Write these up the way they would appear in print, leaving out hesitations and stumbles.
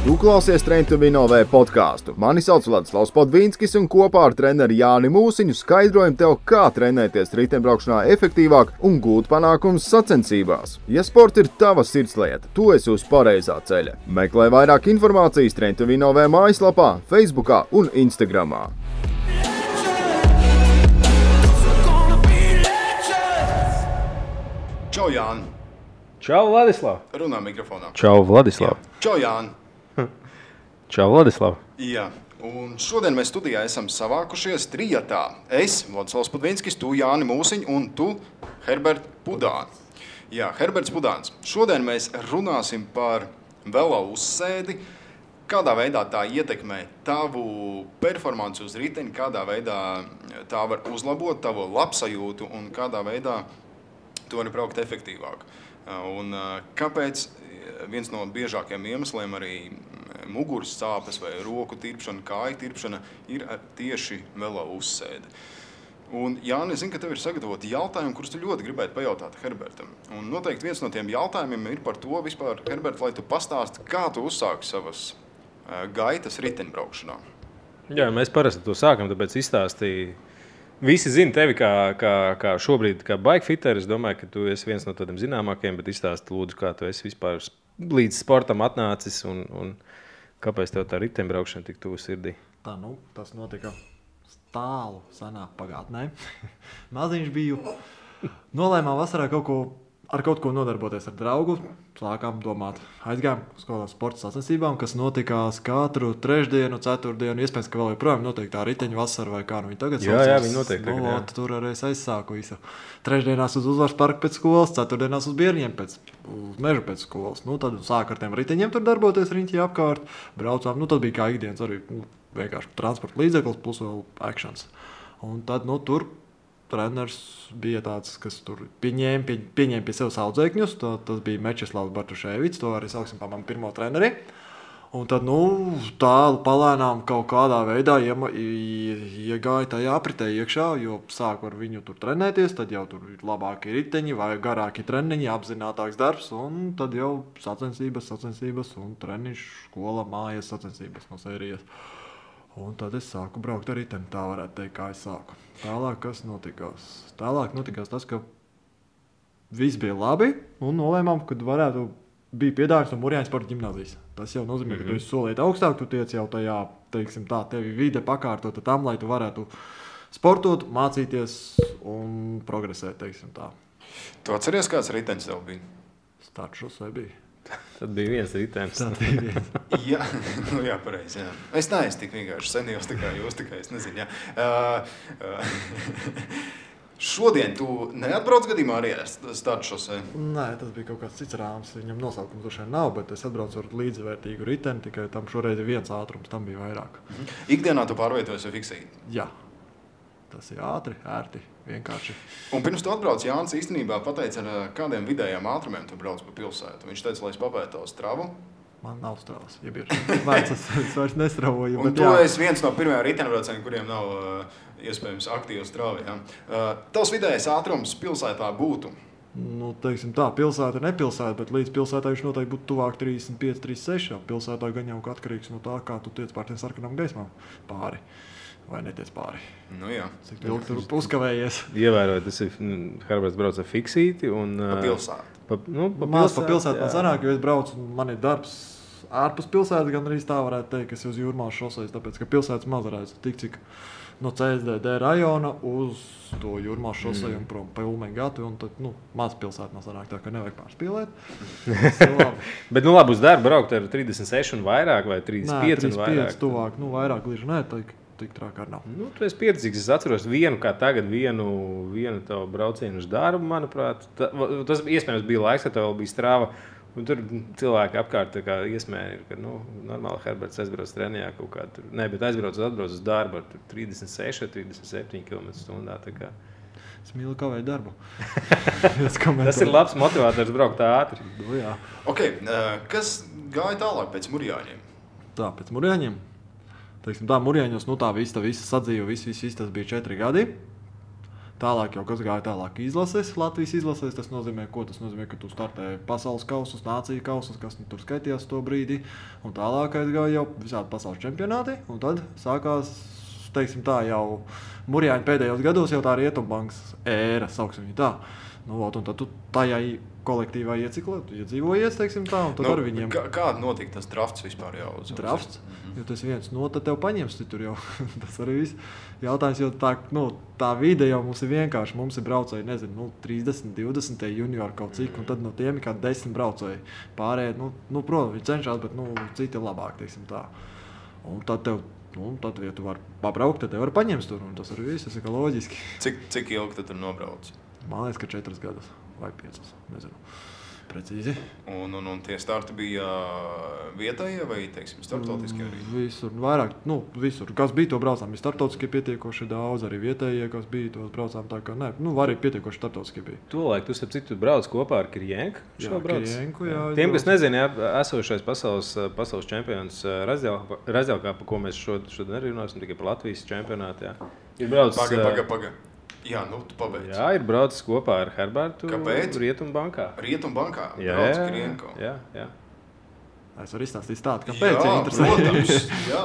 Tu klausies Train to Win OV podcastu. Mani sauc Vladislavs Podvīnskis un kopā ar treneri Jāni Mūsiņu skaidrojam tev, kā trenēties riteņbraukšanā efektīvāk un gūt panākumus sacensībās. Ja sports ir tava sirdslieta, tu esi uz pareizā ceļa. Meklē vairāk informācijas Train to Win OV mājaslapā, Facebookā un Instagramā. Čau, Jāni! Čau, Vladislav! Runā mikrofonā. Čau, Vladislav! Čau, Jāni! Čau, Vladislav! Jā, un šodien mēs studijā esam savākušies trijatā. Es, Vladislavs Podvīnskis, tu, Jāni Mūsiņ, un tu, Herberts Pudāns. Jā, Herberts Pudāns. Šodien mēs runāsim par velo uzsēdi, kādā veidā tā ietekmē tavu performanci uz riteni, kādā veidā tā var uzlabot tavu labsajūtu un kādā veidā tu vari braukt efektīvāk. Un kāpēc viens no biežākajiem iemesliem arī muguras sāpes vai roku tirpšana, kāju tirpšana ir tieši velo uzsēde. Un Jāni, es zinu, ka tev ir sagatavoti jautājumi, kurus tu ļoti gribētu pajautāt Herbertam. Un noteikti viens no tiem jautājumiem ir par to vispār, Herbert, lai tu pastāsti, kā tu uzsāki savas gaitas riteņbraukšanā. Jā, mēs parasti to sākam, tāpēc izstāstīju. Visi zina tevi kā šobrīd, kā bikefiteris. Es domāju, ka tu esi viens no tādiem zināmākajiem, bet izstāsti lūdzu, kā tu esi vispār līdz sportam atnācis un kāpēc tev tā riteņbraukšana tik tuvu sirdī? Tas notika tālu senā pagātnē. Maziņš biju. Nolēmām vasarā ar kaut ko nodarboties ar draugu. Sākām domāt, aizgājām uz kādām sporta sacensībām, kas notikās katru trešdienu, ceturtdienu. Iespējams, ka vēl joprojām notiek tā riteņu vasara vai kā nu viņi tagad saucās. Jā, viņi notiek tagad. Tur arī es aizsāku visu. Trešdienās uz Uzvaras parku pēc skolas, ceturtdienās uz Bierņiem uz mežu pēc skolas. Tad sāku ar tiem riteņiem tur darboties riņķī apkārt. Braucām, tad bija kā ikdienas arī vienkārši transporta līdzeklis plus vēl actions. Un tad tur treneris bija tāds, kas tur pieņēma pie sevis audzēkņus. Tas bija Mečislavs Bartuševics, to arī sauksim par manu pirmo treneri. Un tad, tālu palēnām kaut kādā veidā iegāja tajā apritē iekšā, jo sāku ar viņu tur trenēties, tad jau tur ir labāki riteņi vai garāki treniņi, apzinātāks darbs, un tad jau sacensības un treniņš, skola, mājas sacensības no sērijas. Un tad es sāku braukt ar riteni, tā varētu teikt, kā es sāku. Tālāk, kas notikās? Tālāk notikās tas, ka viss bija labi, un nolēmām, ka bija piedāvājums no Mūrjāņu sporta ģimnāzijas. Tas jau nozīmē, ka tu esi solīt augstāk, tu tiec jau tajā, teiksim tā, tevi vide pakārtota tam, lai tu varētu sportot, mācīties un progresēt, teiksim tā. Tu atceries, kāds ritenis tev bija? Startšos vai bija? Tad bija viens ritenis. Jā, pareizi, jā. Es neesmu tik vienkārši senijos, tā kā jūs, tikai es nezinu, jā. Šodien tu neatbrauc gadījumā arī ar Startšosē? Nē, tas bija kaut kāds cits rāms, viņam nosaukums droši vien nav, bet es atbraucu ar līdzvērtīgu riteni, tikai tam šoreiz ir viens ātrums, tam bija vairāk. Ikdienā tu pārvietojies vai fiksēji? Jā. Tas ir ātri, ērti, vienkārši. Un pirms tu atbrauc, Jānis īstenībā pateica, ar kādiem vidējiem ātrumiem tu brauc pa pilsētu. Viņš teica, lai es papētu tavu stravu. Man nav stravas, ja ir vērts, es vairs nestravoju. Un tu esi viens no pirmajām riteņbraucējiem, kuriem nav iespējams aktīva strava. Ja? Tavs vidējais ātrums pilsētā būtu? Teiksim tā, pilsēta ir nepilsēta, bet līdz pilsētā viņš noteikti būtu tuvāk 35, 36. Pilsētā gan jau atkarīgs no tā, kā tu tiec pār tiem sarkanām gaismām pāri. Vai netiec pāri? Jā. Cik ilgi tur uzkavējies? Ievērojot, tas ir Herberts brauc ar fiksīti un... Pa pilsētu. Pa pilsētu man sanāk, jo es braucu, man ir darbs ārpus pilsētas, gan arī tā varētu teikt, ka es uz Jūrmālas šoseis, tāpēc, ka pilsētas maz redzu tik cik no CSDD rajona uz to Jūrmālas šosei un prom pa Ulmeņu gatu, un tad, maz pilsēta man sanāk, tā ka nevajag pārspīlēt. Bet, labi, uz darbu braukt ar 36 un vairāk vai 35 un vairāk? 35 tuvāk, vairāk glīži nē, tik trāk ar nav. Tu esi pieredzīgs, es atceros vienu tavu braucienu uz darbu, manuprāt. Tas iespējams bija laiks, kad tev bija strāva. Un tur cilvēki apkārt iesmēja, ka normāli Herberts aizbrauc trenijā kaut kā tur. Nē, bet atbrauc uz darbu ar 36, 37 km/h. Es mīlu kavēt darbu. Tas ir labs motivators braukt ātri. Jā. Okay, kas gāja tālāk pēc Mūrjāņiem? Pēc Mūrjāņiem? Teiksim tā, Mūrjāņos, tā visa sadzīve, viss tas bija 4 gadi. Tālāk jau kas gāja tālāk izlases, Latvijas izlases. Tas nozīmē, ka tu startēji pasaules kausus, nāciju kausus, kas tur skaitījās to brīdi. Un tālāk aizgāja jau visādi pasaules čempionāti. Un tad sākās, teiksim tā, jau Murjāņa pēdējos gados jau tā Rietumbankas ēra, sauksim viņu tā. Nu, un tad tu tajā kolektīvā iedzīvojies, teiksim tā, un tad ar viņiem... Kāda notika tas drafts vispār jau? Drafts? Jo tas viens, tad tev paņems tur jau. Tas arī viss jautājums, jo tā vide jau mums ir vienkārši. Mums ir braucēji, 30, 20 juniori kaut cik, un tad no tiem ir kā 10 braucēji. Pārējie, protams, viņi cenšas, bet citi ir labāk, teiksim tā. Un tad tev, ja tu vari pabraukt, tad tev var paņemt tur, un tas arī viss, tas ir kā loģiski. Cik ilgi tu tur nobrauc? Man liekas, ka 4 gadus vai 5, nezinu. Precīzi. Un tie starti bija vietējie vai, teiksim, starptautiskie arī? Visur, vairāk, visur. Kas bija, to braucām. Bija starptautiskie pietiekoši daudz, arī vietējie, kas bija, tos braucām tā kā, arī pietiekoši starptautiskie bija. Tolaik tu, starp citu, brauc kopā ar Kirjenku? Jā, Kirjenku, jā. Tiem, kas nezina, esošais pasaules čempions Razjalkā, pa ko mēs šodien arī runāsim, tikai par Latvijas čempionātu, jā. Ir brauc... Paga. Jā, tu pabeidz. Jā, ir braucis kopā ar Herbertu. Kāpēc? Rietumbankā. Rietumbankā? Jā, brauc Kirjenko. Jā. Es varu izstāstīt tādu, kāpēc. Jā, protams, jā.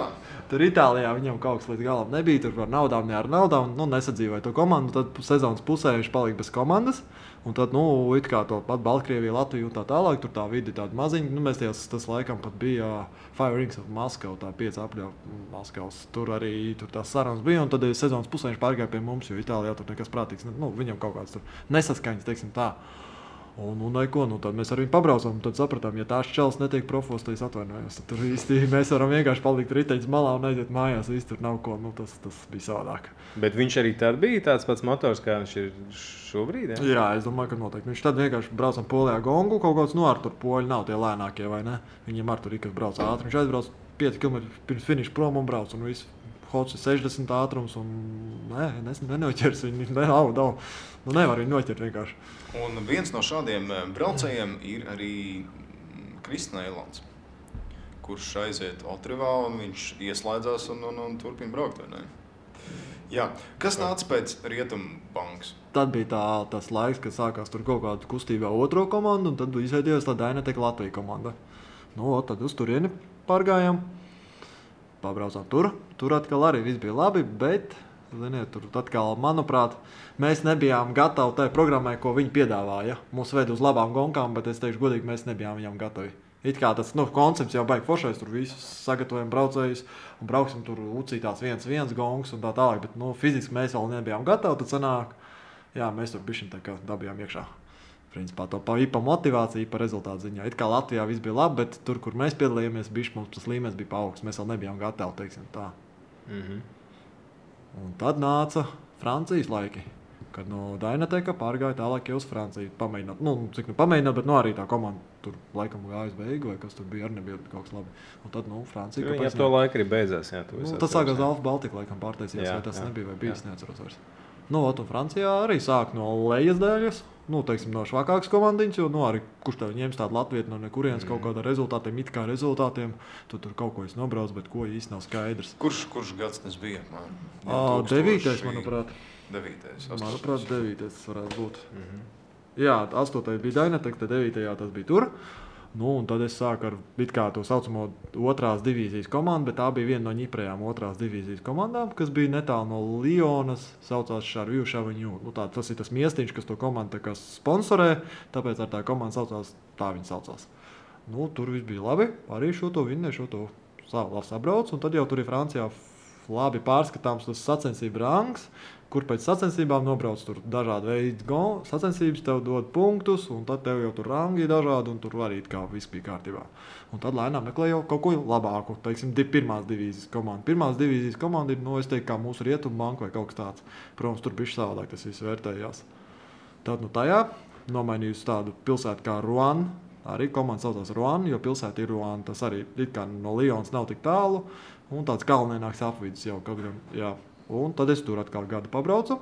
Tur Itālijā viņam kaut kas līdz galam nebija, tur par naudām, ne ar naudām, nesadzīvoja to komandu, tad sezonas pusē viņš palika bez komandas, un tad, it kā to pat Baltkrievija, Latvija un tā tālāk, tur tā vidi tāda maziņa, mēs tas laikam pat bija Five Rings of Moscow, tā 5 apļauja Maskavas, tur arī tās sarunas bija, un tad sezonas pusē viņš pārgāja pie mums, jo Itālijā tur nekas prātīgs, viņam kaut kāds tur nesaskaņas, teiksim tā. Un tad mēs ar viņu pabraucām, un tad sapratām, ja tās čels netiek profos, tad es atvainojos. Tad tur īsti mēs varam vienkārši palikt riteņas malā un aiziet mājās, viss tur nav ko, tas bija savādāk. Bet viņš arī tad bija tāds pats motors, kā viņš ir šobrīd, jā? Jā, es domāju, ka noteikti. Viņš tad vienkārši braucam Polijā gongu, kaut kāds ar tur poļi nav tie lēnākie, vai ne? Viņiem ar tur ir, kas brauc ātri. Viņš aizbrauc 5 km pirms finiša prom un brauc, un viss. Hots ir 60 ātrums, un nenoķers viņu, nevar viņu noķert vienkārši. Un viens no šādiem braucējiem ir arī Krists Neilants, kurš aiziet Otrivā, un viņš ieslēdzās un turpina braukt, vai ne? Jā. Kas nāca pēc Rietumbankas? Tad bija tas laiks, kad sākās tur kaut kāda kustībā otro komandu, un tad izveidojās tā Dynatek Latvija komanda. Tad uz turieni pārgājām. Pabraucām tur atkal arī viss bija labi, bet, ziniet, tur atkal, manuprāt, mēs nebijām gatavi tai programmai, ko viņi piedāvāja. Mūs ved uz labām gonkām, bet es teikšu godīgi, mēs nebijām viņam gatavi. It kā tas koncepts jau baigi foršais, tur visus sagatavojam braucējus un brauksim tur ucītās 1-1 gongs un tā tālāk, bet fiziski mēs vēl nebijām gatavi, tad sanāk, jā, mēs tur bišķiņ tā kā dabījām iekšā. Principā to pa motivāciju, pa rezultātu ziņā. It kā Latvijā viss bija labi, bet tur, kur mēs piedalījāmies, mums tas līmenis bija paaugsts. Mēs vēl nebijām gatavi, teiksim tā. Un tad nāca Francijas laiki, kad no Dynateka pārgāja tālāk jau uz Franciju. Pamēģināt, pamēģināt, bet arī tā komanda tur laikam gājas beigu, vai kas tur bija, arī nebija kaut kas labi. Un tad, Francija... Viņa ap to laiku arī beidzās, jā. Tas sākās Alfa Baltika laikam pārtaisījās, vai tas nebija, vai bijis, neatceros vairs. Un Francijā arī sāk no lejas daļas. Teiksim, no švakākas komandiņas, jo arī kurš tev ņems tādu latvietu no nekurienes kaut kādā rezultātiem, it kā rezultātiem, tu tur kaut ko nobrauc, bet ko īsti nav skaidrs. Kurš gads tas bija? 9. manuprāt. 9. Manuprāt, 9. tas varētu būt. Jā, 8. bija Dynatek, tad 9. tas bija tur. Un tad es sāku ar to saucamo otrās divīzijas komandu, bet tā bija viena no ņiprējām otrās divīzijas komandām, kas bija netālu no Lionas, saucās Šarvju Šaviņu. Tas ir tas miestiņš, kas to komandu sponsorē, tāpēc ar tā komanda saucās, tā viņa saucās. Tur viss bija labi, arī šo to sabrauc, un tad jau tur ir Francijā labi pārskatāms tas sacensību rangs, kur pēc sacensībām nobrauc tur dažādi veidi sacensības, tev dod punktus, un tad tev jau tur rangi dažādi, un tur arī kā viss bija kārtībā. Un tad lēnām meklē jau kaut ko labāku, teiksim, pirmās divīzijas komanda. Pirmās divīzijas komanda ir, es teiktu, kā mūsu Rietumbanka vai kaut kas tāds. Protams, tur bišķi savādāk tas viss vērtējās. Tad tajā nomainījusi tādu pilsētu kā Rouen, arī komanda saucās Rouen, jo pilsēta ir Rouen, tas arī it kā no Lionas nav tik tālu, un tāds kalnienāks apvidus jau kaut gan, jā. Un tad es tur atkal gadu pabraucu,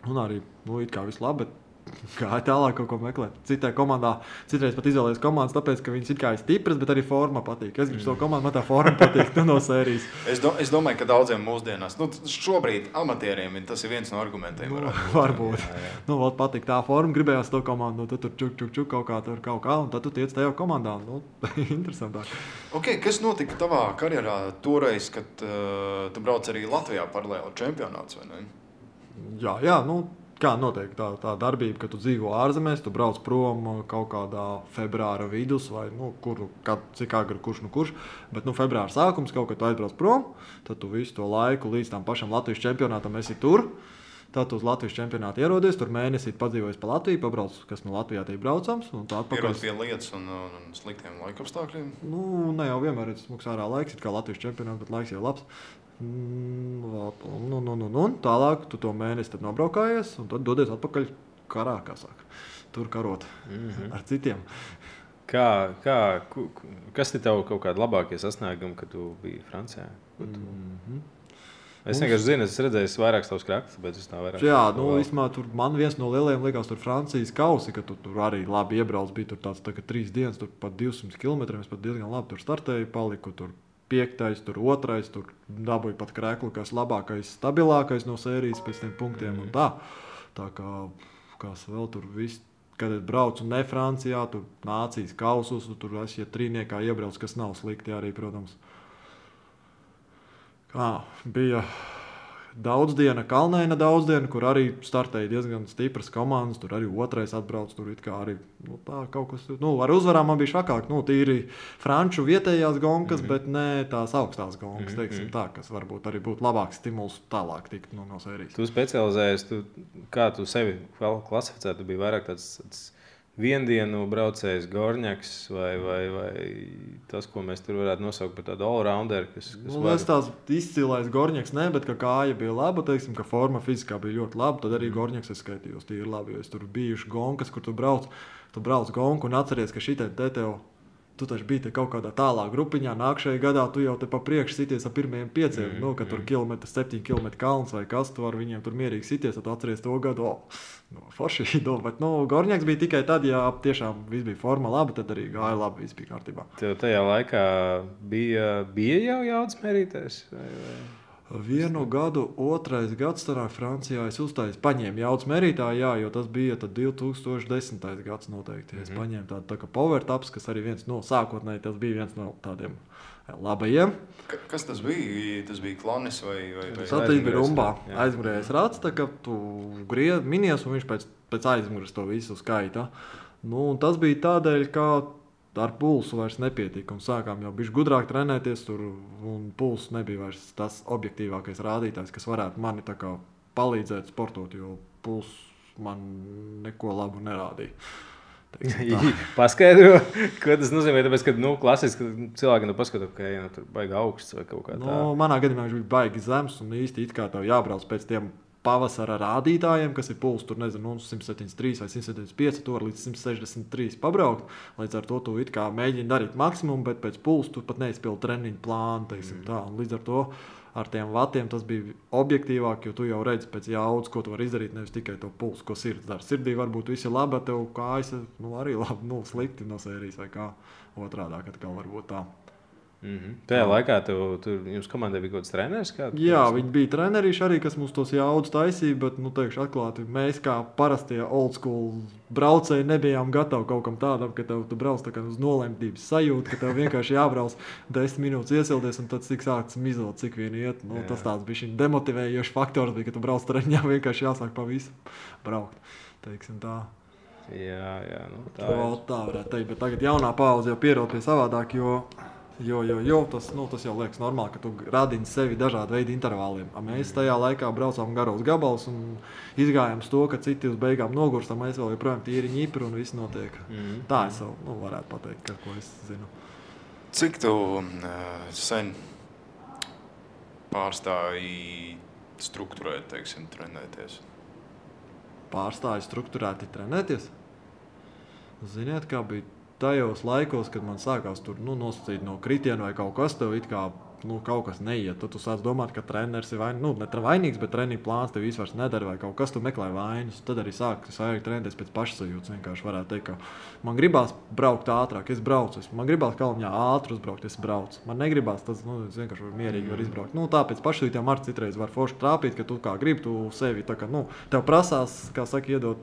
un arī, it kā viss labi, bet gāja tālāk kaut ko meklēt. Citai komandā, citreiz pat izvēlējos komandas, tāpēc, ka viņas it kā ir stipras, bet arī forma patīk. Es gribu savu komandu, man tā forma patīk no sērijas. Es domāju, ka daudziem mūsdienās, šobrīd amatieriem tas ir viens no argumentiem. Varbūt. Jā. Patīk tā forma, gribējās to komandu, tu tur čuk kaut kā, un tad tu tiec tajā komandā. Interesantāk. Okay, kas notika tavā karjerā toreiz, kad tu brauc arī Latvijā paralēli čempionāts, vai ne? Jā, kā notiek tā darbība, ka tu dzīvo ārzemēs, tu brauc prom kaut kādā februāra vidus vai cik agri kurš, bet februāra sākums kaut kad tu aizbrauc prom, tad tu visu to laiku līdz tam pašam Latvijas čempionātam esi tur. Tad tu uz Latvijas čempionātu ierodies, tur mēnesī padzīvojis pa Latviju, pabrauc, kas no Latvijā tiek braucams. Pierod pie lietas un sliktiem laikapstākļiem? Ne jau vienmēr ir smuks ārā laiks, it kā Latvijas čempionāts, bet laiks jau labs. Tālāk tu to mēnesi tad nobraukājies un tad dodies atpakaļ karā, kā saka. Tur karot ar citiem. Kas ir tev kaut kādi labākie sasniegumi, kad tu biji Francijā? Es vienkārši zinu, es redzēju vairākus tavus krakstus, bet es tā vairāk. Jā, īstenībā tur man viens no lielajiem likās tur Francijas kausi, ka tu tur arī labi iebrauc, bija tur tāds tā, ka 3 dienas, tur pat 200 km, es pat diezgan labi tur startēju, paliku tur 5, tur 2, tur dabūju pat kreklu, kas labākais, stabilākais no sērijas pēc tiem punktiem un tā. Tā kā, kas vēl tur viss, kad es braucu ne Francijā, tur nācijas kausus, tur es, ja trīniekā iebrauc, kas nav slikti arī, protams. Bija daudzdiena, Kalnēna daudzdiena, kur arī startēja diezgan stipras komandas, tur arī 2 atbrauc, tur it kā arī tā kaut kas, ar uzvarām man bija švakāk, tīri franču vietējās gonkas, bet ne tās augstās gonkas, teiksim tā, kas varbūt arī būtu labāks stimuls tālāk tikt no sērijas. Tu specializējies, kā tu sevi klasificētu, tu biji vairāk tāds viendienu braucējs Gorņaks vai tas, ko mēs tur varētu nosaukt par tādu all-rounder, kas es tās izcīlais Gorņaks, bet ka kāja bija laba, teiksim, ka forma fiziskā bija ļoti laba, tad arī Gorņaks es skaitījos tīri labi, jo es tur bijuši gonkas, kur tu brauc gonku un atceries, ka šitai te tev, tu taču biji te kaut kādā tālā grupiņā, nākšajā gadā tu jau te pa priekšu sities ar pirmajiem 5, ka tur 7 km kalns vai kas, tu ar viņiem tur mierīgi sities, tad tu atceries to gadu, forši, bet Gorņaks bija tikai tad, ja tiešām viss bija forma labi, tad arī gāja labi, viss bija kārtībā. Tev tajā laikā bija jau jaudas mērītājs? Vienu gadu, 2. gads starā Francijā es paņēmu jaudas mērītāju, jo tas bija 2010. gads noteikti. Es paņēmu tādu tā kā power taps, kas arī sākotnēji tas bija viens no tādiem labajiem. Kas tas bija? Tas bija klanis vai? Tas bija rumbā. Aizmugurējais rats, tā kā tu minies un viņš pēc aizmugures to visu skaita. Tas bija tādēļ, ka ar pulsu vairs nepietika un sākām jau bišķi gudrāk trenēties tur un pulss nebija vairs tas objektīvākais rādītājs, kas varētu mani tā kā palīdzēt sportot, jo pulss man neko labu nerādīja. Paskaidro, ko tas nozīmē, tāpēc, ka klasiski cilvēki paskatās, ka tur baigi augsts vai kaut kā tā. Manā gadījumā viņš bija baigi zems un īsti it kā tev jābrauc pēc tiem pavasara rādītājiem, kas ir pulss, tur 173 vai 175, tur līdz 163 pabraukt. Līdz ar to tu it kā mēģini darīt maksimumu, bet pēc pulsa tu pat neizpildi treniņu plānu, teiksim tā. Un līdz ar to ar tiem vatiem tas bija objektīvāk, jo tu jau redzi pēc jaudas, ko tu vari izdarīt, nevis tikai to pulsu, ko sirds dara. Sirdī varbūt viss ir labi, bet tev kājas arī labi, slikti no sērijas vai kā otrādāk atkal varbūt tā. Tajā laikā jums komandai bija kaut kāds treneris? Jā, viņi bija trenerīši arī, kas mums tos jaudas taisīja, bet, teikšu atklāti, mēs kā parastie old school braucēji nebijām gatavi kaut kam tādam, ka tu brauc tā kā uz nolemtības sajūtu, ka tev vienkārši jābrauc 10 minūtes iesildies un tad cik sāks mizot, cik vien iet. Tas tāds bija šī demotivējošs faktors, bija, ka tu brauc treniņā, vienkārši jāsāk pa visu braukt, teiksim tā. Jā, tā varētu teikt, bet tagad jaunā paudze jau pierod pie savādāk, jo tas jau liekas normāli, ka tu radini sevi dažādu veidu intervāliem. Mēs tajā laikā braucām garos gabalus un izgājām to, ka citi uz beigām nogurstam, mēs vēl joprojām tīri ņipri un viss notiek. Tā es varētu pateikt, ko es zinu. Cik tu sen pārstāji strukturēt, teiksim, trenēties? Pārstāji strukturēti trenēties? Ziniet, kā bija tajos laikos, kad man sākās tur nosacīt no kritienu vai kaut kas, tev it kā kaut kas neiet. Tad tu sāc domāt, ka treneris ir vainīgs, bet treniņu plāns tev vispār nedara vai kaut kas, tu meklē vainas. Tad arī sākas trenēties pēc pašsajūtas. Vienkārši varētu teikt, ka man gribās braukt ātrāk, es braucu. Man gribās Kalniņā ātri uzbraukt, es braucu. Man negribās, tas es vienkārši mierīgi var izbraukt. Tāpēc pašsajūtām arī citreiz var forši trāpīt, ka tu kā gribi, tu sevi tā kā, tev prasās, kā saka, iedot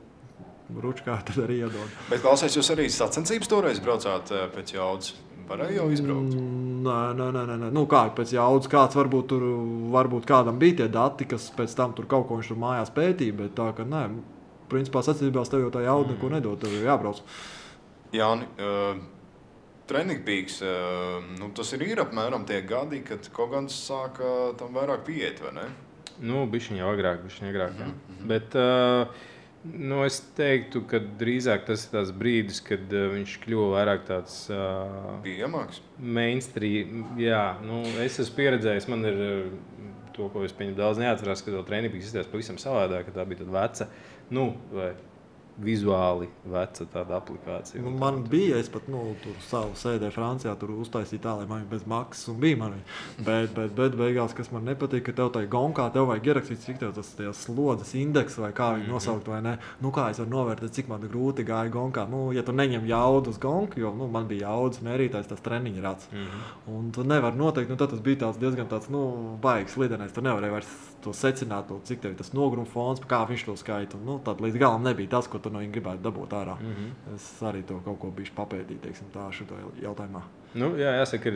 ručkā, tad arī iedod. Bet klausies, jūs arī sacensības toreiz braucāt pēc jaudas? Varēja jau izbraukt? Nē. Kā pēc jaudas, kāds varbūt kādam bija tie dati, kas pēc tam tur kaut ko viņš tur mājās pētīja, bet tā, ka nē, principā sacensībās tev jau tā jauda neko nedod, tev jau jābrauc. Jāni, Training Peaks, tas ir apmēram tie gadi, kad kaut gan sāka tam vairāk pieiet, vai ne? Bišķiņ jau agrāk, jā. Bet es teiktu, ka drīzāk tas ir tās brīdis, kad viņš kļuva vairāk tāds pieejamāks. Mainstream. Jā, es esmu pieredzējis, man ir to, ko es pieņemu daudz neatcerās, ka to Training Peaks izskatās pavisam savādāk, ka tā bija tad veca, vai vizuāli veca tāda aplikācija. Man bija, es pat tur savu sēdēju Francijā, tur uztaisīju tā, lai man bez maksas un bija mani. Bet beigās, kas man nepatīk, ka tev tai gonkā, tev vajag ierakstīt, cik tev tas slodzes indeks vai kā viņi nosaukt vai ne. Kā es varu novērtēt, cik man grūti gāja gonkā. Ja tu neņem jaudu uz gonku, jo man bija jaudas mērītājs, tas treniņa rats. Un tu nevar noteikt, tad tas bija diezgan tāds, baigs lidenais. Tu nevarēji vairs to secināt, cik tev tas nogruma fons, kā viņš to skaita. Tad līdz galam nebija tas, ko tu no viņa gribētu dabūt ārā. Es arī to kaut ko bišķi papētīju, teiksim, tā šito jautājumā. Jā, jāsaka,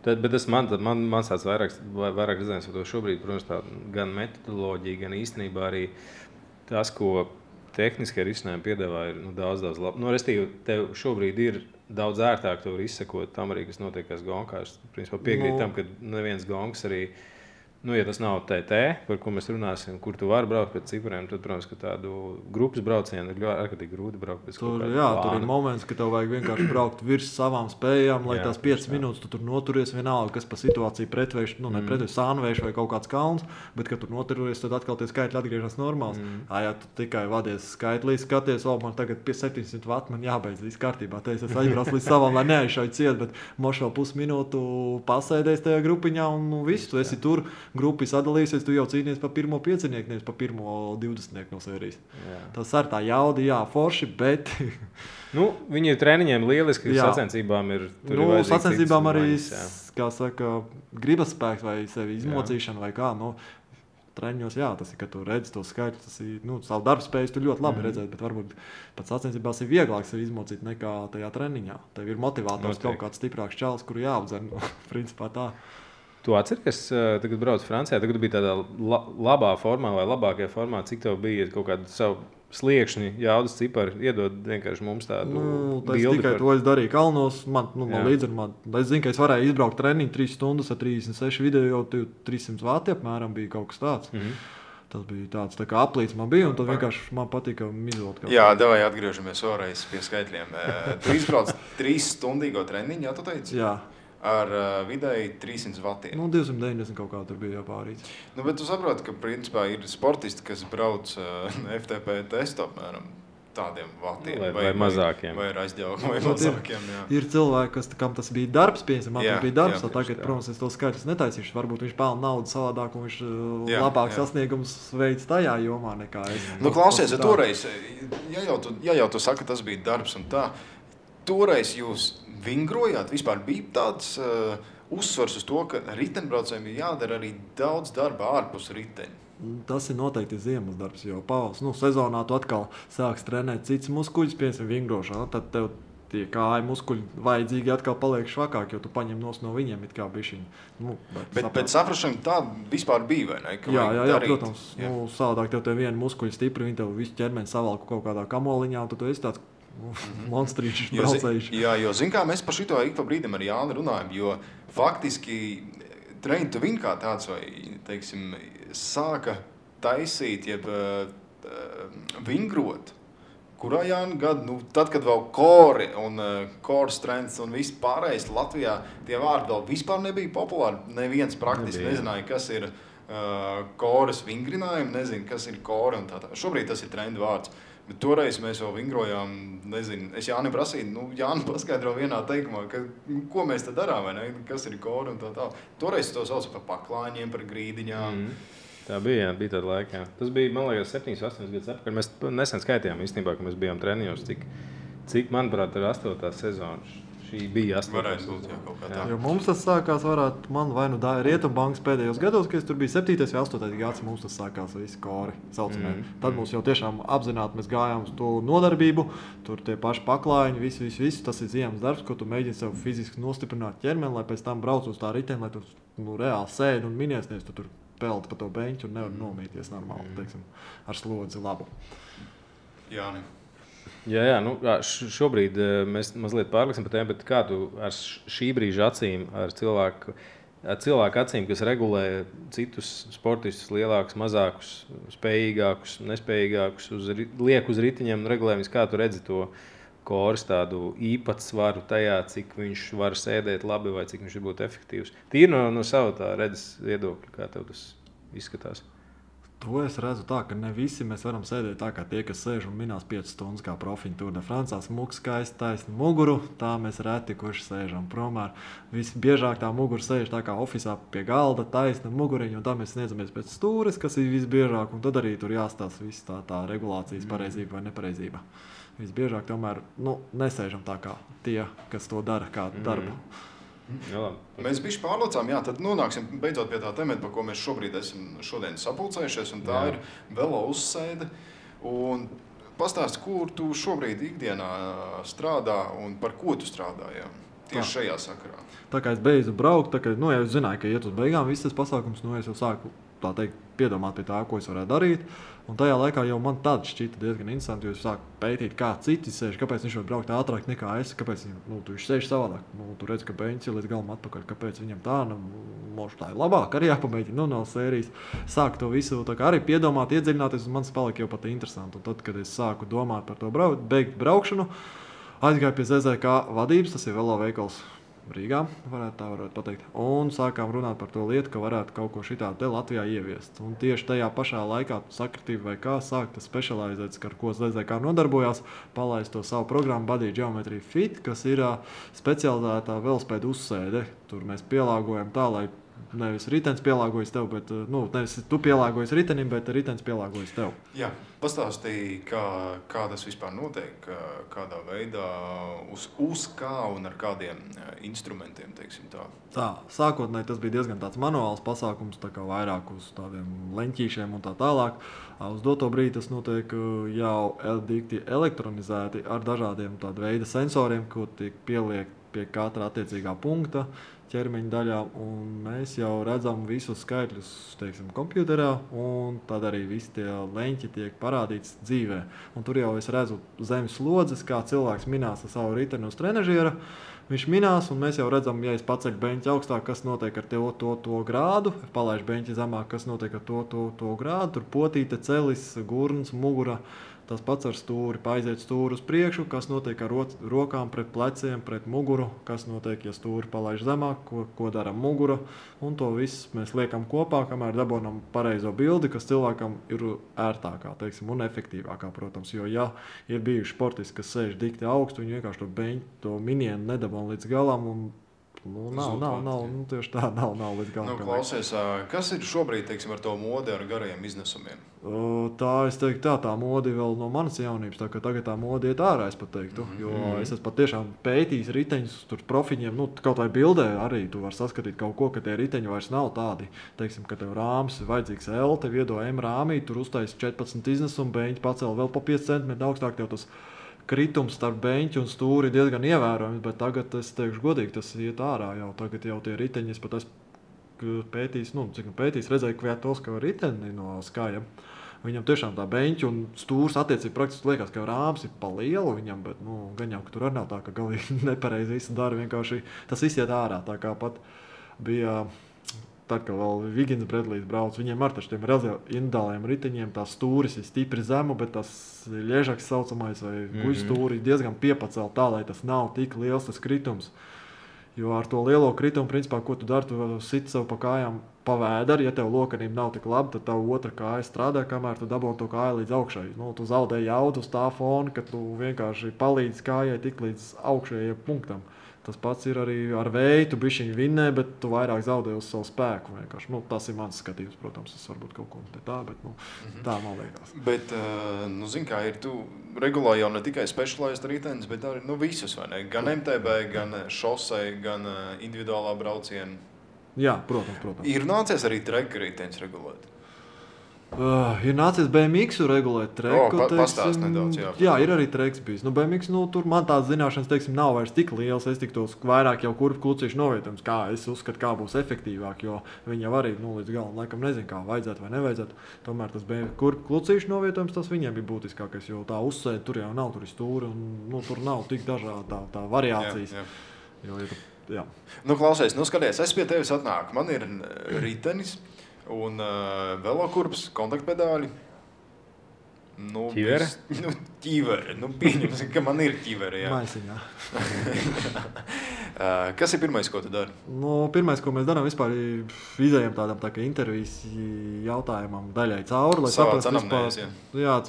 bet tas man tāds vairāk redzējums par to šobrīd, protams, tā gan metodoloģija, gan īstenībā arī tas, ko tehniskie risinājumi piedāvā, ir daudz labi. Restīvi, tev šobrīd ir daudz ērtāk to var izsekot tam arī, kas notiekās gonkā. Es principā piekrītu tam, ka neviens gonks arī ja tas nav TT, par ko mēs runāsim, kur tu vari braukt pēc cipariem, tad, protams, ka tādu grupas braucienu ir ārkārtīgi grūti braukt pēc kaut kāda plāna. Tur ir moments, ka tev vajag vienkārši braukt virs savām spējām, lai tās 5 minūtes tu tur noturies vienalga, kas pa situāciju pretvērš, sānvērš vai kaut kāds kalns, bet, kad tur noturies, tad atkal tie skaitļi atgriežas normāls. Ja tu tikai vadies skaitlī, skaties, man tagad pie 700 vati, man jābeidz viss kārtībā, es aizbraucu līdz savam, lai neaizšauju ciet, bet moš vēl pusminūtu pasēdēs tajā grupiņā un viss, tu esi tur. Grupa sadalīsies, tu jau cīnies par pirmo piecinieku, nevis par pirmo 20 no sērijas. Tas ar tā jauda, forši, bet... viņi ir treniņiem lieliski, sacensībām ir... Sacensībām arī, kā saka, gribas spēks vai sevi izmocīšana vai kā, treniņos, tas ir, ka tu redzi to skaitļu, tas ir, savu darbu spējas tu ļoti labi redzēt, bet varbūt pat sacensībās ir vieglāk sevi izmocīt nekā tajā treniņā. Tev ir motivators kaut kāds stiprāks čalis, kuru jāapdzen, principā tā. Tu atceries, tagad brauc Francijā, tagad bija tādā labā formā vai labākajā formā, cik tev bija kaut kādu savu sliekšņi, jaudas cipari, iedod vienkārši mums tādu bildi. Tikai to es darīju kalnos, man līdzi, es zinu, ka es varēju izbraukt treniņu 3 stundas ar 36 video, 300 vati apmēram bija kaut kas tāds. Tas bija tāds tā kā aplīts man bija, un tad vienkārši man patika izvilkt. Jā, davai atgriežamies vēlreiz pie skaitļiem. Tu izbrauc 3 stundīgo treniņu, jā, tu teici? Jā. Ar vidēji 300 vatiem. 290 kaut kā tur bija jāpārīts. Bet tu saproti, ka principā ir sportisti, kas brauc FTP testu apmēram tādiem vatiem. Vai mazākiem. Vai aizģaukiem, vai mazākiem, jā. Ir cilvēki, kam tas bija darbs, piemēram, man bija darbs, tagad, protams, es to skaitļus netaisīšu. Varbūt viņš pelna naudu savādāk, un viņš labāk sasniegums veids tajā jomā nekā es. Klausies, toreiz, ja jau tu saki, tas bija darbs un tā, toreiz jūs vingrojāt, vispār bija tāds uzsvars uz to, ka riteņbraucējiem ir jādara arī daudz darba ārpus riteņa. Tas ir noteikti ziemas darbs, jo pavas, sezonā tu atkal sāks trenēt cits muskuļus, piemēram, vingrošanā, tad tev tie kāju muskuļi vajadzīgi atkal paliek švakāk, jo tu paņem no viņiem it kā bišķiņu. Bet saprašana tā vispār bija, vai ne? Jā, protams. Savādāk tev vienu muskuļu stipri, viņi tev visu ķermeni savalku kaut kādā kamoliņā, un tu esi tāds monstrīšs braucējuši. Jo zin kā, mēs par šito ik pa brīdim ar Jāni runājam, jo faktiski Train to Win kā tāds vai, teiksim, sāka taisīt, jeb vingrot, kurā Jāni gadu, tad, kad vēl core un core strengths un viss pārējais Latvijā, tie vārdi vēl vispār nebija populāri, neviens praktiski nezināja, kas ir kores vingrinājumi, nezinu, kas ir kore un tā. Šobrīd tas ir trendu vārds. Toreiz mēs vēl vingrojām, nezinu, es Jānim prasīju, Jāni paskaidro vienā teikumā, ko mēs te darām, vai ne? Kas ir kori un tā. Toreiz to sauc par paklāņiem, par grīdiņām. Tā bija tāda laika. Tas bija, man liekas, 7-8 gadus atpakaļ. Mēs nesen skaitījām īstenībā, ka mēs bijām treniņos, cik manuprāt, ir 8. sezona. Šī bija 8. Varētu būt, kaut kā tā. Jo mums tas sākās, man vai nu Rietumbankas pēdējos gados, kad es tur biju 7. vai 8. gads, mums tas sākās visi kori saucamie. Tad mums jau tiešām apzināti mēs gājām uz to nodarbību, tur tie paši paklājiņi, visu. Tas ir ziemas darbs, ko tu mēģini sev fiziski nostiprināt ķermeni, lai pēc tam brauc uz tā riteni, lai tu reāli sēdi un miniesties, tu tur pelti pa to beņķu un nevar nomīties normāli, teiksim, ar slodzi labu. Jāni. Jā, šobrīd mēs mazliet pārliksim par tēmu, bet kā tu ar šī brīža acīm, ar cilvēku acīm, kas regulē citus sportistus, lielākus, mazākus, spējīgākus, nespējīgākus, liek uz ritiņiem un regulējumus, kā tu redzi to koris tādu īpatsvaru tajā, cik viņš var sēdēt labi vai cik viņš var būt efektīvs. Tīri no sava tā redzes viedokļa, kā tev tas izskatās. To es redzu tā, ka ne visi mēs varam sēdēt tā, kā tie, kas sēž un minās 5 stundas kā profiņi Tour de France, smuku skaisti taisni muguru, tā mēs reti kurš sēžam promār. Visbiežāk tā mugura sēž tā kā ofisā pie galda, taisna muguriņa, un tā mēs sniedzamies pēc stūres, kas ir visbiežāk, un tad arī tur jāstāsta viss tā regulācijas pareizība vai nepareizība. Visbiežāk tomēr nesēžam tā kā tie, kas to dara kā darbu. Jā, mēs bišķi pārlocām, tad nonāksim beidzot pie tā temata, par ko mēs šobrīd esam šodien sapulcējušies, un tā ir velo uzsēde. Un pastāsti, kur tu šobrīd ikdienā strādā un par ko tu strādā, tieši šajā sakarā. Tā kā es beidzu braukt, ja es zināju, ka iet uz beigām viss tas pasākums, es jau sāku tā teikt, piedomāt pie tā, ko es varētu darīt. Un tajā laikā jau man tad šķita diezgan interesanti, jo es sāku pētīt, kā citi sēž, kāpēc viņš var braukt ātrāk nekā es, kāpēc viņš sēž savādāk. Tu redz, ka beņķis ir līdz galam atpakaļ, kāpēc viņam tā, tā ir labāk, arī jāpamēģina, no sērijas. Sāku to visu tā kā arī piedomāt, iedziļināties, un man tas palika jau pat interesanti. Un tad, kad es sāku domāt par to beigt braukšanu, aizgāju pie ZZK vadības, tas ir velo veikals Rīgā, varētu pateikt. Un sākām runāt par to lietu, ka varētu kaut ko šitādu te Latvijā ieviest. Un tieši tajā pašā laikā sakritība vai kā sākta specializēts, ar ko ZZK nodarbojās, palaist to savu programmu Body Geometry Fit, kas ir specializētā velospēdu uzsēde. Tur mēs pielāgojam tā, lai nevis ritenis pielāgojas tev, bet nevis tu pielāgojas ritenim, bet ritenis pielāgojas tev. Jā, pastāstīja, kā tas vispār notiek, kādā veidā, uz kā un ar kādiem instrumentiem, teiksim tā. Tā, sākotnēji tas bija diezgan tāds manuāls pasākums, tā kā vairāk uz tādiem leņķīšiem un tā tālāk. Uz doto brīdi tas notiek jau dikti elektronizēti ar dažādiem tāda veida sensoriem, ko tiek pieliekt pie katra attiecīgā punkta ķermeņa daļā, un mēs jau redzam visus skaitļus, teiksim, kompjuterā, un tad arī visi tie leņķi tiek parādīts dzīvē. Un tur jau es redzu zemes slodzes, kā cilvēks minās ar savu riteni uz trenažiera. Viņš minās, un mēs jau redzam, ja es paceļu beņķi augstāk, kas notiek ar to grādu, palaižu beņķi zemāk, kas notiek ar to grādu, tur potīte, celis, gurns, mugura. Tas pats ar stūri, paiziet stūri uz priekšu, kas notiek ar rokām pret pleciem, pret muguru, kas notiek, ja stūri palaiž zemāk, ko dara mugura. Un to visu mēs liekam kopā, kamēr dabonam pareizo bildi, kas cilvēkam ir ērtākā, teiksim, un efektīvākā, protams. Jo, ja ir bijuši sportisti, kas sēž dikti augstu, viņi vienkārši to beņķi, to minienu nedabon līdz galam, un tieši tā, nav līdz galam. Klausies, kas ir šobrīd, teiksim, ar to modi ar garajiem iznesumiem? Es teiktu, tā modi vēl no manas jaunības, tā ka tagad tā modi iet ārā, es pat teiktu, jo es esmu pat tiešām pētījis riteņus, tur profiņiem, kaut vai bildē arī tu var saskatīt kaut ko, ka tie riteņi vairs nav tādi, teiksim, ka tev rāms ir vajadzīgs L, tev iedo M rāmī, tur uztais 14 iznesumu, beņķi pacēl vēl pa 5 cm augstāk, tev tas kritums starp beņķi un stūri diezgan ievērojams, bet tagad es teikšu godīgi, tas iet ārā jau, tagad jau tie riteņi, es pat esmu pētījis, redzēju Kviatovska riteni no Skaja. Viņam tiešām tā beņķi un stūrs attiecīgi praktiski liekas, ka rāms ir pa lielu viņam, bet gan jau, ka tur arī nav tā, ka galīgi nepareizi visu dara, vienkārši tas viss iet ārā, tā kā pat bija... Tad, kad vēl Vigins Bredlijs brauc, viņiem ar tiem individuāliem riteņiem tās stūris ir stipri zemu, bet tas ļežaks saucamais vai guļstūri diezgan piepacēl tā, lai tas nav tik liels tas kritums. Jo ar to lielo kritumu, principā, ko tu dari, tu sit sev pa kājām pa vēderi. Ja tev lokanība nav tik laba, tad tavu otra kāja strādā, kamēr tu dabūji to kāju līdz augšai. Tu zaudē jaudu uz tā fona, ka tu vienkārši palīdzi kājai tik līdz augšējiem punktam. Tas pats ir arī ar vēju, tu bišķiņi vinnē, bet tu vairāk zaudē uz savu spēku. Tas ir mans skatījums, protams, tas varbūt kaut ko tā, bet tā man liekas. Bet, zini kā ir, tu regulā jau ne tikai specialized ritenis, bet arī visus, vai ne? Gan MTB, gan šosei, gan individuālā brauciena. Jā, protams. Ir nācies arī treka ritenis regulēt? Ir nācies BMX regulēt treku. Pastāst nedaudz, jā, ir arī treks bijis. BMX, tur man tās zināšanas, nav vairs tik lielas. Es tiktos vairāk jau kurvu klucīšu novietojums, kā es uzskatu, kā būs efektīvāk, jo viņi jau arī līdz galam laikam nezinu, kā vajadzētu vai nevajadzētu. Tomēr tas kurvu klucīšu novietojums, tas viņiem bija būtiskākais, jo tā uzsēde tur jau nav, tur ir stūri un tur nav tik dažāda tā variācijas. Jā. Klausies, skaties, es pie tevis atnāku. Man ir ritenis. Un velokurps, kontaktpedāļi. Ķivere? Ķivere. Pieņemsim, ka man ir ķivere, jā. Maisiņā. Kas ir pirmais, ko tu dari? Pirmais, ko mēs darām, vispār izējam tādam tā kā intervijas jautājumam daļai cauri, lai saprastu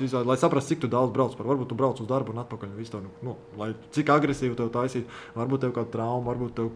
vispār, lai saprastu, cik tu daudz brauc par. Varbūt tu brauc uz darbu un atpakaļ visu to, lai cik agresīvi tev taisīt. Varbūt tev kāda trauma, varbūt tev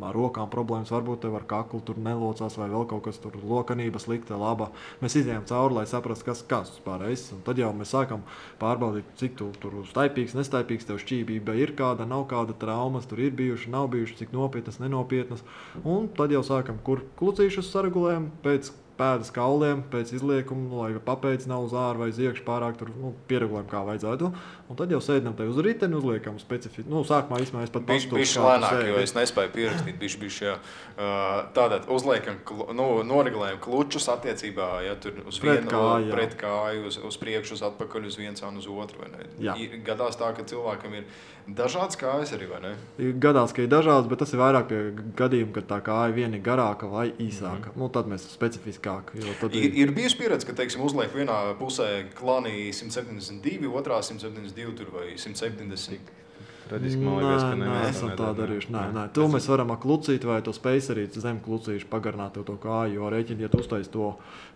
ar rokām problēmas, varbūt tev ar kaklu tur nelocās vai vēl kaut kas tur lokanība slikta, laba. Mēs izējam cauri, lai saprastu, kas vispār esi. Un tad jau mēs sākam pārbaudīt, cik tu tur staipīgs, nestaipīgs, tev šķībība ir kāda, nav kāda traumas, tur ir bijuši, nav bijuši, cik nopietnas, nenopietnas. Un tad jau sākam, kur klucīšus saregulējam pēc pēdas kauliem, pēc izliekuma, lai papēdis nav uz āru vai uz iekšu pārāk tur pieregulējam, kā vajadzētu. Un tad jau sēdinam te uz riteni, uzliekam specifiski. Sākumā vismaz es pat pastu. Bišķi lēnāk, jo es nespēju pierakstīt bišķi, jā. Tātad uzliekam, noregulējam klučus attiecībā, ja tur uz vienu pret kāju, uz priekšu, uz atpakaļ, uz viens un uz otru, vai ne? Gadās tā, ka cilvēkam ir dažādas kājas arī, vai ne? Gadās, ka ir dažādas, bet tas ir vairāk pie gadījuma, kad tā kāja viena ir garāka vai īsāka. Tad mēs specifiskāk. Ir bijusi pieredze, ka, teiksim, uzliek vienā pusē klānī 172, otrā 172 tur vai 170. Traģiski, man liekas, ka neesam tā darījuši. Nē. To mēs varam ar klucīti vai to spacerīt zem klucīšu pagarināt tev to kāju, jo rēķini, ja tu uztais to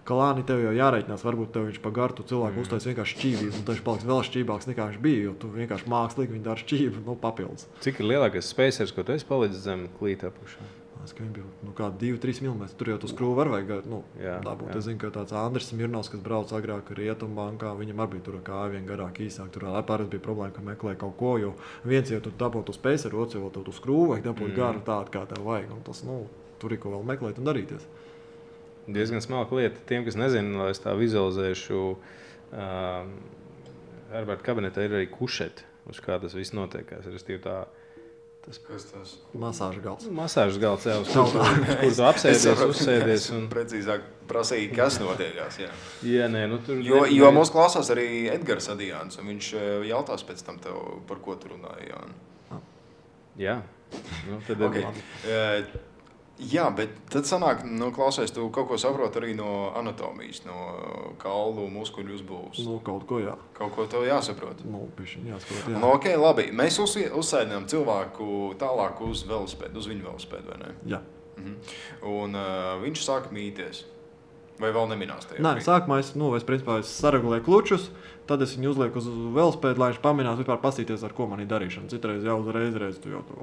klāni, tev jau jārēķinās, varbūt tev viņš pagartu cilvēku uztais vienkārši šķībību, un viņš paliks vēl šķībāks nekā viņš bija, jo tu vienkārši mākslīgi viņi dara šķību, papildus. Cik ir lielākais spacers, ko tu esi palicis zem klīta apakšā? Ka viņi bija kādi 2-3 mm. Tur jau tu skrūvi var vajag dabūt. Es zinu, ka tāds Andris Mirnovs, kas brauc agrāk Rietumbankā, viņam arī bija tur kāja vien garāk īsāk. Tur pārēc bija problēma, ka meklēja kaut ko, jo viens jau tu dabūt uz spaceru, otrs jau tu skrūvi vajag dabūt garu tādu, kā tev vajag. Un tas, tur ir ko vēl meklēt un darīties. Diezgan smalka lieta. Tiem, kas nezina, lai es tā vizualizēšu, Herberta kabinetā ir arī kušeti, uz kā tas viss notiekās. Kas tas? Masāžas galds. Masāžas galds, jā, uz kur tu apsēdies, uzsēdies. Un... Precīzāk prasīja, kas notiekās, jā. Jā, nē, tur... Jo mūs klausās arī Edgars Adijāns, un viņš jautās pēc tam tev, par ko tu runāji, Jāni. Jā. Tad okay. Jā, bet tad sanāk, klausies, tu kaut ko saproti arī no anatomijas, no kaulu muskuļu uzbūves. Kaut ko, jā. Kaut ko tev jāsaprot. Pišķiņ jāsaprot, jā. Ok, labi. Mēs uzsēdinām cilvēku tālāk uz velosipēdu, uz viņu velosipēdu, vai ne? Jā. Un viņš sāk mīties. Vai vēl neminās tajā? Nē, sākumā es saregulēju klučus, tad es viņu uzlieku uz velosipēdu, lai viņš paminās vispār pasīties, ar ko man ir darīšana. Citreiz jau uzreiz tu jau tur,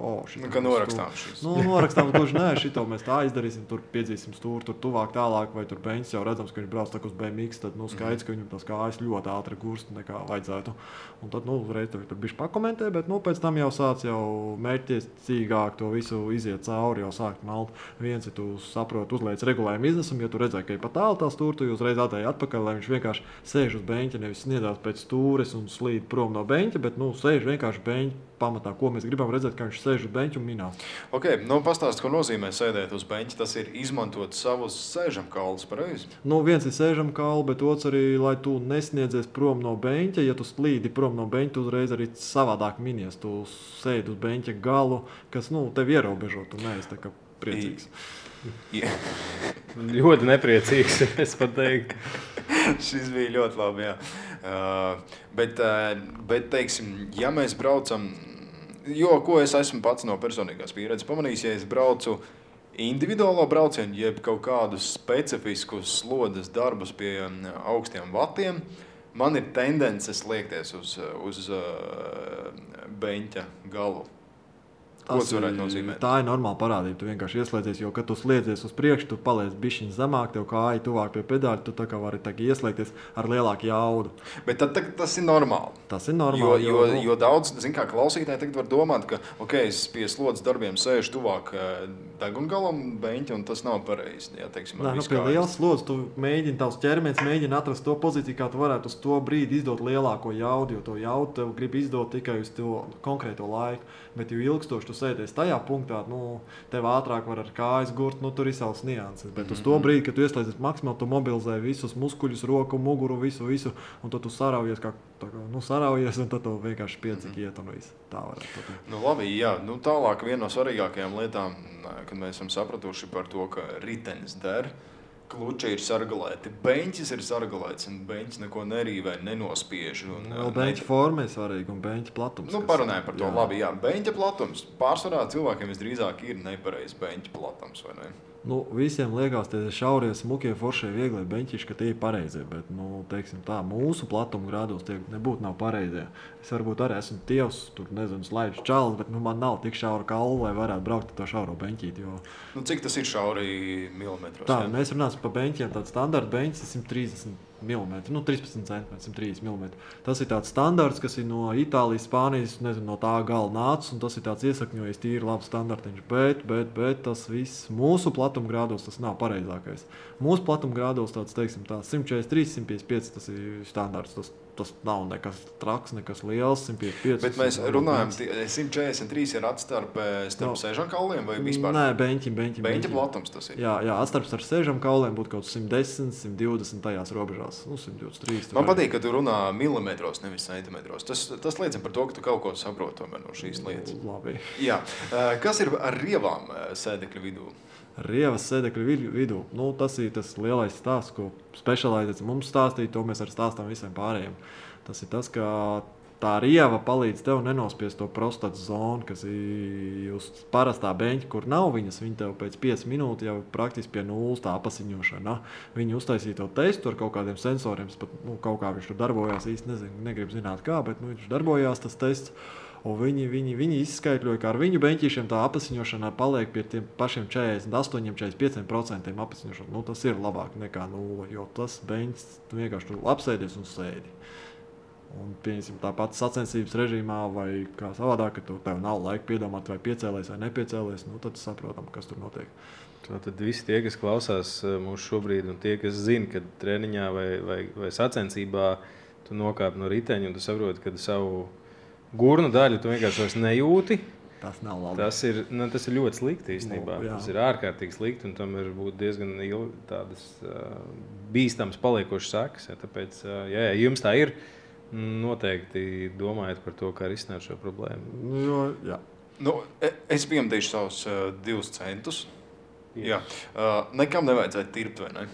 ka norakstām šis. Norakstām gluži, nē, šito mēs tā izdarīsim, tur piedzīsim stūri, tur tuvāk tālāk, vai tur beņķis jau redzams, ka viņš brauc tā uz BMX, tad skaidrs, ka viņam tās kājas ļoti ātri gurst nekā vajadzētu. Un tad, uzreiz tur bišķi pakomentē, bet, pēc tam jau sāc jau mērķtiecīgāk to visu iziet cauri, jau sākt malt. Viens, ja tu saproti, uzliec regulējumu iznesumu, ja tu redzēji, ka ir pat tālu tā stūri, tu uzreiz atēji atpakaļ, lai viņš vienkārši sēž uz beņķa, nevis sniedzās pēc stūres un slīd prom no beņķa, bet sēž vienkārši beņķa pamatā, ko mēs gribam redzēt, ka viņš sēž uz beņķa un minās. Ok, pastāst, ko nozīmē sēdēt uz beņķa, tas ir izmantot savus sēžamkaulus, pareizi? Viens ir sēžamkauli, bet otrs arī, lai tu nesniedzies prom no beņķa, ja tu slīdi prom no beņķa, tu uzreiz arī savādāk minies, tu sēdi uz beņķa galu, kas, tev ierobežo, tu neesi tā kā priecīgs. Yeah. Ļoti nepriecīgs, es pat teiktu. Šis bija ļoti labi, jā. Bet teiksim, ja mēs braucam Jo, ko es esmu pats no personīgās pieredzes pamanījis, ja es braucu individuālo braucienu, jeb kaut kādus specifiskus slodzes darbus pie augstiem vatiem, man ir tendences liekties uz beņķa galu. Ko tas varētu nozīmēt? Tā ir normāla parādība. Tu vienkārši ieslēdzies, jo, kad tu sliedzies uz priekšu, tu paliec bišķiņ zemāk, tev kāja tuvāk pie pedāļa, tu tā kā vari ieslēgties ar lielāku jaudu. Bet tad tas ir normāli. Tas ir normāli. Jo daudz, kā klausītāji tagad var domāt, ka, es pie slodzes darbiem sēžu tuvāk degungalam beņķa, un tas nav pareizi. Jā, teiksim, pie lielas slodzes tu mēģini, tavs ķermenis mēģina atrast to pozīciju, kā tu varētu uz to brīdi izdot lielāko jaudu, jo to jaudu tev grib izdot tikai uz to konkrēto laiku. Bet, jo ilgstoši tu sēdies tajā punktā, tev ātrāk var ar kājas gurt, tur ir savas nianses. Bet uz to brīdi, kad tu ieslēdzies maksimāli, tu mobilizē visus muskuļus, roku, muguru, visu, un tad tu saraujies, un tad tu vienkārši piedzīgi iet un visu. Tā varētu būt. Labi, jā. Tālāk viena no svarīgākajām lietām, kad mēs esam sapratuši par to, ka ritenis der, kluči ir sargalēti, beņķis ir sargalēts, un beņķis neko nerīvē, nenospiež. Beņķa forma ir svarīga un beņķa platums. Parunājam par to. Jā. Labi, jā. Beņķa platums. Pārsvarā cilvēkiem visdrīzāk ir nepareizs beņķa platums, vai ne? Visiem liekas, tie šaurie, smukie, foršie, vieglie beņķiši, ka tie ir pareizie, bet, teiksim tā, mūsu platuma grādos tie nebūtu nav pareizie. Es varbūt arī esmu tievs, tur, nezinu, slaidu čalis, bet, man nav tik šaura kaula, lai varētu braukt ar to šauro beņķīti, jo... Cik tas ir šauri milimetros? Tā, mēs runāsim par beņķiem, tāds standarta beņķis ir 130 mm, 13 cm, 130 mm. Tas ir tāds standarts, kas ir no Itālijas, Spānijas, nezinu, no tā gala nācis, un tas ir tāds iesakņojies tīri labs standartiņš, bet tas viss mūsu platuma grādos tas nav pareizākais. Mūsu platuma grādos tāds, teiksim, 143, 155, tas ir standarts, tas nav nekas traks, nekas liels, 155. Bet mēs runājam, 143 ir atstarpe starp sēžam kauliem vai vispār? Nē, beņķa platums tas ir. Jā, atstarps ar sēžam kauliem būtu kaut 110, 120 tajās robežās. 123. Man patīk, ka tu runā milimetros, nevis centimetros. Tas liecina par to, ka tu kaut ko saproti tomēr no šīs lietas. Labi. Jā. Kas ir ar rievām sēdekļu vidū? Rievas sēdekļu vidū. Tas ir tas lielais stāsts, ko specializēts mums stāstīja, to mēs arī stāstām visiem pārējiem. Tas ir tas, ka tā rieva palīdz tev nenospiest to prostatas zonu, kas ir uz parastā beņķa, kur nav viņas. Viņa tev pēc 5 minūtes jau praktiski pie nulles tā apasiņošana. Viņi uztaisīja to testu ar kaut kādiem sensoriem, pat kaut kā viņš tur darbojās, īsti negribu zināt kā, bet viņš darbojās tas tests. Un viņi izskaidroja, ka ar viņu beņķīšiem tā apasiņošana paliek pie tiem pašiem 48–45% apasiņošana. Tas ir labāk nekā 0, jo tas beņķis tu vienkārši tur apsēdies un sēdi. Un, pieņemsim, tāpat sacensības režīmā vai kā savādāk, ka tev nav laika piedomāt, vai piecēlies vai nepiecēlies, tad saprotam, kas tur notiek. Tad visi tie, kas klausās mūsu šobrīd, un tie, kas zina, ka treniņā vai sacensībā tu nokāp no riteņa un tu saproti, ka savu gurnu daļu tu vienkārši vairs nejūti. Tas nav labi. Tas ir ļoti slikti īstenībā. Tas ir ārkārtīgi slikti, un tam ir būt diezgan tādas bīstams paliekošas sekas. Tāpēc, ja jums tā ir, noteikti domājiet par to, kā risināt šo problēmu. Jā. Es piemdīšu savus 2 centus. Jā. Nekam nevajadzētu tirpt, vai ne?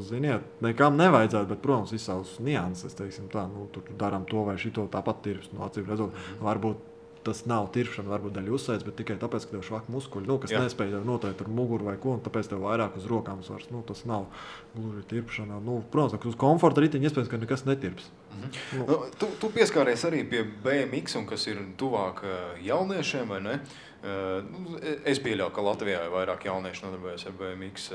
Ziniet, nekam nevajadzētu, bet, protams, ir savas nianses, teiksim tā, tur darām to vai šito tāpat tirps, acīm redzot, varbūt tas nav tirpšana, varbūt daļa uzsēdz, bet tikai tāpēc, ka tev švak muskuļi, kas nespēja noteikt ar muguru vai ko, un tāpēc tev vairāk uz rokām svars, tas nav gluži tirpšana. Protams, uz komforta riteņa iespējams, ka nekas netirps. Tu pieskāries arī pie BMX, un kas ir tuvāk jauniešiem, vai ne? Es pieļauju, ka Latvijā ir vairāk jaunieši nodarbojas ar BMX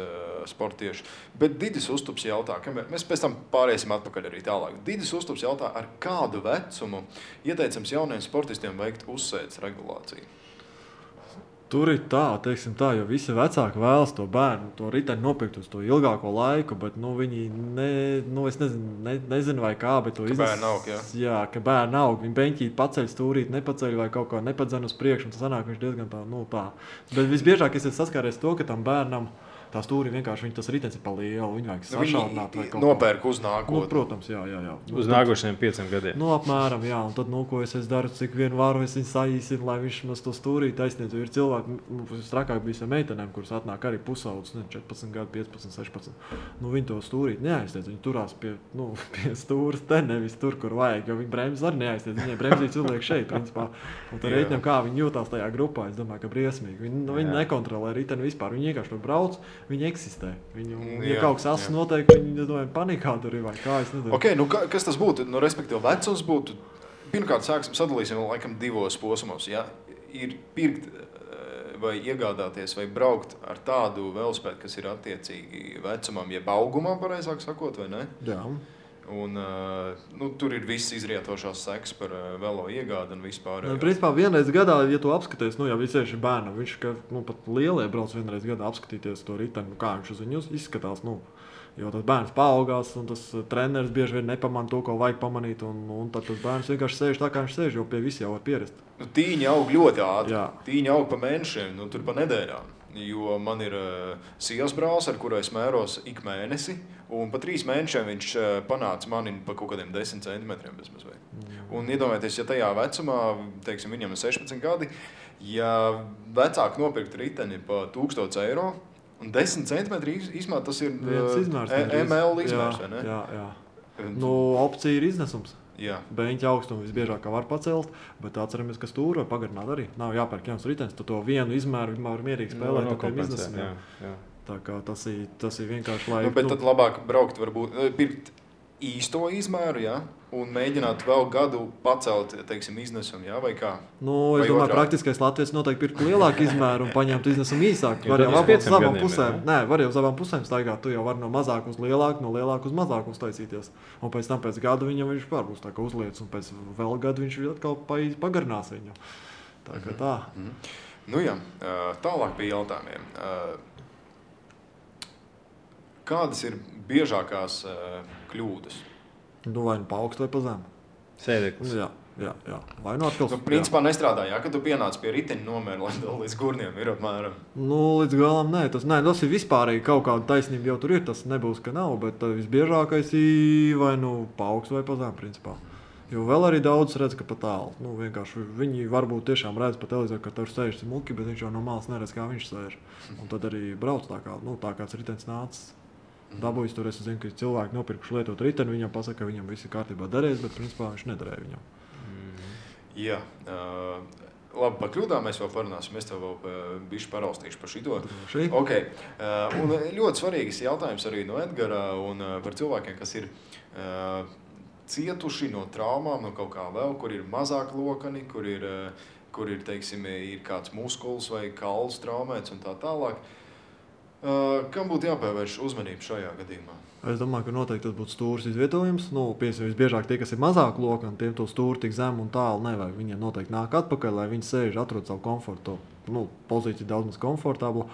sportiešu. Bet Didis Uztups jautā, mēs pēc tam pāriesim atpakaļ arī tālāk. Didis Uztups jautā, ar kādu vecumu ieteicams jauniem sportistiem veikt uzsēdes regulāciju? Tur ir tā, teiksim tā, jo visi vecāki vēlas to bērnu, to riteni nopirkt uz to ilgāko laiku, bet viņi es nezinu vai kā, bet to iznes. Bērni aug, jā. Jā, ka bērni aug, viņi beņķīt paceļ stūrīt, nepaceļ vai kaut kā nepadzen uz priekšu, un tas sanāk viņš diezgan tā. Bet visbiežāk es saskāries to, ka tam bērnam Tā stūri vienkārši tas ritenis ir pa lielu, viņu vajag sašaurināt vai kaut nopērk uz nākotni. Protams, jā. Uz nākošajiem 5 gadiem. Apmēram, jā, un tad, ko es daru, cik vien varu, es viņu saīsinu, lai viņš mums to stūrī taisniet. Ir cilvēki, strakāk bija meitenēm, kuras atnāk arī pusaudzes, 14 gadu, 15, 16. Viņi to stūrīt neaiztiec, viņi turās pie stūras, te nevis tur, kur vajag, jo viņi bremzes arī neaiztiec, viņai bremzīts uzliek šeit, principā. Un tad reiķinām, kā viņi jūtās tajā grupā, es domāju, ka briesmīgi. Viņi nekontrolē riteni vispār, viņi vienkārši tur brauc. Viņi eksistē. Ja kaut kas asins notiek, viņi panikā tur ir vai kā, es nezinu. Okay, kas tas būtu? Respektīvi, vecums būtu, pirmkārt, sadalīsim laikam 2 posmos. Ja? Ir pirkt vai iegādāties vai braukt ar tādu velosipēdu, kas ir attiecīgi vecumam, jeb augumam, pareizāk sakot, vai ne? Jā. Un, tur ir viss izrietošās sekas par velo iegādi un vispār. Principā vienreiz gadā, ja tu apskaties, jau visieši bērnam, viņš pat lielie brauc vienreiz gadā apskatīties to riteni, kā viņš uz viņu izskatās. Jo tas bērns paaugās, un tas treneris bieži vien nepamanā to, ko vajag pamanīt, un tad tas bērns vienkārši sēž tā, kā viņš sēž, jo pie visi jau var pierast. Tīņi aug ļoti ātri. Tīņi aug pa mēnešiem, tur pa nedēļām. Jo man ir sievas brālis, ar kuru es mēros ik mēnesi, un pa 3 mēnešiem viņš panāca mani pa kaut kādiem 10 centimetriem bezmazliet. Un iedomājieties, ja tajā vecumā, teiksim, viņam ir 16 gadi, ja vecāki nopirkt riteni pa 1000 eiro, un 10 centimetri izmēr, tas ir ML izmērs, vai ne? Jā. Opcija ir iznesums. Beņķa augstumu visbiežāk var pacelt, bet atceramies, ka stūri var pagarināt arī. Nav jāpērk jauns ritenis, tu to vienu izmēru var mierīgi spēlēt ar tiem iznesumiem. Tā kā tas ir vienkārši, lai... Bet tad labāk braukt varbūt, pirkt īsto izmēru, un mēģināt vēl gadu pacelt, teiksim, iznesumu, vai kā? Es domāju, praktiskais latviečs noteikti pirkt lielāku izmēru un paņemt iznesumu īsāk. Var jau uz abām pusēm staigāt, tu jau vari no mazāk uz lielāku, no lielāku uz mazāku uztaisīties. Un pēc tam pēc gada viņam viņš būs tā kā uzliec, un pēc vēl gadu viņš atkal pagarinās viņu. Tā kā tā. Tālāk pie jautājumiem. Kādas ir biežākās kļūdas? Vai nu pa augstu vai pa zemu. Sēdeklis. Jā. Vai nu atkal... Principā nestrādā, kad tu pienāc pie riteņa nomēra, lai līdz gurniem ir apmēram. Līdz galam nē. Tas ir vispārīgi kaut kāda taisnība jau tur ir, tas nebūs, ka nav, bet visbiežākais ir vai nu pa augstu vai pa zemu, principā. Jo vēl arī daudz redz, ka pa tālu. Vienkārši viņi varbūt tiešām redz pa televizoru, ka tur sēž muki, bet viņš jau no malas neredz, kā viņš sēž. Un tad arī brauc tā kāds ritenis nācis. Dabūjis tur, es zinu, ka cilvēki nopirkuši lietot riteni, viņam pasaka, ka viņam viss ir kārtībā darējis, bet principā viņš nedarēja viņam. Jā, labi, par kļūdām mēs vēl parunāsim, es tev vēl bišķi paraustīšu par šito. Okay. Un ļoti svarīgs jautājums arī no Edgara un par cilvēkiem, kas ir cietuši no traumām, no kaut kā vēl, kur ir mazāk lokani, kur ir teiksim, ir kāds muskuls vai kauls traumēts un tā tālāk. Kam būtu jāpievērš uzmanību šajā gadījumā? Es domāju, ka noteikti tas būtu stūris izvietojums. Visbiežāk tie, kas ir mazāk lokani, tiem to stūri tik zemu un tālu nevajag. Viņiem noteikti nāk atpakaļ, lai viņi sēž, atrod savu komfortu. Pozīcija daudz maz komfortabla.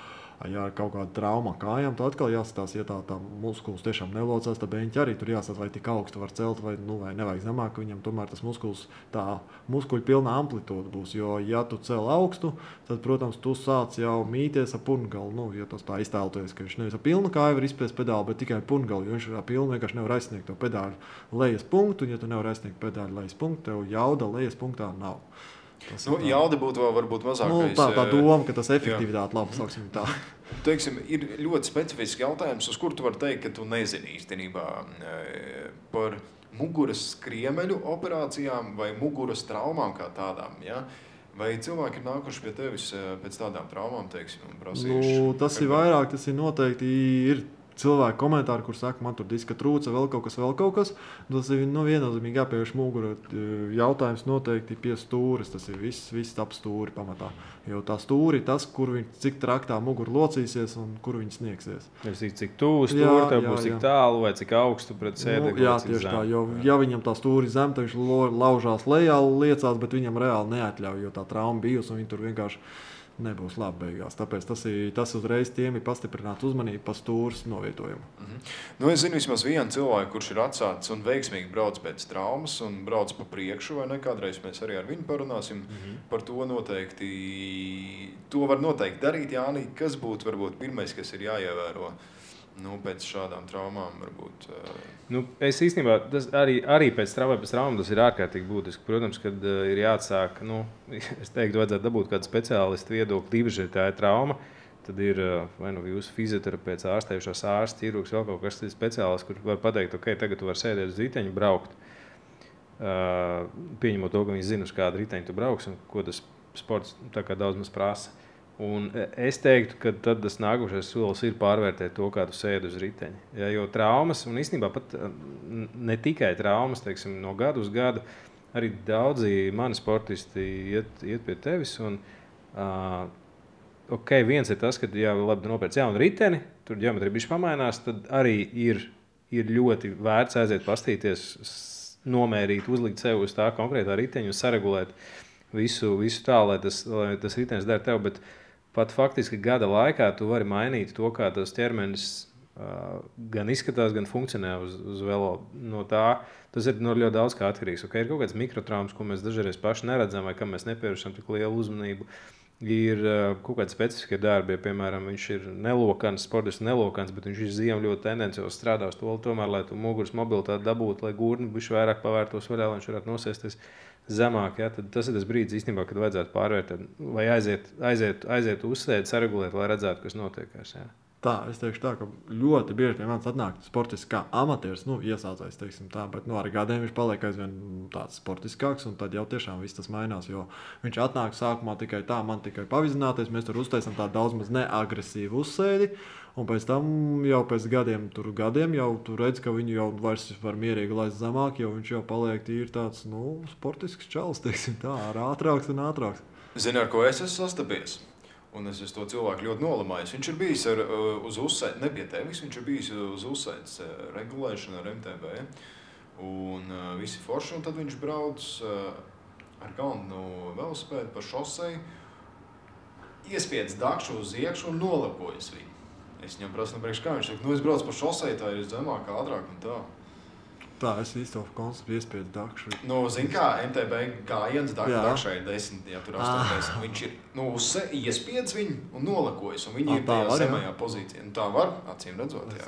Ja ir kaut kāda trauma kājām, tad atkal jāskatās, ja tā muskulis tiešām nelocās, tad beņķi arī tur jāsaka, vai tik augstu var celt, vai nevajag zemāk, ka viņam tomēr tas muskulis, tā muskuļu pilnā amplitūda būs. Jo, ja tu cel augstu, tad, protams, tu sāc jau mīties ar purngalu. Ja tas tā iztēloties, ka viņš nevis ar pilnu kāju var izspiest pedāli, bet tikai purngalu, jo viņš ar pilnu vienkārši nevar aizsniegt to pedāļu lejas punktu, un ja tu nevar aizsniegt pedāļu lejas punktu, tev jauda lejas punktā nav. Jauda būtu vēl varbūt mazākais. Tā doma, ka tas efektivitāte labi, sauksim tā. Teiksim, ir ļoti specifisks jautājums, uz kur tu vari teikt, ka tu nezini īstenībā par muguras skriemeļu operācijām vai muguras traumām kā tādām, ja? Vai cilvēki ir nākuši pie tevis pēc tādām traumām, teiksim, un prasījuši? Tas ir vairāk, tas ir noteikti ir cilvēki komentāri, kur saka, man tur diska trūca, vēl kaut kas. Tas ir viennozīmīgi jāpievērš mugura jautājums noteikti pie stūres. Tas ir viss ap stūri pamatā. Jo tā stūri tas, cik traktā mugura locīsies un kur viņi sniegsies. Cik tuvu stūri, tev būs cik tālu vai cik augstu pret sēdekli. Jā, tieši tā. Jo, ja viņam tā stūri zem, tad viņš laužās lejā, liecās, bet viņam reāli neatļauj, jo tā trauma bijusi un viņi tur vienkārši nebūs labi beigās. Tāpēc tas uzreiz tiem ir pastiprināts uzmanība pa stūres novietojumu. Nu, es zinu vismaz vienu cilvēku, kurš ir atsācis un veiksmīgi brauc pēc traumas un brauc pa priekšu, vai ne? Kādreiz mēs arī ar viņu parunāsim par to noteikti. To var noteikti darīt, Jāni. Kas būtu varbūt pirmais, kas ir jāievēro? Pēc šādām traumām varbūt. Es īstenībā arī pēc traumām tas ir ārkārtīgi būtiski. Protams, kad ir jāatsāk, es teiktu, vajadzētu dabūt kādu speciālistu viedokli, īpaši, ja tā ir trauma. Tad ir vai jūsu fizioterapeits, ārstējušās ārsts, ķirurgs, vēl kaut kas speciālists, kurš var pateikt, ok, tagad tu vari sēdēt uz riteņa, braukt. Pieņemot to, ka viņi zina, uz kādu riteņu tu brauks un ko tas sports tā kā daudz maz prasa. Un es teiktu, ka tad tas nākošais solis ir pārvērtēt to, kā tu sēdi uz riteņa. Ja, jo traumas, un īstenībā pat ne tikai traumas, teiksim, no gada uz gadu, arī daudzi mani sportisti iet pie tevis. Un, viens ir tas, ka labi nopērc jaunu riteni, tur ģeometrija bišķi pamainās, tad arī ir ļoti vērts aiziet pastīties, nomērīt, uzlikt sev uz tā konkrētā riteņa un saregulēt visu tā, lai tas ritenis dara tev. Bet pat faktiski gada laikā tu vari mainīt to, kā tas ķermenis gan izskatās, gan funkcionē uz velo. No tā, tas ir ļoti daudz kā atkarīgs. Ir kaut kāds mikrotraumas, ko mēs dažreiz paši neredzam vai kam mēs nepievēršam tik lielu uzmanību. Ir kaut kādi specifiski darbi, ja, piemēram, viņš ir nelokans, sportists nelokans, bet viņš ir ziemu ļoti tendenciāls strādā uz to, tomēr, lai tu muguras mobilitāti dabūtu, lai gurni bišķi vairāk pavērtos vaļā, lai viņš varētu nosēsties zemāk. Ja, tad tas ir tas brīdis, īstenībā, kad vajadzētu pārvērtēt vai aiziet uzsēdi, saregulēt, lai redzētu, kas notiekās. Ja. Tā, es teikšu tā, ka ļoti bieži pie manis atnāk sportists kā amatieris, iesācējs, teiksim tā, bet ar gadiem viņš paliek aizvien tāds sportiskāks, un tad jau tiešām viss tas mainās, jo viņš atnāk sākumā tikai tā, man tikai pavizināties, mēs tur uztaisam tādu daudz maz neagresīvu uzsēdi, un pēc tam jau pēc gadiem jau tu redz, ka viņu jau vairs var mierīgi laist zemāk, jo viņš jau paliek tīri tāds, sportisks čalis, teiksim tā, ātrāks un ātrāks. Zini, ar ko es esmu sastapies? Un es to cilvēku ļoti nolamājos. Viņš ir bijis uz uzsēdes, ne pie tevis, viņš ir bijis uz uzsēdes regulēšanu ar MTB. Un visi forši, un tad viņš brauc ar galvenu velosipēdu pa šoseju, iespiedz dakšu uz iekšu un nolapojas viņu. Es viņam prasu, priekš kā viņš saka, es braucu pa šoseju, tā ir zemāk, ātrāk un tā. Tā, es īstenībā konceptu iespēju dakšu. Zini kā, MTB gājiens dakšai ir 10, ja tur 80. Viņš ir, iespiedz viņu un nolakojas, un viņi ir tajā zemajā pozīcijā. Tā var, acīm redzot, jā.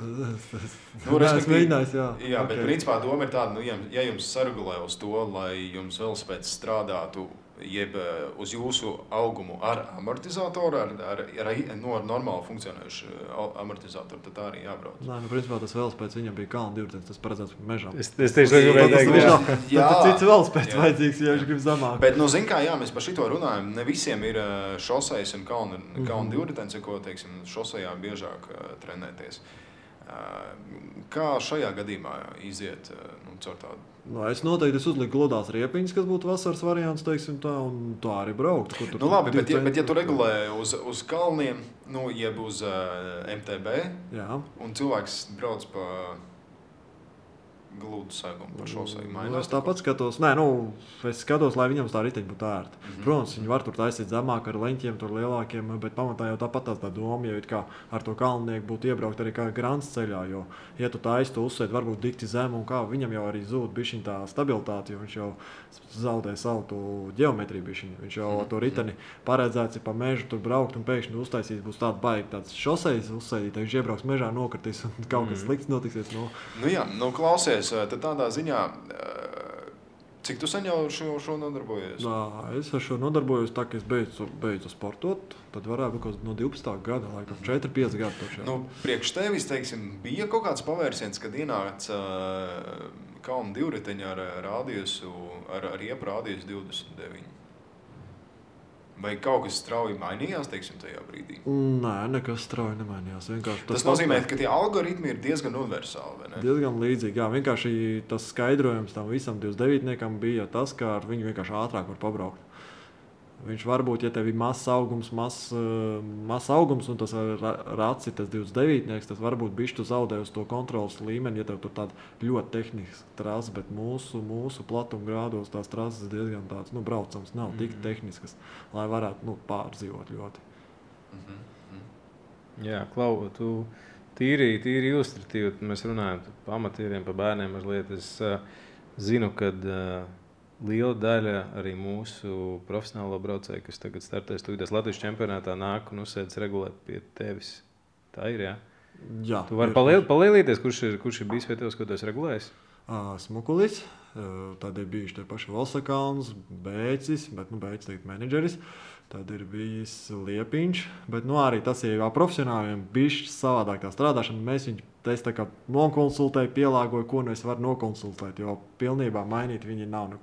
Es mēģinājis, jā. Jā, bet principā doma ir tāda, ja jums saregulē uz to, lai jums velosipēds strādātu, jeb uz jūsu augumu ar amortizatoru, ar normāli funkcionējušu amortizatoru, tad tā arī jābrauc. Nē, principā tas velosipēds viņam bija kalna divritenis, tas paredzēts mežam. Es tieši gribēju teikt, jā. Cits velosipēds vajadzīgs, ja viņš grib zemāk. Bet, zin kā, jā, mēs par šito runājam, ne visiem ir šosejas un kalna divritenis, ko, teiksim, šosejā biežāk trenēties. Kā šajā gadījumā iziet caur tādu? Es noteikti uzliku gludās riepiņas, kas būtu vasaras variants, teiksim tā, un tā arī braukt. Labi, bet ja tu regulē uz kalniem, jeb uz MTB, jā. Un cilvēks brauc pa gludu segumu pa šoseju mainās? Es tāpat skatos, es skatos, lai viņam tā riteņa būtu ērta. Protams, viņi var tur taisīt zemāk ar leņķiem, tur lielākiem, bet pamatā jau tāpat tā doma, ja kā ar to kalnieku būtu iebraukt arī kā grants ceļā, jo, ja tu taisi to uzsēdi, varbūt dikti zemu un kā, viņam jau arī zūd bišķiņ tā stabilitāte, jo viņš jau zaudē savu to ģeometriju bišķiņ. Viņš jau to riteni paredzēts ir pa mežu tur braukt un pēkšņi uztaisīt būs tāda baigi tāds šosejas uzsēdīt, viņš iebrauks mežā, nokritīs un kaut kas slikts notiksies. Klausies, tad tādā ziņā, cik tu sen jau šo nodarbojies? Es ar šo nodarbojos tā, ka es beidzu sportot, tad varētu būt no 12. gada, laikam 4-5 gadu. Priekš tevis, teiksim, bija kaut kāds pavērsiens, kad ienāca kalna divriteņa ar rādiesu, ar riepu rādiesu 29. Vai kaut kas strauji mainījās, teiksim, tajā brīdī? Nē, nekas strauji nemainījās. Tas nozīmē, ka tie algoritmi ir diezgan universāli, vai ne? Diezgan līdzīgi, jā. Vienkārši tas skaidrojums tam visam 29-niekam bija tas, ka ar viņu vienkārši ātrāk var pabraukt. Viņš varbūt, ja tev ir mazs augums, un tas rats ir tas 29, tas varbūt bišķi tu zaudē uz to kontrolas līmeni, ja tev tur tāda ļoti tehniska trasa, bet mūsu platuma grādos tās trases diezgan tāds, braucams nav tik tehniskas, lai varētu, pārdzīvot ļoti. Jā, Klau, tu tīri ilustratīvi, mēs runājam par amatieriem, par bērniem mazliet. Es zinu, kad liela daļa arī mūsu profesionālo braucēju, kas tagad startēs tūlītās Latvijas čempionātā, nāk un uzsēdz regulēt pie tevis. Tā ir, jā? Jā. Tu vari palielīties, kurš ir bijis pie tevis, ko tu esi regulējis? Smukulis, tad ir bijuši tie paši Valsakāns, Bēcis, bet Bēcis tagad menedžeris. Tad ir bijis Liepiņš, bet arī tas ir jau profesionāliem bišķi savādāk tā strādāšana. Mēs viņu tā kā nokonsultēju, pielāgoju, ko es varu nokonsultēt, jo pilnībā mainīt viņi nav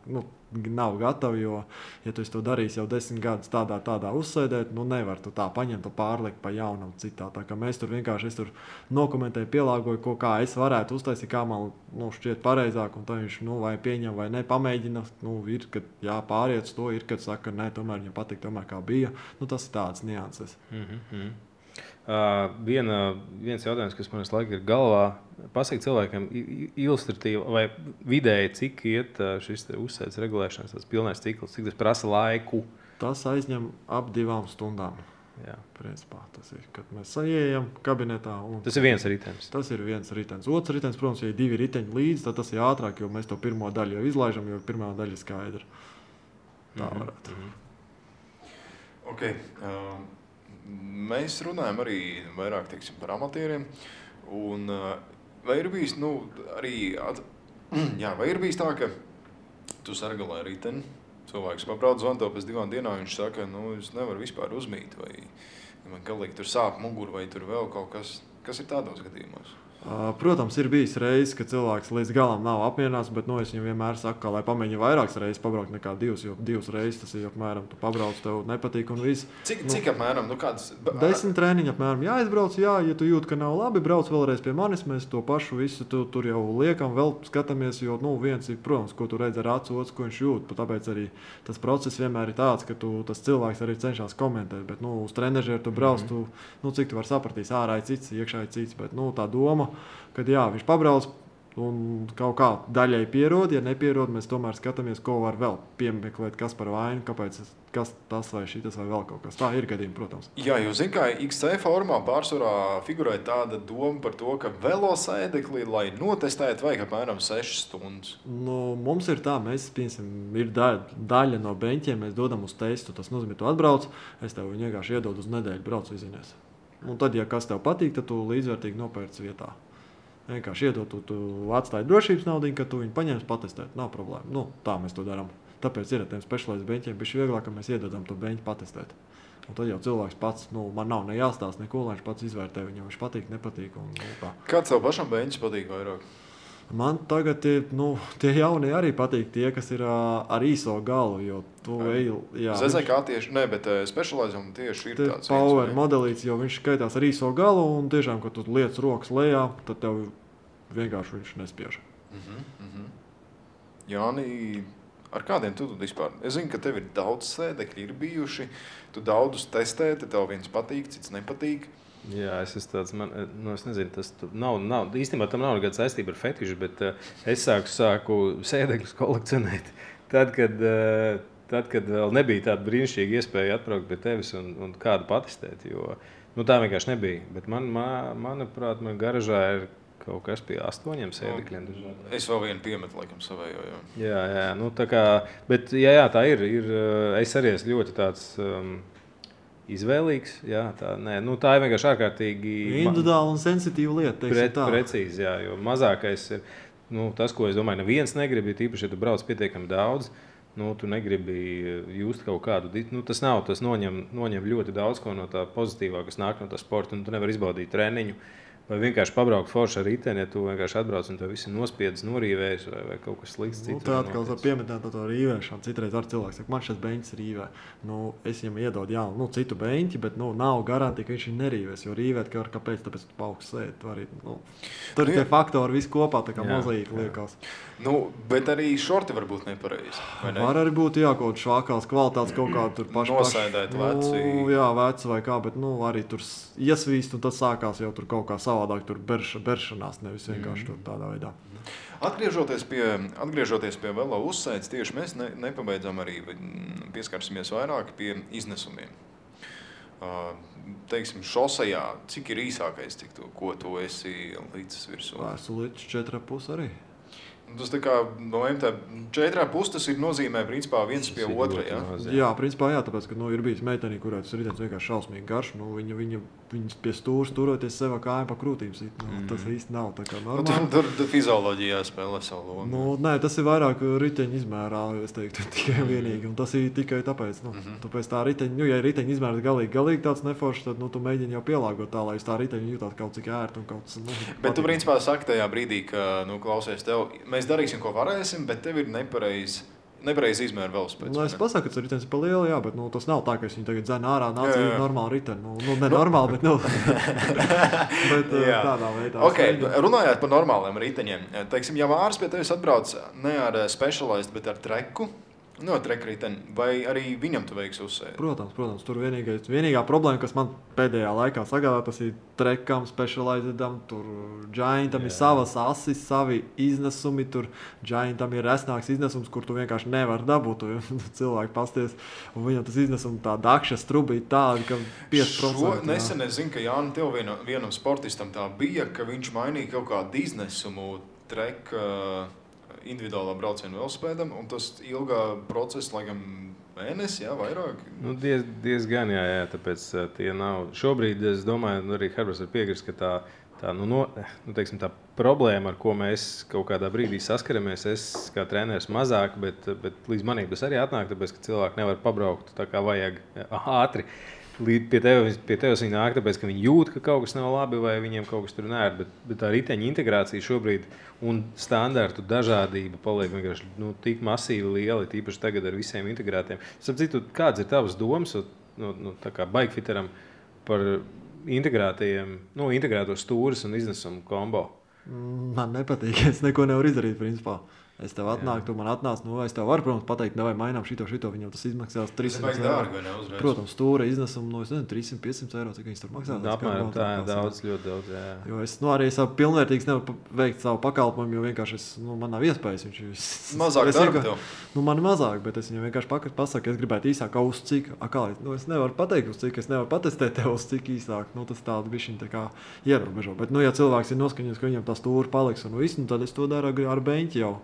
gatavi, jo, ja tu to darīsi jau 10 gadus tādā uzsēdēt, nevar tu tā paņemt un pārlikt pa jaunam citā. Tā kā mēs tur vienkārši, es tur nokomentēju, pielāgoju, kā es varētu uztaisīt, kā man šķiet pareizāk, un tā viņš, vai pieņem vai ne, pamēģina, ir, kad pāriet uz to, ir, kad saka, nē, tomēr viņam patīk, tomēr kā bija. Tas ir tāds nianses. Viens jautājums, kas man laikam ir galvā, pasaka cilvēkiem ilustratīvi vai vidēji, cik iet šis uzsēdes regulēšanas, tas pilnais cikls, cik tas prasa laiku? Tas aizņem ap 2 stundām. Jā. Principā tas ir, kad mēs ieejam kabinetā. Tas ir viens ritenis. Tas ir viens ritenis. Otrs ritenis, protams, ja ir 2 riteņi līdzi, tad tas ir ātrāk, jo mēs to pirmo daļu jau izlaižam, jo pirmā daļa ir skaidra. Tā varētu. Okay. Mēs runājam arī vairāk par amatieriem. Vai ir bijis, vai ir bijis tā, ka tu sargalē riteni, cilvēks pabrauc zvanto pēc 2 dienām, viņš saka, es nevaru vispār uzmīt, vai man galīgi tur sāp muguru, vai tur vēl kaut kas. Kas ir tādos gadījumos? Protams, ir bijis reizes, ka cilvēks līdz galam nav apmierināts, bet es viņam vienmēr saku, ka lai pamēģina vairākas reizes pabraukt nekā 2, jo 2 reizes tas ir apmēram, tu pabrauc, tev nepatīk un viss. Cik apmēram? Kāds... 10 treniņi apmēram jāizbrauc, ja tu jūti, ka nav labi, brauc vēlreiz pie manis, mēs to pašu visu tur jau liekam, vēl skatāmies, jo viens ir, protams, ko tu redz ar acu, otrs, ko viņš jūt, tāpēc arī tas process vienmēr ir tāds, ka tas cilvēks arī cenšas komentēt, bet uz trenežeru tu brauc, cik tu vari sapratīs, ārā ir cits, iekšā ir cits, bet tā doma, kad viņš pabrauc un kaut kā daļai pierod, ja nepierod, mēs tomēr skatāmies, ko var vēl piemeklēt, kas par vainu, kāpēc kas tas vai šitas vai vēl kaut kas. Tā ir gadījumi, protams. Jā, jo zin kā XC formā pārsvarā figurē tāda doma par to, ka velosēdekli, lai notestētu, vajag apmēram 6 stundas. Mums ir tā, mēs, piemēram, ir daļa no beņķiem, mēs dodam uz testu. Tas nozīmē, tu atbrauc, es tev viņu vienkārši iedodu uz nedēļu, brauc izinies. Un tad, ja kas tev patīk, tad tu līdzvērtīgi nopērci vietā. Vienkārši iedot, tu atstāji drošības naudu, ka tu viņu paņemsi patestēt. Nav problēma. Tā mēs to darām. Tāpēc ir ar tiem specializētiem beņķiem bišķi vieglāk, ka mēs iedodam to beņķu patestēt. Un tad jau cilvēks pats, man nav ne jāstāsta neko, lai viņš pats izvērtē, viņam viņš patīk, nepatīk. Kāds tev pašam beņķis patīk vairāk? Man tagad tie jaunie arī patīk, tie, kas ir ar īso galu, jo tu ZZK tieši, bet specializam tieši ir tāds. Power modelīts, jo viņš skaitās ar īso galu, un tiešām, kad tu liec rokas lejā, tad tev vienkārši viņš nespiež. Jāni, ar kādiem tu vispār? Es zinu, ka tev ir daudz sēdekļi ir bijuši, tu daudzus testē, tev viens patīk, cits nepatīk. Jā, es esmu tāds, es nezinu, tas nav, īstenībā tam nav nekāda saistība ar fetišu, bet es sāku sēdekļus kolekcionēt tad, kad vēl nebija tāda brīnišķīga iespēja atbraukt pie tevis un kādu patestēt, jo tā vienkārši nebija. Bet manuprāt, man garažā ir kaut kas pie 8 sēdekļiem. Es vēl vienu piemetu, laikam, savējo. Jā, tā kā, bet jā, tā ir, es arī esmu ļoti tāds... izvēlīgs, jā, tā ir vienkārši ārkārtīgi individuāla un sensitīva lieta, precīzi, jā, jo mazākais ir, tas, ko es domāju, neviens negrib, tīpaši, ja tu brauc pietiekami daudz, tu negribi just kaut kādu, tas noņem ļoti daudz ko no tā pozitīvā, kas nāk no tā sporta, un tu nevari izbaudīt treniņu, Vai vienkārši pabraukt forši ar riteni, ja tu vienkārši atbrauc un tev viss ir nospiedis, norīvējis vai kaut kas slikts cits. Tā atkal var pieminēt to rīvēšanu. Citreiz ar cilvēks saka, man šis beņķis rīvē. Es viņam iedodu jaunu, citu beņķi, bet nav garantija, ka viņš nerīvēs. Jo rīvēt, kāpēc? Tāpēc tu paugsts sēdi. Tur tie faktori viss kopā tā kā mozaīka liekas. Bet arī šorti var būt nepareizi. Ne? Var arī būt kaut švākās kvalitātes kaut kā tur paši. Nosēdēt veci. Jā, veci vai kā, bet arī tur iesvīst un tad sākās jau tur kaut kā savādāk, tur beršanās, nevis vienkārši tur tādā veidā. Atgriežoties pie velo uzsēdes, tieši mēs nepabeidzam arī, pieskarsimies vairāk pie iznesumiem. Teiksim, šosejā, cik ir īsākais, ko tu esi līdzis virsū? Esmu līdz 4,5 arī. Tas tā kā no MT 4,5 tas ir nozīmē principā viens pie otra, ja? Jā, principā jā, tāpēc, ka ir bijis meitenī, kurā tas ritens vienkārši šausmīgi garš, viņas pie stūras turoties sev kājām pa krūtīm sit, tas īsti nav tā kā normāli. Tur fizioloģijā spēlē savu lomu. Nē, tas ir vairāk riteņa izmērā, es teiktu, tikai vienīgi, un tas ir tikai tāpēc, tāpēc tā riteņa, ja riteņa izmērs galīgi tāds neforšs, tad tu mēģini jau pielāgot tā, lai uz tā riteņa jūtāt kaut cik ērti un kaut kas. Bet tu principā saki tajā brīdī, ka, klausies tev, mēs darīsim, ko varēsim, bet tev ir nepareizi izmēra velospēds. Es pasaku, ka tas ritenis ir pa lielu, jā, bet tas nav tā, ka es viņu tagad dzēnu ārā, nāca ir normāli riteni. Ne normāli, bet tādā veidā. Okay, runājot par normāliem riteņiem, teiksim, ja Māris pie tevis atbrauc ne ar Specialized, bet ar treku, trekriteni, vai arī viņam tu veiksi uzsēdi? Protams, tur vienīgā problēma, kas man pēdējā laikā sagādā, tas ir trekam, Specializedam, tur Giantam ir savas asis, savi iznesumi, tur Giantam ir resnāks iznesums, kur tu vienkārši nevar dabūt, cilvēki pasties, un viņam tas iznesums tā dakša strubīt tādi, ka 5%. Šo nesen es zinu, ka Jāni tev vienam sportistam tā bija, ka viņš mainīja kaut kādu iznesumu treka individuālā brauciena velospēdam, un tas ilgā procesa, laikam, mēnesi, jā, vairāk? Diezgan, jā, tāpēc tie nav. Šobrīd, es domāju, arī Herberts var piekrist, ka tā problēma, ar ko mēs kaut kādā brīdī saskaramies, es kā treneris mazāk, bet līdz manīm tas arī atnāk, tāpēc, ka cilvēki nevar pabraukt tā kā vajag ātri. Pie tevis viņi nāk, tāpēc, ka viņi jūt, ka kaut kas nav labi vai viņiem kaut kas tur nēr, bet tā riteņa integrācija šobrīd un standartu dažādība paliek vienkārši tik masīvi liela, tīpaši tagad ar visiem integrētiem. Sapratu, kāds ir tavas domas tā kā bikefiteram par integrēto stūres un iznesumu kombo? Man nepatīk, es neko nevaru izdarīt, principā. Es tev atnāku, tu man atnāc, es tev varu, protams, pateikt, vai mainām šito, viņam tas izmaksās 300 eiro. Protams, stūra iznesuma, 300-500 eiro, cik viņas tur maksās. Apmēram tā, ļoti daudz, jā. Jo es arī savu pilnvērtīgs nevaru veikt savu pakalpojumu, jo vienkārši man nav iespējas. Mazāk darba tev? Man mazāk, bet es viņam vienkārši pasaku, es gribētu īsāk, uz cik, es nevaru pateikt, uz cik, es nevaru patestēt tev, uz cik īsāk, tas tādu bišķiņ tā kā ierobežo. Bet, ja cilvēks ir noskaņots, ka viņam tā stūra paliks un viss, tad es to daru ar beņķi jau.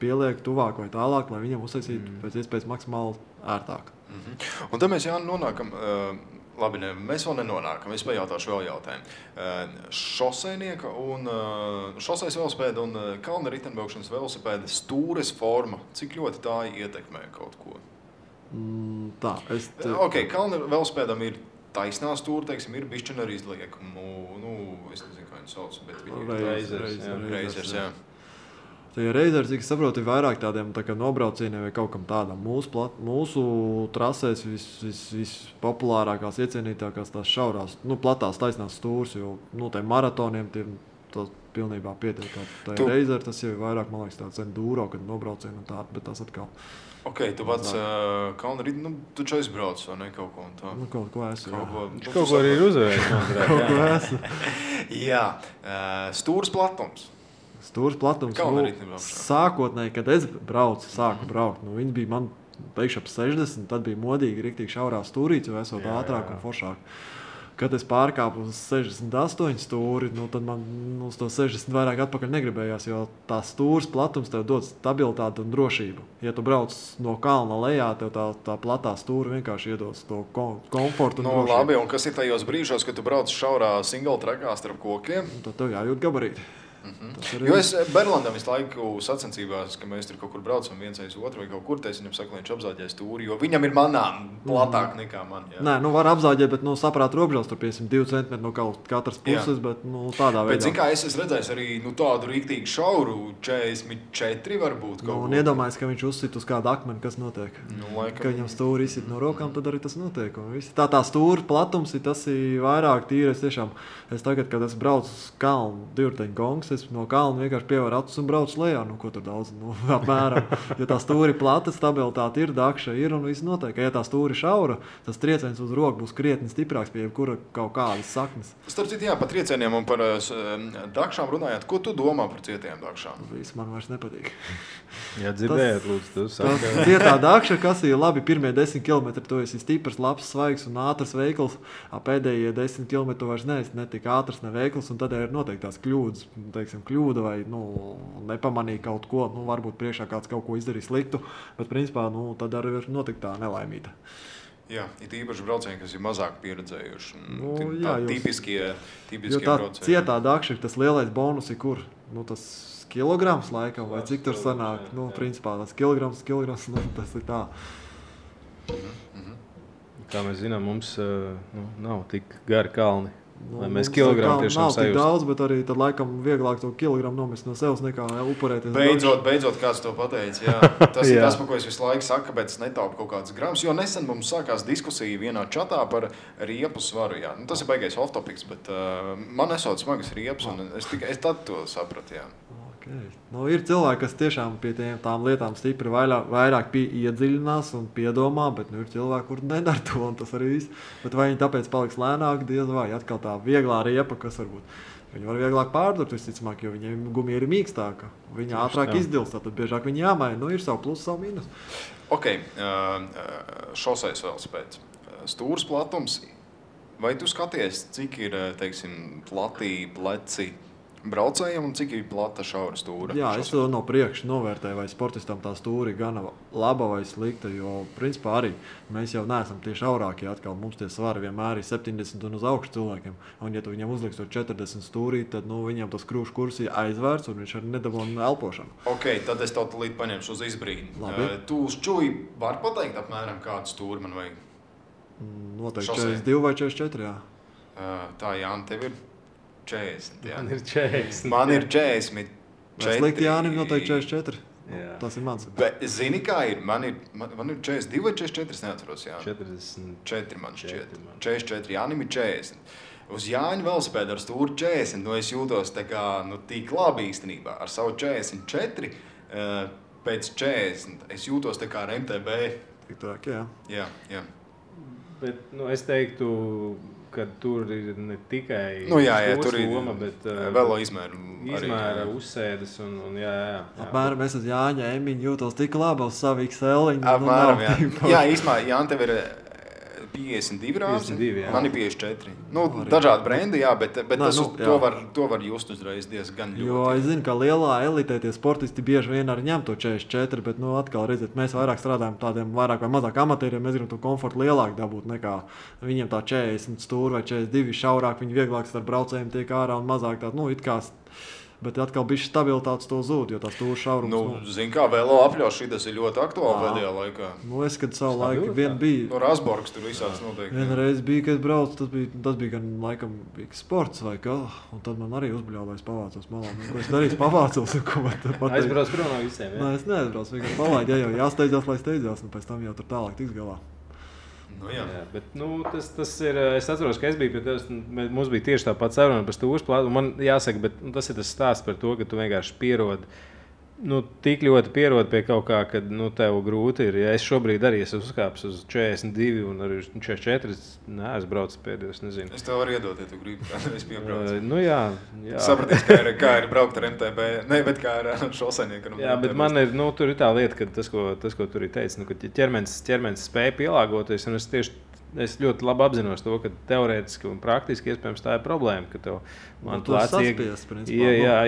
Pieliek tuvāk vai tālāk, lai viņam uztaisītu pēc iespējas maksimāli ērtāk. Un tad mēs nonākam, labi, mēs vēl nenonākam, es pajautāšu vēl jautājumu. Šosejnieka un šosejas velospēda un kalna riteņbraukšanas velosipēda stūres forma, cik ļoti tā ietekmē kaut ko? Kalna velospēdam ir taisnā stūra, teiksim, ir bišķina arī izliek. Es nezinu, kā viņu sauc, bet viņi ir reizers, jā. Tie reizeri, cik es saprotu, ir vairāk tādiem nobraucieniem vai kaut kam tādam. Mūsu trasēs vispopulārākās, iecienītākās tās šaurās, platās taisnās stūras, jo tiem maratoniem tas pilnībā pietiek. Tā reizeri tas jau ir vairāk, man liekas, tāds enduro, kad nobraucieni un tādi, bet tas atkal. Tu pats kalna rīti, tu čia izbrauc vai ne kaut ko un tā? Kaut ko esmu. Kaut ko arī ir uzvērts. Kaut ko esmu. Jā, stūras platums. Stūras platums. Sākotnēji, kad es sāku braukt, viņi bija man teikšu ap 60, tad bija modīgi riktīgi šaurā stūrīts, jo esot ātrāk un foršāk. Kad es pārkāpu uz 68 stūri, tad man uz to 60 vairāk atpakaļ negribējās, jo tā stūras platums tev dod stabilitāti un drošību. Ja tu brauc no kalna lejā, tev tā platā stūra vienkārši iedos to komfortu un drošību. Labi, un kas ir tajos brīžos, kad tu brauc šaurā single trackā starp kokiem? Tad tev jājūt gabarīti. Jo es Berlandam visu laiku sacensībās, ka mēs tur kaut kur braucam viens aiz otru vai kaut kur, es viņam saku, lai viņš apzāģēs tūri, jo viņam ir manām platāk nekā man. Jā. Nē, var apzāģēt, bet saprāt robežās tur 2 centimetri no katras puses, bet tādā veidā. Bet zin kā, es redzēju arī tādu rīktīgi šauru 44 varbūt kaut un iedomājies, ka viņš uzsit uz kādu akmeni, kas notiek. Laikam... Ka viņam stūri izsit no rokām, tad arī tas notiek. Tā stūra platums ir tas vairāk tīri. Es tagad, kad es braucu uz kalnu, divteņu gongs, es no kalna vienkārši pievaru acis un braucu lejā. Ko tur daudz? Apmēram. Jo tā stūri plata, stabilitāte ir, dakša ir un viss notiek. Ja tā stūri šaura, tas trieciens uz roku būs krietni stiprāks pie jebkura kaut kādas saknes. Starp citu, jā, par triecieniem un par dakšām runājot. Ko tu domā par cietiem dakšām? Viss man vairs nepatīk. Jā, dzirdējāt, lūdzu, cietā dakša, kas ir labi, pirmie 10 km, tu esi stiprs, labs, svaigs un ātrs veikls. Pēdējie 10 km vairs ne tik ātrs, ne veikls, un tad ir noteikti tās kļūdas, kļūda vai nepamanīja kaut ko, varbūt priekšā kāds kaut ko izdarīja sliktu, bet principā tad arī ir notikt tā nelaimīta. Jā, ir īpaši braucieni, kas ir mazāk pieredzējuši. Jā, tipiskie braucieni. Tā cietā dakša, tas lielais bonus ir kur? Tas kilograms laikam, vai cik tur sanāk? Principā tas kilograms, tas ir tā. Kā mēs zinām, mums nav tik gari kalni. Lai mēs kilogramu tiešām sajust. Nav tik daudz, bet arī tad laikam vieglāk to kilogramu nomest no sevis nekā upurēties. Beidzot kāds to pateica. Jā. Tas ir tas, par ko es visu laiku saku, kāpēc es netaupu kaut kādas gramus. Jo nesen mums sākās diskusija vienā čatā par riepu svaru. Jā. Tas ir baigais off-topics, bet man esot smagas riepas, un es tad to sapratu. Jā. Okay. Ir cilvēki, kas tiešām pie tām lietām stipri vairāk iedziļinās un piedomā, bet ir cilvēki, kur nedara to, un tas arī viss. Bet vai viņi tāpēc paliks lēnāk, diez vai atkal tā vieglā riepa, kas varbūt viņi var vieglāk pārdurt, visticamāk, jo viņiem gumija ir mīkstāka. Viņa ātrāk izdilst, tad biežāk viņi jāmaina. Ir savu plusu, savu mīnus. Ok, šoseis velospēds. Stūras platums. Vai tu skaties, cik ir, teiksim, platī, pleci braucējiem un cik ir plata šaura stūra? Jā, es to no priekša novērtēju, vai sportistam tā stūra ir gana laba vai slikta, jo principā arī mēs jau neesam tie šaurākie atkal. Mums tie svari vienmēr ir 70 un uz augšu cilvēkiem. Un ja tu viņam uzliks to 40 stūrī, tad viņam tas krūšu kurs ir aizvērts un viņš arī nedabūna elpošanu. Ok, tad es tev līdz paņemšu uz izbrīdi. Tu uz čuji var pateikt apmēram kādu stūri man vajag? Noteikti 42 vai 44, jā. Tā, Jāni, tev ir 40, jā. Man ir 40. Man ir 40. Slikti Jānim noteikti 44. Jā. Tas ir mans. Bet zini, kā ir? Man ir 42 vai 44, es neatceros, jā. 44 man šķiet. 44, Jānim ir 40. Uz Jāņa velospēda ar stūri 40, es jūtos tā kā, tik labi īstenībā. Ar savu 44, pēc 40, es jūtos tā kā ar MTB. Tik tāk, jā. Jā. Bet, es teiktu, ka tur ir ne tikai tur ir loma, bet velo izmēra uzsēdes un jā. Apmēram es uz Jāņa Emiņu jūtos tik labi uz savu XL-iņu. Apmēram, jā. Jā, īstenībā, Jāni, tev ir 52 rāzi, 52, jā. Man ir 54. Dažādi brendi, jā, bet to var just uzreiz diezgan ļoti. Jo es zinu, ka lielā elitē tie sportisti bieži vien arī ņem to 44, bet atkal redziet, mēs vairāk strādājam tādiem vairāk vai mazāk amatieriem, mēs gribam to komfortu lielāk dabūt nekā viņiem tā 40 stūri vai 42 šaurāk, viņi vieglāk starp braucējiem tiek ārā un mazāk tādu, it kā. Bet atkal bišķi stabilitātes to zūd, jo tā stūra šaurums. Zini kā, velo apļauš šitas ir ļoti aktuāli pēdējā laikā. Es, kad savu laiku vien bija... Rasborgs tur visāds noteikti. Vienreiz bija, kad braucu, tas bija gan laikam sports vai kā, un tad man arī uzbļāvā, es pavācos malā. Ko es darīju, pavācos, un ko man te pateikt. Aizbrauc prom no visiem, jā? Nē, es neaizbraucu, vienkārši palaid, ja jau jāsteidzās, lai steidzās, un pēc tam jau tur tālāk tiks galā. Jā, bet tas ir, es atceros, ka es biju pie tevis, mums bija tieši tāpat saruna par stūras plātu, un man jāsaka, bet tas ir tas stāsts par to, ka tu vienkārši pierodi, tik ļoti pierodi pie kaut kā, kad, tev grūti ir. Ja es šobrīd arī esmu uzkāpis uz 42 un arī 44, es braucu pēdējos, nezinu. Es tev varu iedot, ja tu gribi, es piebraucu. Jā. Sapratīs, kā ir braukt ar MTB, bet kā ar šosenieku. Jā, bet man ir, tur ir tā lieta, ka tas, ko tur ir teicis, ka ķermenis spēja pielāgoties, un es ļoti labi apzinos to, ka teorētiski un praktiski iespējams tā ir problēma, ka tev plēci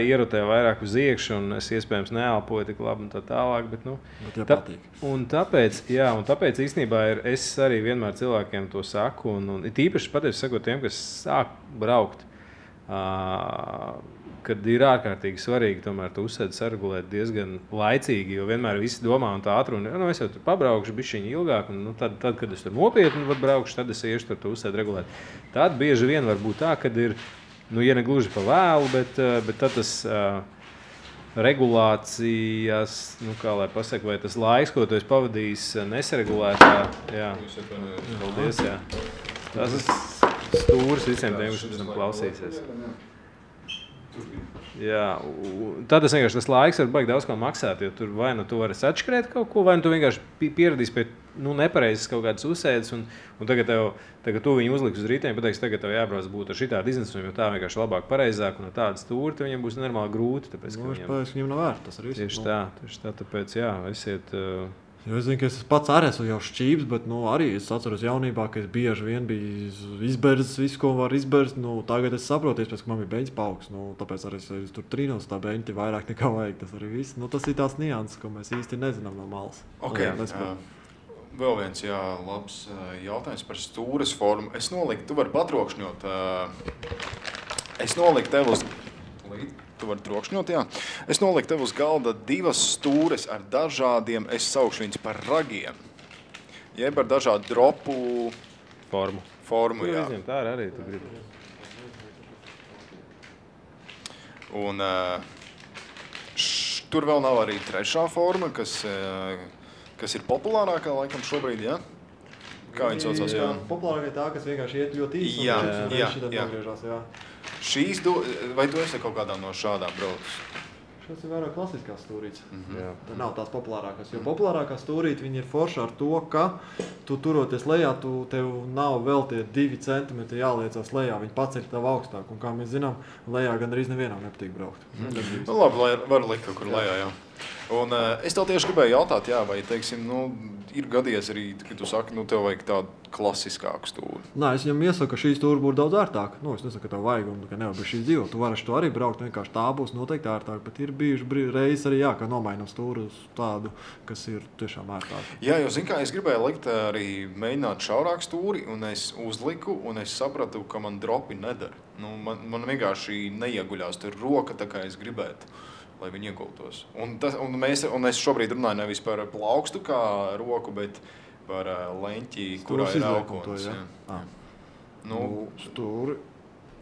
ierotē vairāk uz iekšu un es iespējams neelpoju tik labi un tā tālāk, bet tāpēc īstenībā es arī vienmēr cilvēkiem to saku un it īpaši pateicu sakot tiem, kas sāk braukt, kad ir ārkārtīgi svarīgi tomēr to uzsēdi saregulēt diezgan laicīgi, jo vienmēr visi domā un tā atruna, es jau tur pabraukšu bišķiņi ilgāk, un tad, kad es tur nopietni braukšu, tad es iešu tur to uzsēdi regulēt. Tad bieži vien var būt tā, kad ir, ja ne gluži pa vēlu, bet tad tas regulācijas, kā lai pasaka, vai tas laiks, ko tu esi pavadījis nesaregulētā, jā, paldies, jā. Tas ir stūris visiem tiem, kas pēc tam klausīsies. Jā, tad vienkārši tas laiks var baigi daudz ko maksāt, jo tur vai tu vari atškrēt kaut ko, vai tu vienkārši pieradīsi pie nepareizes kaut kādas uzsēdes, un tagad tu viņu uzliks uz rītiem, pateiks, tagad tev jābrauc būt ar šitādu iznesumu, jo tā vienkārši labāk pareizāk, un ar tādu stūri, viņam būs normāli grūti, tāpēc, ka viņam nav vērt, tas ir viss. Tieši tā, tāpēc, jā, esiet... Jo es zinu, ka es pats arī esmu jau šķības, bet arī es atceros jaunībā, ka es bieži vien biju izberzis visu, ko var izberzt. Tagad es saprotu, ka man bija beņķis paaugs, tāpēc arī es tur trīnos tā beņķi vairāk nekā vajag. Tas arī viss. Tas ir tās nianses, ko mēs īsti nezinām no malas. Okay. Vēl viens labs jautājums par stūres formu. Es noliku, tu vari patrokšņot. Es noliku tev uz... Tu vari trokšņot, jā. Es noliku tev uz galda 2 stūres ar dažādiem, es saukšu viņus par ragiem. Jeb ar dažādu dropu formu, jā. Tā arī tu gribi. Un tur vēl nav arī trešā forma, kas ir populārākā laikam šobrīd, jā? Kā viņi saucās, jā? Populārākā tā, kas vienkārši iet ļoti īsi. Jā. Vai tu esi kaut kādā no šādām braucis? Šis ir vairāk klasiskās stūrītes. Tā nav tās populārākās. Jo populārākā stūrīte viņi ir forša ar to, ka tu turoties lejā, tev nav vēl tie 2 centimetri jāliecās lejā. Viņi paceļ tev augstāk. Un kā mēs zinām, lejā gan arī nevienam nepatīk braukt. Labi, var likt kaut kur lejā, jā. Un es tev tieši gribēju jautāt, vai, teiksim, ir gadījies arī, ka tu saki, tev vajag tādu klasiskāku stūri. Nē, es viņam iesaku, ka šī stūri būtu daudz ērtāka. Es nesaku, ka tev vajag un ka nevar bez šīs dzīvot. Tu vari to arī braukt, vienkārši tā būs noteikti ērtāk, bet ir bijuši reizes arī, ka nomainam stūri uz tādu, kas ir tiešām ērtāk. Jā, jo, zin kā, es gribēju likt arī mēģināt šaurāk stūri, un es uzliku, un es sapratu, ka man dropi nedara. Man vienkārši neieguļās tur roka, tā kā es gribētu, lai viņi iegultos. Un es šobrīd runāju nevis par plaukstu kā roku, bet par leņķi, kurā ir aukonis. Stūri,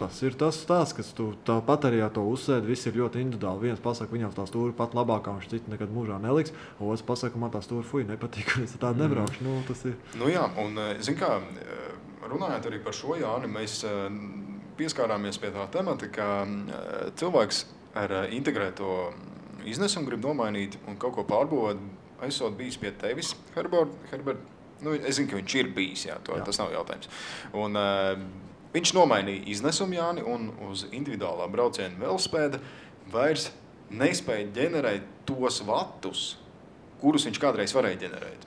tas ir tas stāsts, kas tu tāpat arī to uzsēdi, viss ir ļoti individuāli. Viens pasaka, viņam tā stūri pat labākā, viņš citu nekad mūžā neliks, otrs pasaka, man tā stūri nepatīk, un es tādu nebraukšu. Tas ir. Jā, un zin kā, runājot arī par šo, Jāni, mēs pieskārāmies pie tā temata, ka cilvēks ar integrēto iznesumu grib nomainīt un kaut ko pārbūvēt. Esot bijis pie tevis, Herbert. Es zinu, ka viņš ir bijis, tas nav jautājums. Un viņš nomainīja iznesumu, Jāni, un uz individuālā brauciena velospēda vairs nespēja ģenerēt tos vatus, kurus viņš kādreiz varēja ģenerēt.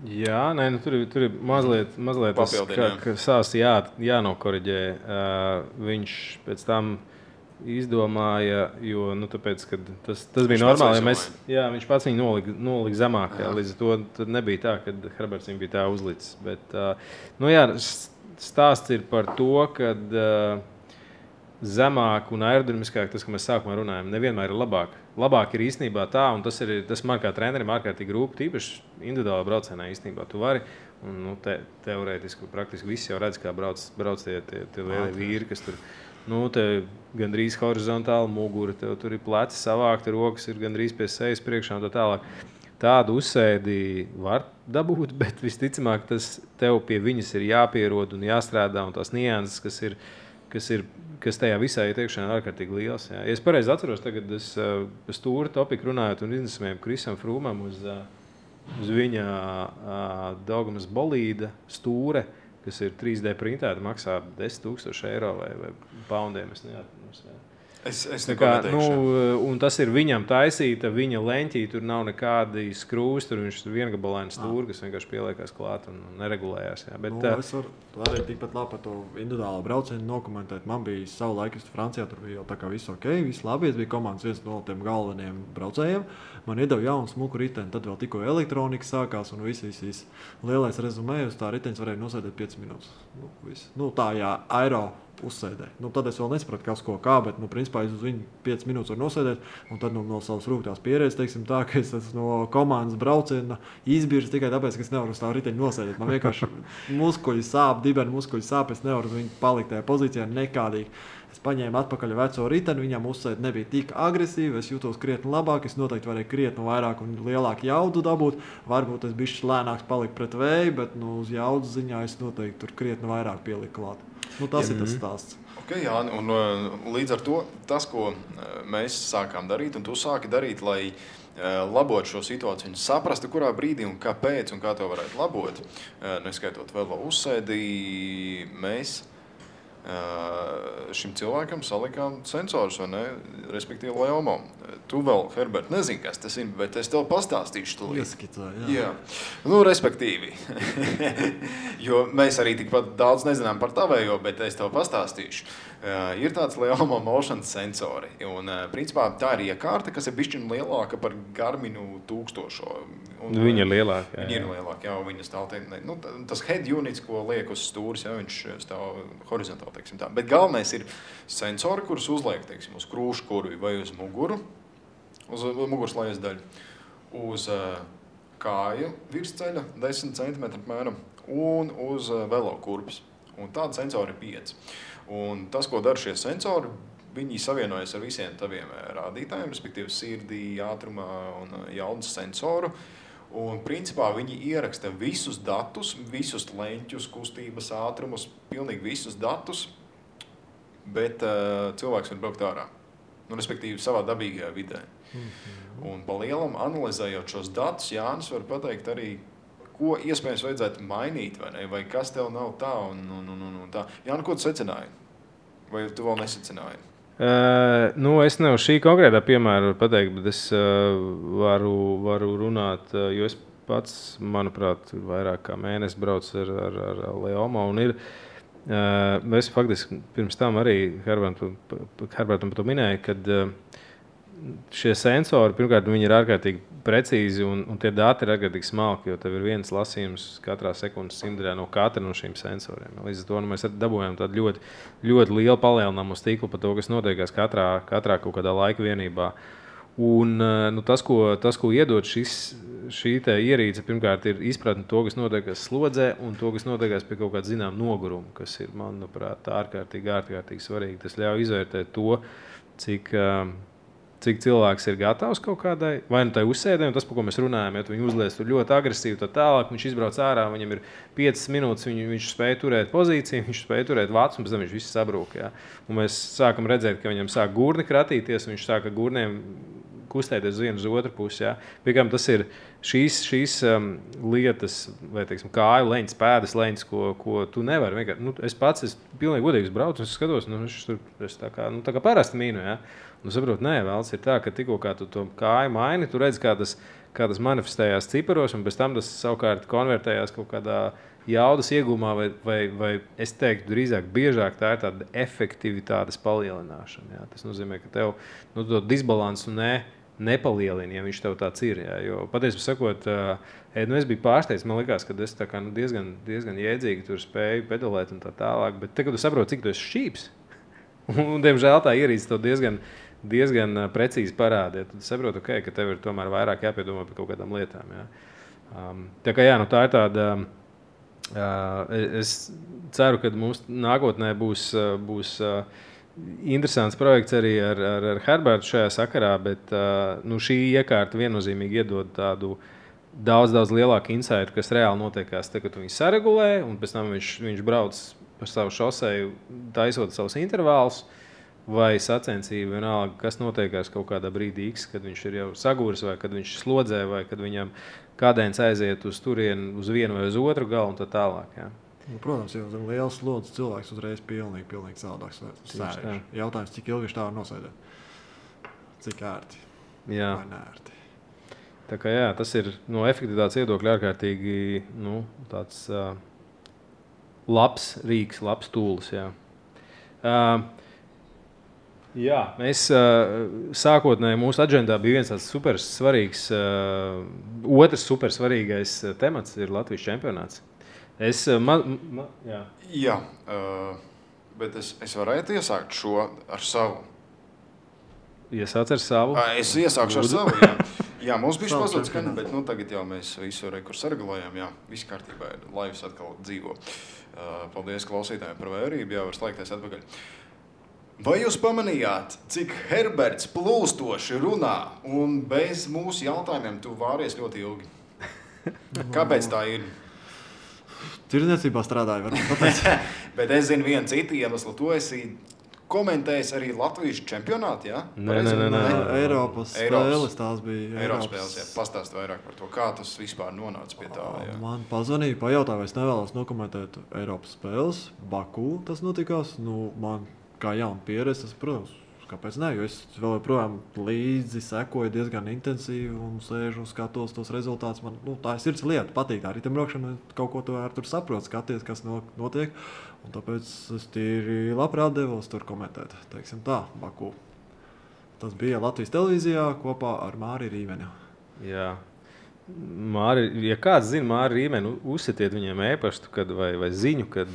Jā, tur ir mazliet tas jānokoriģē. Viņš pēc tam izdomāja, jo tāpēc, ka tas bija normāli, viņš pats viņu nolika zemāk, līdz ar to tad nebija tā, ka Herberts viņu bija tā uzlicis. Bet, stāsts ir par to, ka zemāk un aerodinamiskāk, tas, ka mēs sākumā runājam, nevienmēr ir labāk. Labāk ir īstenībā tā, un tas man kā trenerim ārkārtīgi rūp, tīpaši individuālā braucienā īstenībā tu vari, un teorētiski, praktiski visi jau redz, kā brauc tie lielie vīri, kas tur, te gandrīz horizontāli mugura, tev tur ir pleci savākti, rokas ir gandrīz pie sejas priekšā un tā tālāk. Tādu uzsēdi var dabūt, bet visticamāk, tas tev pie viņas ir jāpierod un jāstrādā, un tās nianses, kas tajā visā ieteikšanā ir ārkārtīgi liels. Jā. Ja es pareizi atceros, tagad es stūri topiku runājot un iznesamiem Krisam Frūmam uz viņa Daugamas bolīda stūre, kas ir 3D printēta, maksā 10 000 eiro vai poundiem. Es neko neteikšu. Un tas ir viņam taisīta, viņa leņķī, tur nav nekādi skrūs, tur viņš ir viengabalaini stūri, kas vienkārši pieliekās klāt un neregulējās. Jā. Bet, es varu arī tikpat labi par to individuālo braucienu nokomentēt. Man bija savu laiku Francijā, tur bija jau tā kā viss ok, viss labi, es biju komandas viens no tiem galvenajiem braucējiem. Man iedeva jaunu smuku riteni, tad vēl tikko elektronika sākās un viss. Lielais rezumē uz tā riteņas varēja nosēdēt 5 minūtes. Tā, jā, uzsēdēju. Tad es vēl nesapratu, kas ko kā, bet, principā, es uz viņu 5 minūtes varu nosēdēt, un tad no savas rūgtās pieredzes, teiksim tā, ka es esmu no komandas brauciena izbirs tikai tāpēc, ka es nevaru uz tā riteņu nosēdēt. Man vienkārši muskuļi sāp, dibeni muskuļi sāp, es nevaru viņu palikt tajā pozīcijā nekādīgi. Es paņēmu atpakaļ veco riteni, viņam uzsēd nebija tik agresīvi, es jūtos krietni labāk, es noteikti varēju krietni vairāk un lielāku jaudu dabūt. Varbūt es bišķi lēnāks paliku pret vēju, bet uz jaudas ziņā es noteikti tur krietni vairāk pieliku klāt. Tas ir tas stāsts. Okay, jā, un līdz ar to tas, ko mēs sākām darīt, un tu sāki darīt, lai labot šo situāciju un saprastu, kurā brīdī un kāpēc un kā to varētu labot, neskaitot vēl uzsēdī, mēs šim cilvēkam salikām sensorus, vai ne? Respektīvi Leomo. Tu vēl, Herbert, nezini, kas tas ir, bet es tev pastāstīšu tūlīt. Ieskicā, jā. Respektīvi. Jo mēs arī tikpat daudz nezinām par tavējo, bet es tev pastāstīšu. Ir tāds Leomo motion sensori. Un, principā, tā ir iekārta, kas ir bišķiņ lielāka par Garminu 1000. Viņa ir lielāka. Viņa ir lielāka, jā, viņa stāv tas head units, ko liek uz stūris, jā, viņš stāv horizontāli, teiksim tā. Bet galvenais ir sensori, kurus uzliek, teiksim, uz krūškurvi vai uz muguru, uz muguras lejas daļu, uz kāju virsceļa 10 cm apmēram un uz velo kurpes. Un tāda sensori ir 5. Un tas, ko dara šie sensori, viņi savienojas ar visiem taviem rādītājiem, respektīvi sirdī, ātrumā un jaudas sensoru. Un principā viņi ieraksta visus datus, visus leņķus, kustības ātrumus, pilnīgi visus datus, bet cilvēks var braukt ārā. Respektīvi savā dabīgajā vidē. Un pa lielam analizējot šos datus, Jānis var pateikt arī, ko iespējams vajadzētu mainīt, vai ne? Vai kas tev nav tā un tā. Jāni, ko tu secināji? Vai tu vēl nesecināji? Es nevaru šī konkrētā piemēra pateikt, bet es varu runāt, jo es pats, manuprāt, vairāk kā mēnesi braucu ar Leomo un ir. Es faktiski pirms tam arī Herbertam to minēju, kad šie sensori, pirmkārt, viņi ir ārkārtīgi precīzi un tie dati ir ārkārtīgi smalki, jo tev ir viens lasījums katrā sekundes simtdaļā no katra no šīm sensoriem. Līdz ar to mēs dabūjām tādu ļoti, ļoti lielu palielinājumu uz tīklu par to, kas notiekās katrā kaut kādā laika vienībā. Un tas, ko iedod šī ierīce, pirmkārt, ir izpratne to, kas notiekās slodzē un to, kas notiekās pie kaut kāda zinām noguruma, kas ir, manuprāt, ārkārtīgi svarīgi. Tas ļauj izvērtēt to, cik cilvēks ir gatavs kaut kādai, vai nu tai uzsēdē, un tas, par ko mēs runājam, ja viņi uzlies tur ļoti agresīvi, tad tālāk viņš izbrauc ārā, viņam ir 5 minūtes, viņš spēja turēt pozīciju, viņš spēja turēt vācu, un pēc tam viņš viss sabrūk. Ja? Un mēs sākam redzēt, ka viņam sāk gurni kratīties, un viņš sāk ar gurniem kustēties uz vienu uz otru pusi. Ja? Piekām tas ir šīs lietas, vai teiksim, kāju leņķis, pēdas leņķis, ko tu nevari vienkārši. Es pats pilnīgi godīgi braucu, un es skatos, es tā kā parasti mīnu. Ja? Saprot, nē, vēls ir tā, ka tikko kā tu to kāju maini, tu redzi, kā tas manifestējās ciparos, un pēc tam tas savukārt konvertējās kaut kādā jaudas iegūmā, vai es teiktu, drīzāk biežāk tā ir tāda efektivitātes palielināšana. Jā. Tas nozīmē, ka tev to disbalansu nepalielina, ja viņš tev tāds ir. Jā. Jo patiesībā sakot, es biju pārsteigts, man likās, ka es tā kā, diezgan jēdzīgi tur spēju pedalēt un tā tālāk, bet te, kad tu saproti, cik tu esi šķīps, un, diemžēl, tā ierīce tev diezgan precīzi parāda. Tad saprotu, ka tev ir tomēr vairāk jāpiedomā par kaut kādām lietām. Jā. Tā kā tā ir tāda. Es ceru, ka mums nākotnē būs interesants projekts arī ar Herbertu šajā sakarā, bet šī iekārta viennozīmīgi iedod tādu daudz lielāku insightu, kas reāli notiekās, kad viņi saregulē, un pēc tam viņš brauc par savu šoseju, taisot savus intervālus, vai sacensību, vienalga, kas notiekās kaut kādā brīdī X, kad viņš ir jau sagūris, vai kad viņš slodzē, vai kad viņam kādēns aiziet uz turienu, uz vienu vai uz otru galu un tā tālāk. Jā. Protams, jau zem liels slodzes cilvēks uzreiz pilnīgi savādāks sēž. Jautājums, cik ilgi viņš tā var nosēdēt? Cik ērti? Jā. Vai neērti? Tā kā tas ir no efektivitātes viedokļa ārkārtīgi tāds labs rīks, labs tūlis. Jā. Jā, mēs sākotnēji mūsu aģendā bija viens tāds supersvarīgs, otrs supersvarīgais temats ir Latvijas čempionāts. Bet es varētu iesākt šo ar savu. Iesāc ar savu. Es iesākšu ar savu, jā. Jā, mums bija pazūd skaņa, bet tagad jau mēs visu kur sargulējam. Jā, viss kārtībā ir. Laivs atkal dzīvo. Paldies klausītājiem par vērību. Jā, var slēgties atpakaļ. Vai jūs pamanījāt, cik Herberts plūstoši runā un bez mūsu jautājumiem tu vāries ļoti ilgi? Kāpēc tā ir? Tirdzniecībā strādāju, varbūt tāpēc. Bet es zinu vienu citu iemeslu. Tu esi komentējis arī Latvijas čempionātu, jā? Nē. Eiropas spēles tās bija. Eiropas spēles, jā. Pastāst vairāk par to, kā tas vispār nonāca pie tā, jā. Man pazvanīja, pajautāja, vai es nevēlos nokomentēt Eiropas spēles. Baku tas notikās. Man kā jauna pieredze, tas, protams, kāpēc ne? Jo es vēl joprojām līdzi sekoju diezgan intensīvi un sēžu un skatos tos rezultātus. Man tā ir sirds lieta, patīk tā riteņbraukšana, kaut ko tur saprot, skaties, kas notiek. Un tāpēc es tīri labprāt devos tur komentēt, teiksim tā, Baku. Tas bija Latvijas televīzijā kopā ar Māri Rīmeni. Jā. Māri, ja kāds zina Māri Rīmeni, uzsitiet viņiem e-pastu vai ziņu, kad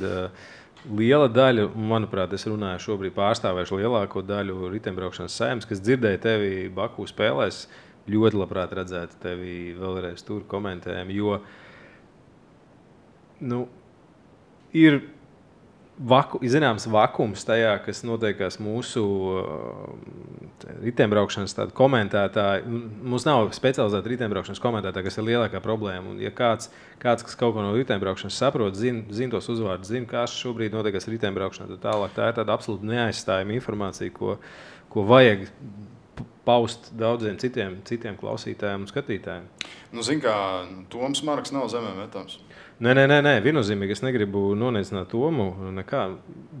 liela daļa, manuprāt, es runāju šobrīd pārstāvēšu lielāko daļu riteņbraukšanas saimnes, kas dzirdēja tevi Baku spēlēs, ļoti labprāt redzētu tevi vēlreiz tur komentējumu, jo ir zināms vakums tajā, kas notiekās mūsu riteņbraukšanas komentētāji. Mums nav specializēta riteņbraukšanas komentētāja, kas ir lielākā problēma. Un, ja kāds, kas kaut ko no riteņbraukšanas saprot, zina tos uzvārdus, zina, kas šobrīd notiekās riteņbraukšanā, tad tālāk tā ir tāda absolūti neaizstājama informācija, ko vajag paust daudziem citiem klausītājiem un skatītājiem. Zin kā, Toms Marks nav zemē metams. Nē, viennozīmīgi es negribu noneicināt Tomu. Nekā.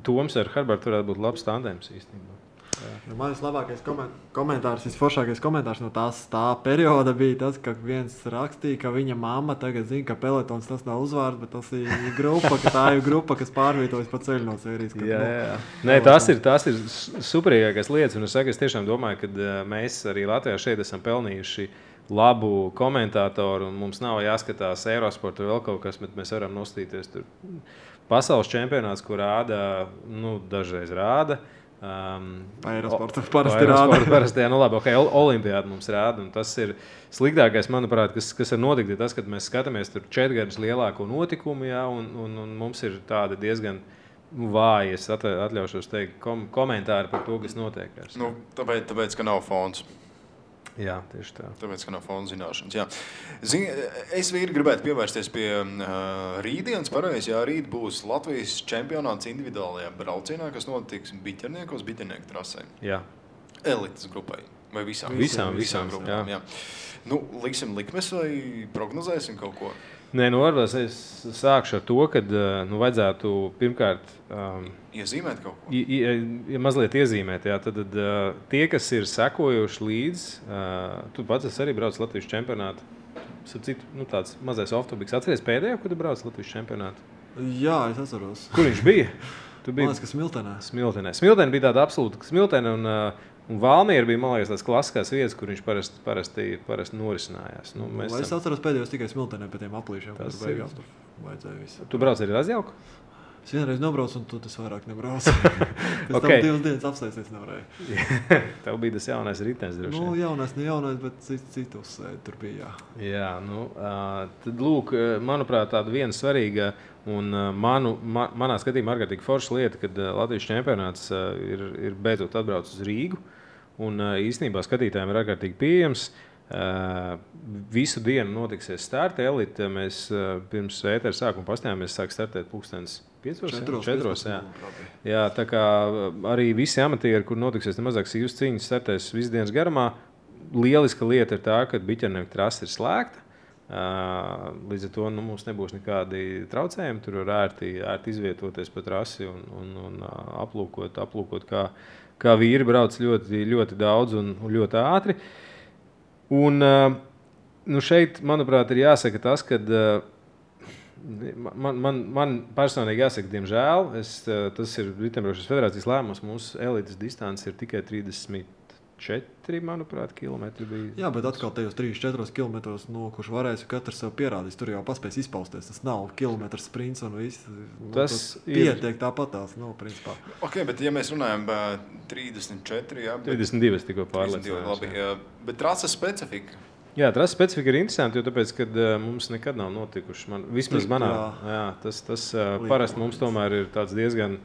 Toms ar Herbertu varētu būt labs tandēms īstenībā. Mans labākais komentārs, visforšākais komentārs no tā perioda bija tas, ka viens rakstīja, ka viņa mamma tagad zina, ka peletons tas nav uzvārds, bet tas ir grupa, ka tā ir grupa, kas pārvietojas pa ceļu no sērijas. Jā. Nē, tās ir superīgākās lietas, un es tiešām domāju, ka mēs arī Latvijā šeit esam pelnījuši labu komentātoru, un mums nav jāskatās Eurosportu vai vēl kaut kas, bet mēs varam nostīties tur pasaules čempionāts, kur rāda, dažreiz rāda. Aerosportu parasti rāda. Parasti, labi, Olimpiāda mums rāda, un tas ir sliktākais, manuprāt, kas ir notikt, ir tas, kad mēs skatāmies tur 4 gadus lielāko notikumu, jā, un mums ir tāda diezgan vāji, es atļaušos teikt, komentāri par to, kas notiek. Tāpēc, ka nav fons. Jā, tieši tā. Tāpēc, ka nav fonda zināšanas. Jā. Es gribētu pievērsties pie rītdienas. Pareizi, jā, rīt būs Latvijas čempionāts individuālajā braucienā, kas notiks biķernieku trasē. Jā. Elites grupai. Vai visām grupām. Jā. Liksim likmes vai prognozēsim kaut ko? Nē, varbūt es sākšu ar to, ka vajadzētu pirmkārt iezīmēt kaut ko. Mazliet iezīmēt, jā. Tad tie, kas ir sekojuši līdz, tu pats arī brauc Latvijas čempionātu. Tāds mazais off-topics. Atceries pēdējo, kad tu brauc Latvijas čempionātu? Jā, es atceros. Kur viņš bija? Man liekas, ka Smiltenē. Smiltenē bija tāda absolūta Smiltene un Valmiera bija, man liekas, tās klasiskās vietas, kur viņš parasti norisinājās. Es atceros pēdējos tikai Smiltenē pie tiem aplīšiem, kur beigās tur vajadzēja visu. Tu brauc arī Razjauku? Es vienreiz nobraucu, un tu tas vairāk nebraucu. Pēc tam 2 dienas apsēsties nevarēju. Tev bija tas jaunais ritenis, droši vien. Jaunais, bet citu uzsēdi tur bija, jā. Tad lūk, manuprāt, tāda viena svarīga un manā skatījumā ārkārtīgi forša lieta, kad Latvijas čempionāts ir beidzot atbraucis uz Rīgu, un īstenībā skatītājiem ir ārkārtīgi pieejams. Visu dienu notiksies starta elite. Mēs pirms ētera sākuma pastājāmies, sāk startēt 4:00. Jā, tā kā arī visi amatieri, kur notiksies nemazāk sīvas cīņas, startēs visu dienas garumā. Lieliska lieta ir tā, ka biķernieku trase ir slēgta. Līdz ar to mums nebūs nekādi traucējumi. Tur var ērti izvietoties pa trasi un aplūkot kā vīri brauc ļoti, ļoti daudz un ļoti ātri. Un šeit, manuprāt, ir jāsaka tas, ka man personīgi jāsaka, diemžēl, tas ir Riteņbraukšanas federācijas lēmums, mūsu elites distance ir tikai 34 4, manuprāt, kilometri bija. Jā, bet atkal tajos 3-4 kilometros, kurš varēs, katrs sev pierādīs, tur jau paspēs izpausties. Tas nav kilometrs sprints un viss. Tas pietiek tāpatās, principā. Ok, bet ja mēs runājam 34, jā. 32 tikko pārliecinājās. Labi, bet trases specifika. Jā, trases specifika ir interesanti, jo tāpēc, kad mums nekad nav notikuši. Vismaz manā, tas parasti mums tomēr ir tāds diezgan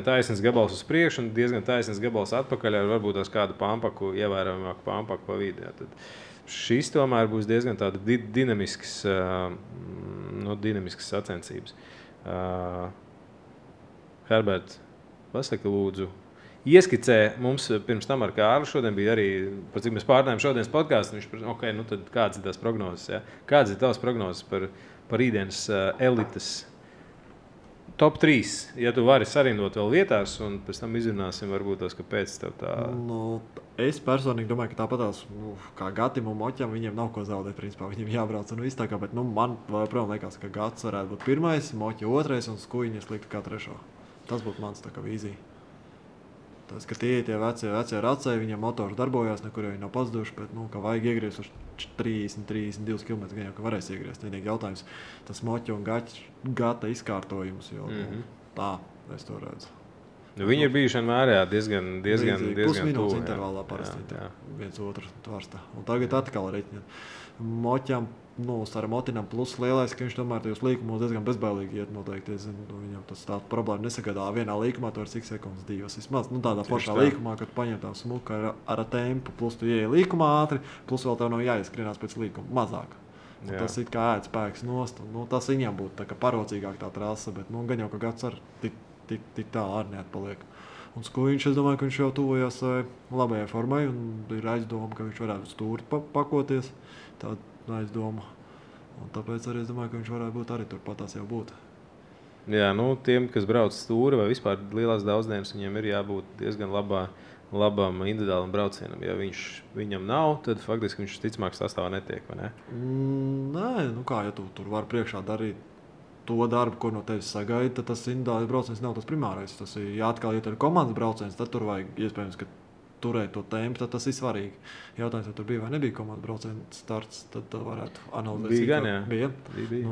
taisns gabals uz priekšu un diezgan taisns gabals atpakaļ ar varbūt tās kādu pampaku, ievērojamāku pampaku pa vidi. Tad šis tomēr būs diezgan tāda dinamisks sacensības. Herbert, pasaki lūdzu, ieskicē mums pirms tam ar Kārli šodien bija arī, par cik mēs pārnājām šodienas podcastu, viņš ok, tad kādas ir tās prognozes, ja? Kādas ir tavas prognozes par rītdienas elites top 3, ja tu vari sarindot vēl vietās, un pēc tam izrunāsim varbūt tos, kāpēc tev tā... Es personīgi domāju, ka tāpatās, kā Gatim un Moķam, viņiem nav ko zaudēt, principā, viņiem jābrauc un viss tā kā, bet, man joprojām liekas, ka Gats varētu būt pirmais, Moķa otrais un Skujiņas likt kā trešo. Tas būtu mans tā kā vīzija. Tas, ka tie vecie racēji, viņiem motors darbojās, nekur jau viņi nav pazuduši, bet, ka vajag iegriezt uz 30-32 km, gan jau, ka varēs iegriezt. Vienīgi jautājums, tas Moķa un Gata izkārtojums, jo tā es to redzu. Viņi ir bijuši vienmēr diezgan pusminūtes intervālā parasti viens otru tvarsta. Un tagad atkal reķiņa. Moķam, ar Motinam plus lielais, ka viņš tomēr tajos līkumos diezgan bezbailīgi iet noteikti. Viņam tas tā problēma nesagadā. Vienā līkumā tu var cik sekundes, 2 vismaz. Tādā foršā līkumā, kad paņem tā smuka ar tempu, plus tu ieej līkumā ātri, plus vēl tev nav jāieskrienās pēc līkuma mazāk. Tas ir kā ēd spēks nost. Tas viņam būtu tā kā parocīgāk tā trasa, bet gan jau, ka Gats ar tik tā arī neatpaliek. Un Skujiņš, es domāju, ka viņš jau tuvojās labajai formai un ir aizdoma, ka viņš varētu stūri pakoties. Tāda aizdoma. Un tāpēc arī es domāju, ka viņš varētu būt arī turpatās jau būt. Jā, tiem, kas brauc stūri vai vispār lielās daudzdienas, viņiem ir jābūt diezgan labam individuālam braucienam. Ja viņam nav, tad faktiski viņš ticamāk sastāvā netiek, vai ne? Nē, ja tu tur var priekšā darīt to darbu, ko no tevis sagaida, tad tas individuālais brauciens nav tas primārais. Tas ir atkal, ja tur ir komandas brauciens, tad tur vajag iespējams, ka turēt to tempu, tad tas ir svarīgi. Jautājums, vai tur bija vai nebija komandas brauciens starts, tad varētu analizēt. Bija gan, jā. Bija.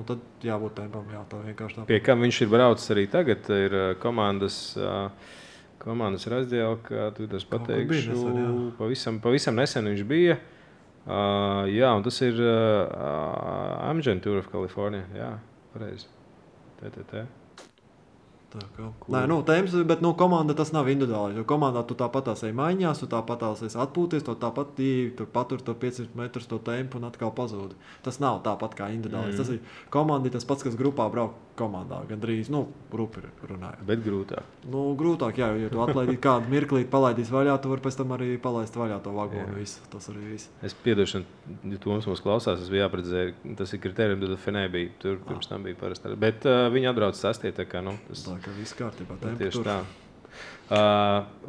Tad jābūt tempam, tā vienkārši tā. Pie kam viņš ir braucis arī tagad, ir komandas razdielka, tu tas pateikšu, pavisam nesen viņš bija. Jā, un tas ir Amgen Tour of California, jā, pareizi. Tēmas, bet komanda tas nav individuāli, jo komandā tu tāpatās ej maiņās, tu tāpatās ej atpūties, tu tāpat tur patur to 500 metrus to tempu un atkal pazūdi. Tas nav tāpat kā individuāli. Tas ir komandi tas pats, kas grupā brauk komandā, gandrīz, rupi runājot. Bet grūtāk. Grūtāk, jā, jo tu atlaidīt kādu mirklīt, palaidīs vaļā, tu var pēc tam arī palaist vaļā to vagonu, visu. Tas arī viss. Es piedošanu, ja Toms mūs klausās, es biju jāpredzēju, tas ir kriterijum, tad Fenē bija, tur pirms tam bija parasti. Bet viņi atbrauc sastie, tā kā, tas... Tā kā viss kārtībā, tieši tā.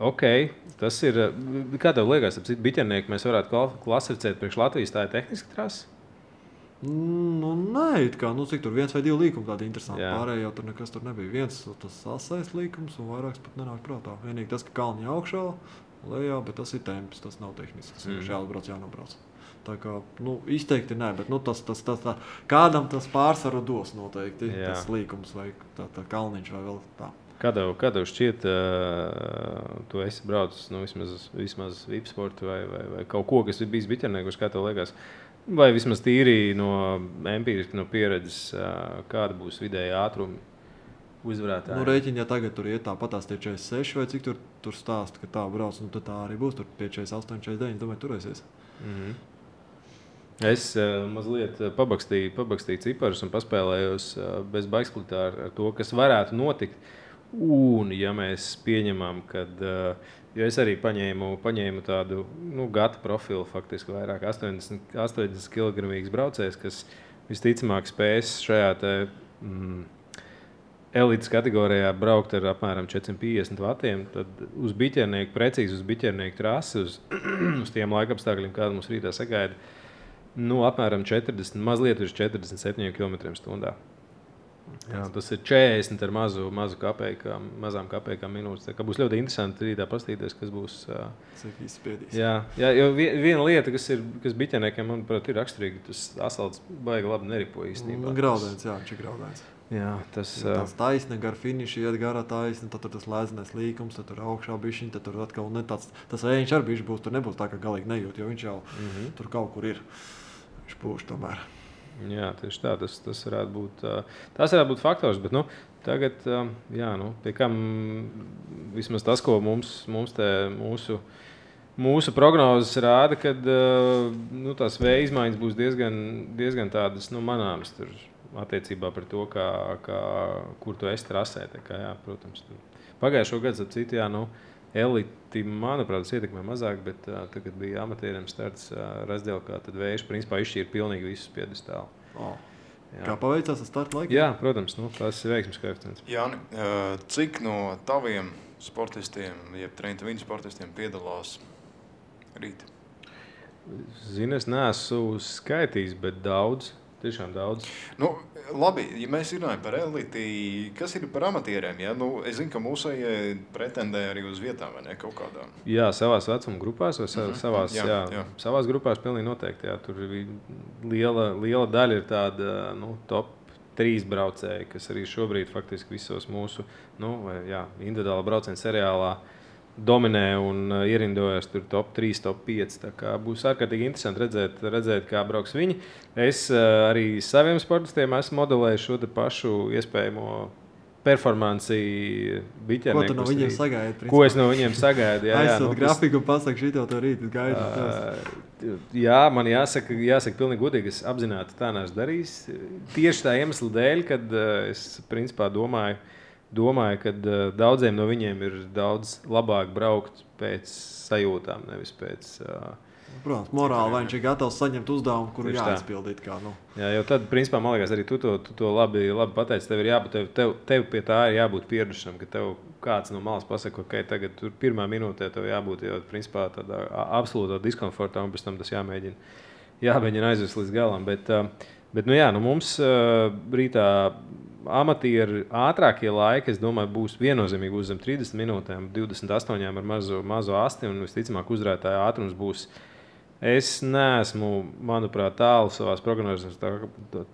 Ok, tas ir, kā tev liekas, biķernieki mēs varētu klasificēt priekš Latvijas, tā ir tehniska trasa? Nē, cik tur 1 vai 2 līkumi tādi interesanti. Pārējie jau tur nekas tur nebija. Viens tas asais līkums un vairāks pat nenāk prātā. Vienīgi tas, ka kalni augšā, lejā, bet tas ir temps, tas nav tehnisks. Tas ir jāatbrauc, jānobrauc. Tā kā, izteikti nē, bet tā, kādam tas pārsvaru dos noteikti. Jā. Tas līkums vai tā kalniņš vai vēl tā. Kā tev šķiet, tu esi braucis vismaz VIP sportu vai kaut ko, kas ir bijis biķerniekus, kā tev liekas? Vai vismaz tīri no empiriski, no pieredzes, kāda būs vidēja ātrumi uzvarētāji? Rēķini, ja tagad tur iet tāpatās tie 46 vai cik tur stāst, ka tā brauc, tad tā arī būs tur pie 48, 49, domāju, turēsies. Es mazliet pabakstīju ciparus un paspēlējos bez baigsplitā ar to, kas varētu notikt. Un, ja mēs pieņemam, kad, jo es arī paņēmu tādu gata profilu, faktiski vairāk 80 kg braucējs, kas visticamāk spēs šajā elites kategorijā braukt ar apmēram 450 vatiem, tad precīzi uz biķernieku trasi, uz tiem laikapstākļiem, kāda mums rītā sagaida, mazliet uz 47 km/h. Jā, tas ir 40 ar mazām kapēkām minūtes. Tā kā būs ļoti interesanti rītā paskatīties, kas būs. Cik izspiedīs. Jā, jo viena lieta, kas biķeniekiem, manuprāt, ir raksturīga, tas asfalts baigi labi neripo īstenībā. Graudēns, jā, viņš ir graudēns. Jā, tas taisne gar finišu, iet garā taisne, tad tur tas lēzenais līkums, tad tur augšā bišķiņ, tad tur atkal tas vējiņš arī bišķi būs, tur nebūs tā, ka galīgi nejūt, jo viņš jau tur kaut kur ir. Viņš pūš tomēr. Jā, tieši tā, tas varētu būt faktors, bet tagad, pie kam vismaz tas, ko mūsu prognozes rāda, kad tās vēja izmaiņas būs diezgan tādas manāmas tur attiecībā par to, kur tu esi trasē. Protams, pagājušo gadu, ap citu, eliti, manuprāt, tas ietekmē mazāk, bet tagad bija amatieriem starts Razdielkā, tad vējš principā izšķīra pilnīgi visus piedestālu. Kā paveicās ar starta laiku? Jā, protams, tas ir veiksmes koeficients. Jāni, cik no taviem sportistiem, jeb Trenta Viņu sportistiem piedalās rīt? Zini, es neesmu skaitījis, bet daudz. Tiešām daudz. Labi, ja mēs runājam par eliti, kas ir par amatieriem? Ja? Es zinu, ka mūsējie pretendē arī uz vietām, vai ne, kaut kādām? Jā, savās vecuma grupās, vai savās grupās pilnīgi noteikti. Jā. Tur liela daļa ir tāda top 3 braucēji, kas arī šobrīd faktiski visos mūsu individuāla brauciena seriālā dominē un ierindojas tur top 3, top 5. Tā kā būs ārkārtīgi interesanti redzēt, kā brauks viņi. Es arī saviem sportistiem esmu modelējis šo pašu iespējamo performanci biķernieku. Ko tu no viņiem sagaidi? Ko es no viņiem sagaidu? Aizsūt grafiku un pasaka, šito to rīt gaidu. Jā, man jāsaka pilnīgi godīgi, es apzināti tā neesmu darījis. Tieši tā iemesla dēļ, kad es principā domāju, ka daudziem no viņiem ir daudz labāk braukt pēc sajūtām, nevis pēc... Protams, morāli, vai viņš ir gatavs saņemt uzdevumu, kuru jāizpildīt. Jā, jo tad, principā, man liekas, arī tu to labi pateici. Tev pie tā ir jābūt pieradušam, ka tev kāds no malas pasaka, ka tagad tur pirmā minūtē tev jābūt jau, principā, tādā absolūtā diskomfortā, un pēc tam tas jāmēģina aizvest līdz galam. Bet mums rītā amatieri ātrākie laiki, es domāju, būs viennozīmīgi uz zem 30 minūtēm, 28 ar mazo asti, un visticamāk uzvarētāja ātrums būs. Es neesmu, manuprāt, tālu savās prognozēs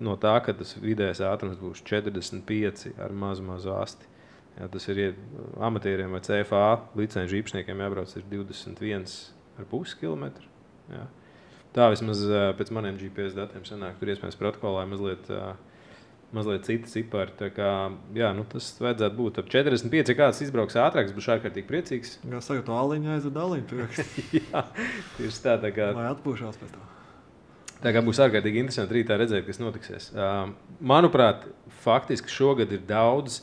no tā, ka tas vidējais ātrums būs 45 ar mazu asti. Jā, tas ir amatieriem vai CFA licenču īpašniekiem jābrauc ir 21,5 km. Jā. Tā vismaz pēc maniem GPS datiem sanāk, tur iespējams protokolā mazliet citi cipari. Tā kā, tas vajadzētu būt ap 45, ja kāds izbrauks ātrāks, būs ārkārtīgi priecīgs. Kā saka, to aliņu aizved aliņu. Jā, tieši tā kā... Lai atpūšās pēc tā. Tā kā būs ārkārtīgi interesanti rītā redzēt, kas notiksies. Manuprāt, faktiski šogad ir daudz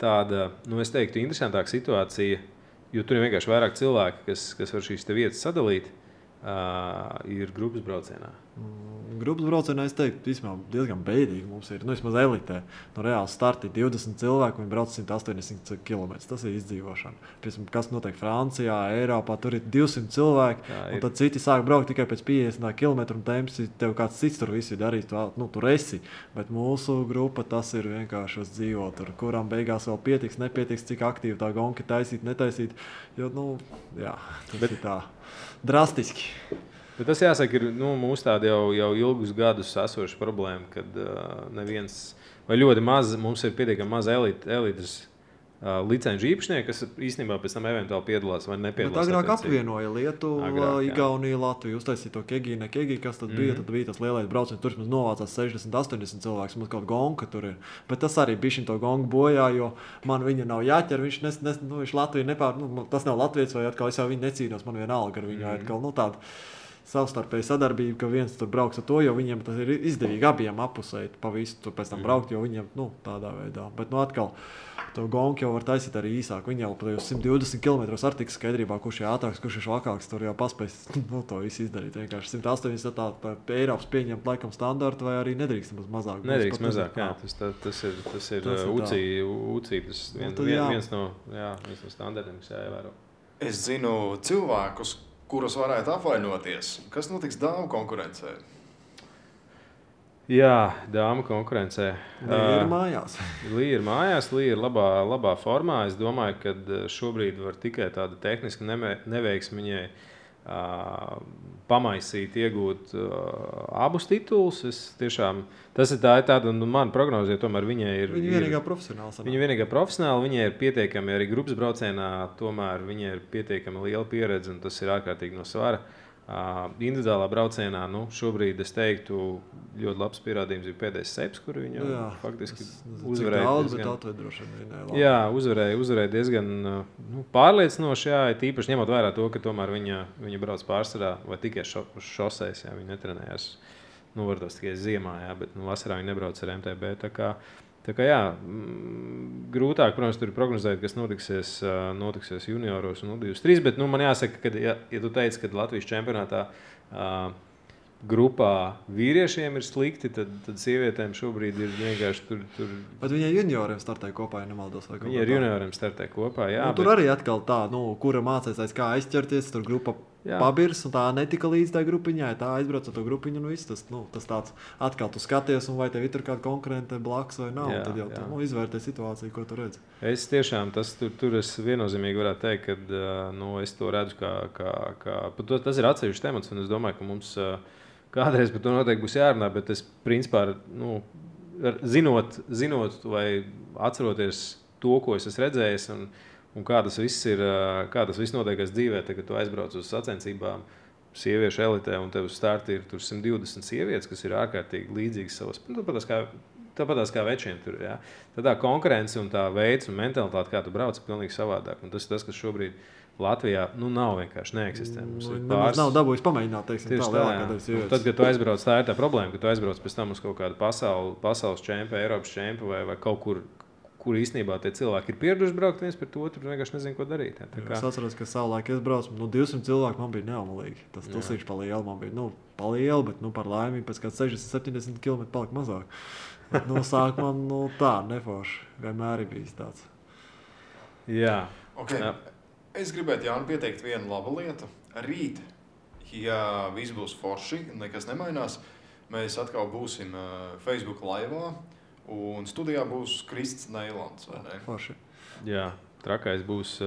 tāda, es teiktu, interesantāka situācija, jo tur ir vienkārši vairāk cilvēki, kas var šīs te vietas sadalīt. Ir grupas braucienā. Grupas braucienā, es teiktu, diezgan beidīgi mums ir. Vismaz elitē. Reāli starti 20 cilvēku, viņi brauc 180 km. Tas ir izdzīvošana. Piemēram, kas notiek Francijā, Eiropā, tur ir 200 cilvēki, un tad citi sāk braukt tikai pēc 50 km, un tev kāds cits tur visu darīs, tur esi. Bet mūsu grupa, tas ir vienkārši uz dzīvo tur, kuram beigās vēl nepietiks, cik aktīvi tā gonka taisīt, netaisīt. Jo, tas ir tā. Drastiski. Bet tas jāsaka, ir mūsu tāda jau ilgus gadus esoša problēma, kad neviens vai ļoti maz, mums ir pietiekami maz elites licenču īpašnieki, kas īstenībā pēc tam eventuāli piedalās vai nepiedalās. Bet agrāk apvienoja Lietuvu, Igauniju, Latviju, uztaisīja to Kegi, kas tad bija, tad bija tas lielais brauciens, tur mums novācās 60-80 cilvēks, mums kaut gonga tur ir. Bet tas arī bišķiņ to gongu bojā, jo man viņa nav jāķer, viņš Latviju tas nav latviets, vai atkal es jau viņu necīnos, man vienalga ar viņu atkal, tāda savstarpēja sadarbība, ka viens tur brauks ar to, jo viņiem tas ir izdevīgi abiem apusēt pa visu tur pēc tam braukt, jo viņiem, tādā veidā. Bet, atkal, to gongu jau var taisīt arī īsāk. Viņi jau pa 120 km ar tiks skaidrībā, kurš ir ātrāks, kurš ir švakāks, tur jau paspēs, to visu izdarīt. Vienkārši 180 tā Eiropas pieņemt laikam standartu, vai arī nedrīkst mazāk. Nedrīkst mazāk, jā. Tas ir UCI, tas viens no standartiem, kas jāievēro. Es zinu cilvēkus, kuros varētu apvainoties. Kas notiks dāmu konkurencē? Jā, dāma konkurencē. Līja ir mājās. Līja ir mājās, Līja ir labā formā. Es domāju, ka šobrīd var tikai tāda tehniska neveiksme viņai pamaisīt, iegūt abus titulus. Tas ir tāda, mana prognoze, jo tomēr viņai ir... Viņa vienīgā profesionāla. Viņa vienīgā profesionāla, viņai ir pietiekami arī grupas braucienā, tomēr viņai ir pietiekami liela pieredze, un tas ir ārkārtīgi no svara. Individuālā braucienā, šobrīd es teiktu, ļoti labs pierādījums ir pēdējais seps, kur viņa faktiski uzvarēja. Uzvarēja diezgan pārliecinoši, jā, tīpaši ņemot vērā to, ka tomēr viņa brauc pārsvarā vai tikai šoseis, jā, viņa netrenējās, varbūt tikai ziemā, jā, bet vasarā viņa nebrauc ar MTB, tā kā jā, grūtāk, protams, tur ir prognozēt, kas notiksies junioros un U23, bet man jāsaka, ka, ja tu teici, ka Latvijas čempionātā grupā vīriešiem ir slikti, tad sievietēm šobrīd ir vienkārši tur... Bet viņai junioriem startē kopā, ja nemaldos? Viņi ar junioriem startē kopā, jā. Tur arī atkal tā, kura mācēs aiz kā aizķerties, tur grupa pabirs, un tā netika līdz tā grupiņai, tā aizbrauc ar to grupiņu, un viss tas tāds atkal tu skaties, un vai tev ir tur kāda konkurente blakus vai nav, tad jau tu izvērtē situāciju, ko tu redzi. Es tiešām, tur es viennozīmīgi varētu teikt, ka es to redzu, tas ir atsevišķs temats, un es domāju, ka mums kādreiz par to noteikti būs jārunā, bet es principā, zinot vai atceroties to, ko es esmu redzējis, un kā tas viss notiekās dzīvē, kad tu aizbrauc uz sacensībām sieviešu elitē, un tev uz starta ir tur 120 sievietes, kas ir ārkārtīgi līdzīgas savas, tāpatās kā večiem tur, jā. Tad tā konkurence un tā veids un mentalitāte, kā tu brauc, ir pilnīgi savādāk, un tas, kas šobrīd Latvijā, nav vienkārši neeksistē. Nav dabūjis pamēģināt, teiksim, tā lielākā daļa sievietes. Tad, kad tu aizbrauc, tā ir tā problēma, ka tu aizbrauc pēc tam uz kaut kādu pasaules čempu, Eiropas čempu vai kaut kur īstenībā tie cilvēki ir pieraduši braukt viens pret otru, vienkārši nezinu, ko darīt. Es atceros, ka savulaik es braucu, 200 cilvēku man bija neomalīgi. Tas tulsīši pa lielu man bija, pa lielu, bet par laimi pēc kāds 60-70 km palika mazāk. Bet, sākumā, tā, neforši. Vienmēr ir bijis tāds. Jā. Okay. Jā. Es gribētu Jānu pieteikt vienu labu lietu. Rīt, ja viss būs forši, nekas nemainās, mēs atkal būsim Facebook laivā. Un studijā būs Krists Neilands, vai ne? Forši. Jā, trakais būs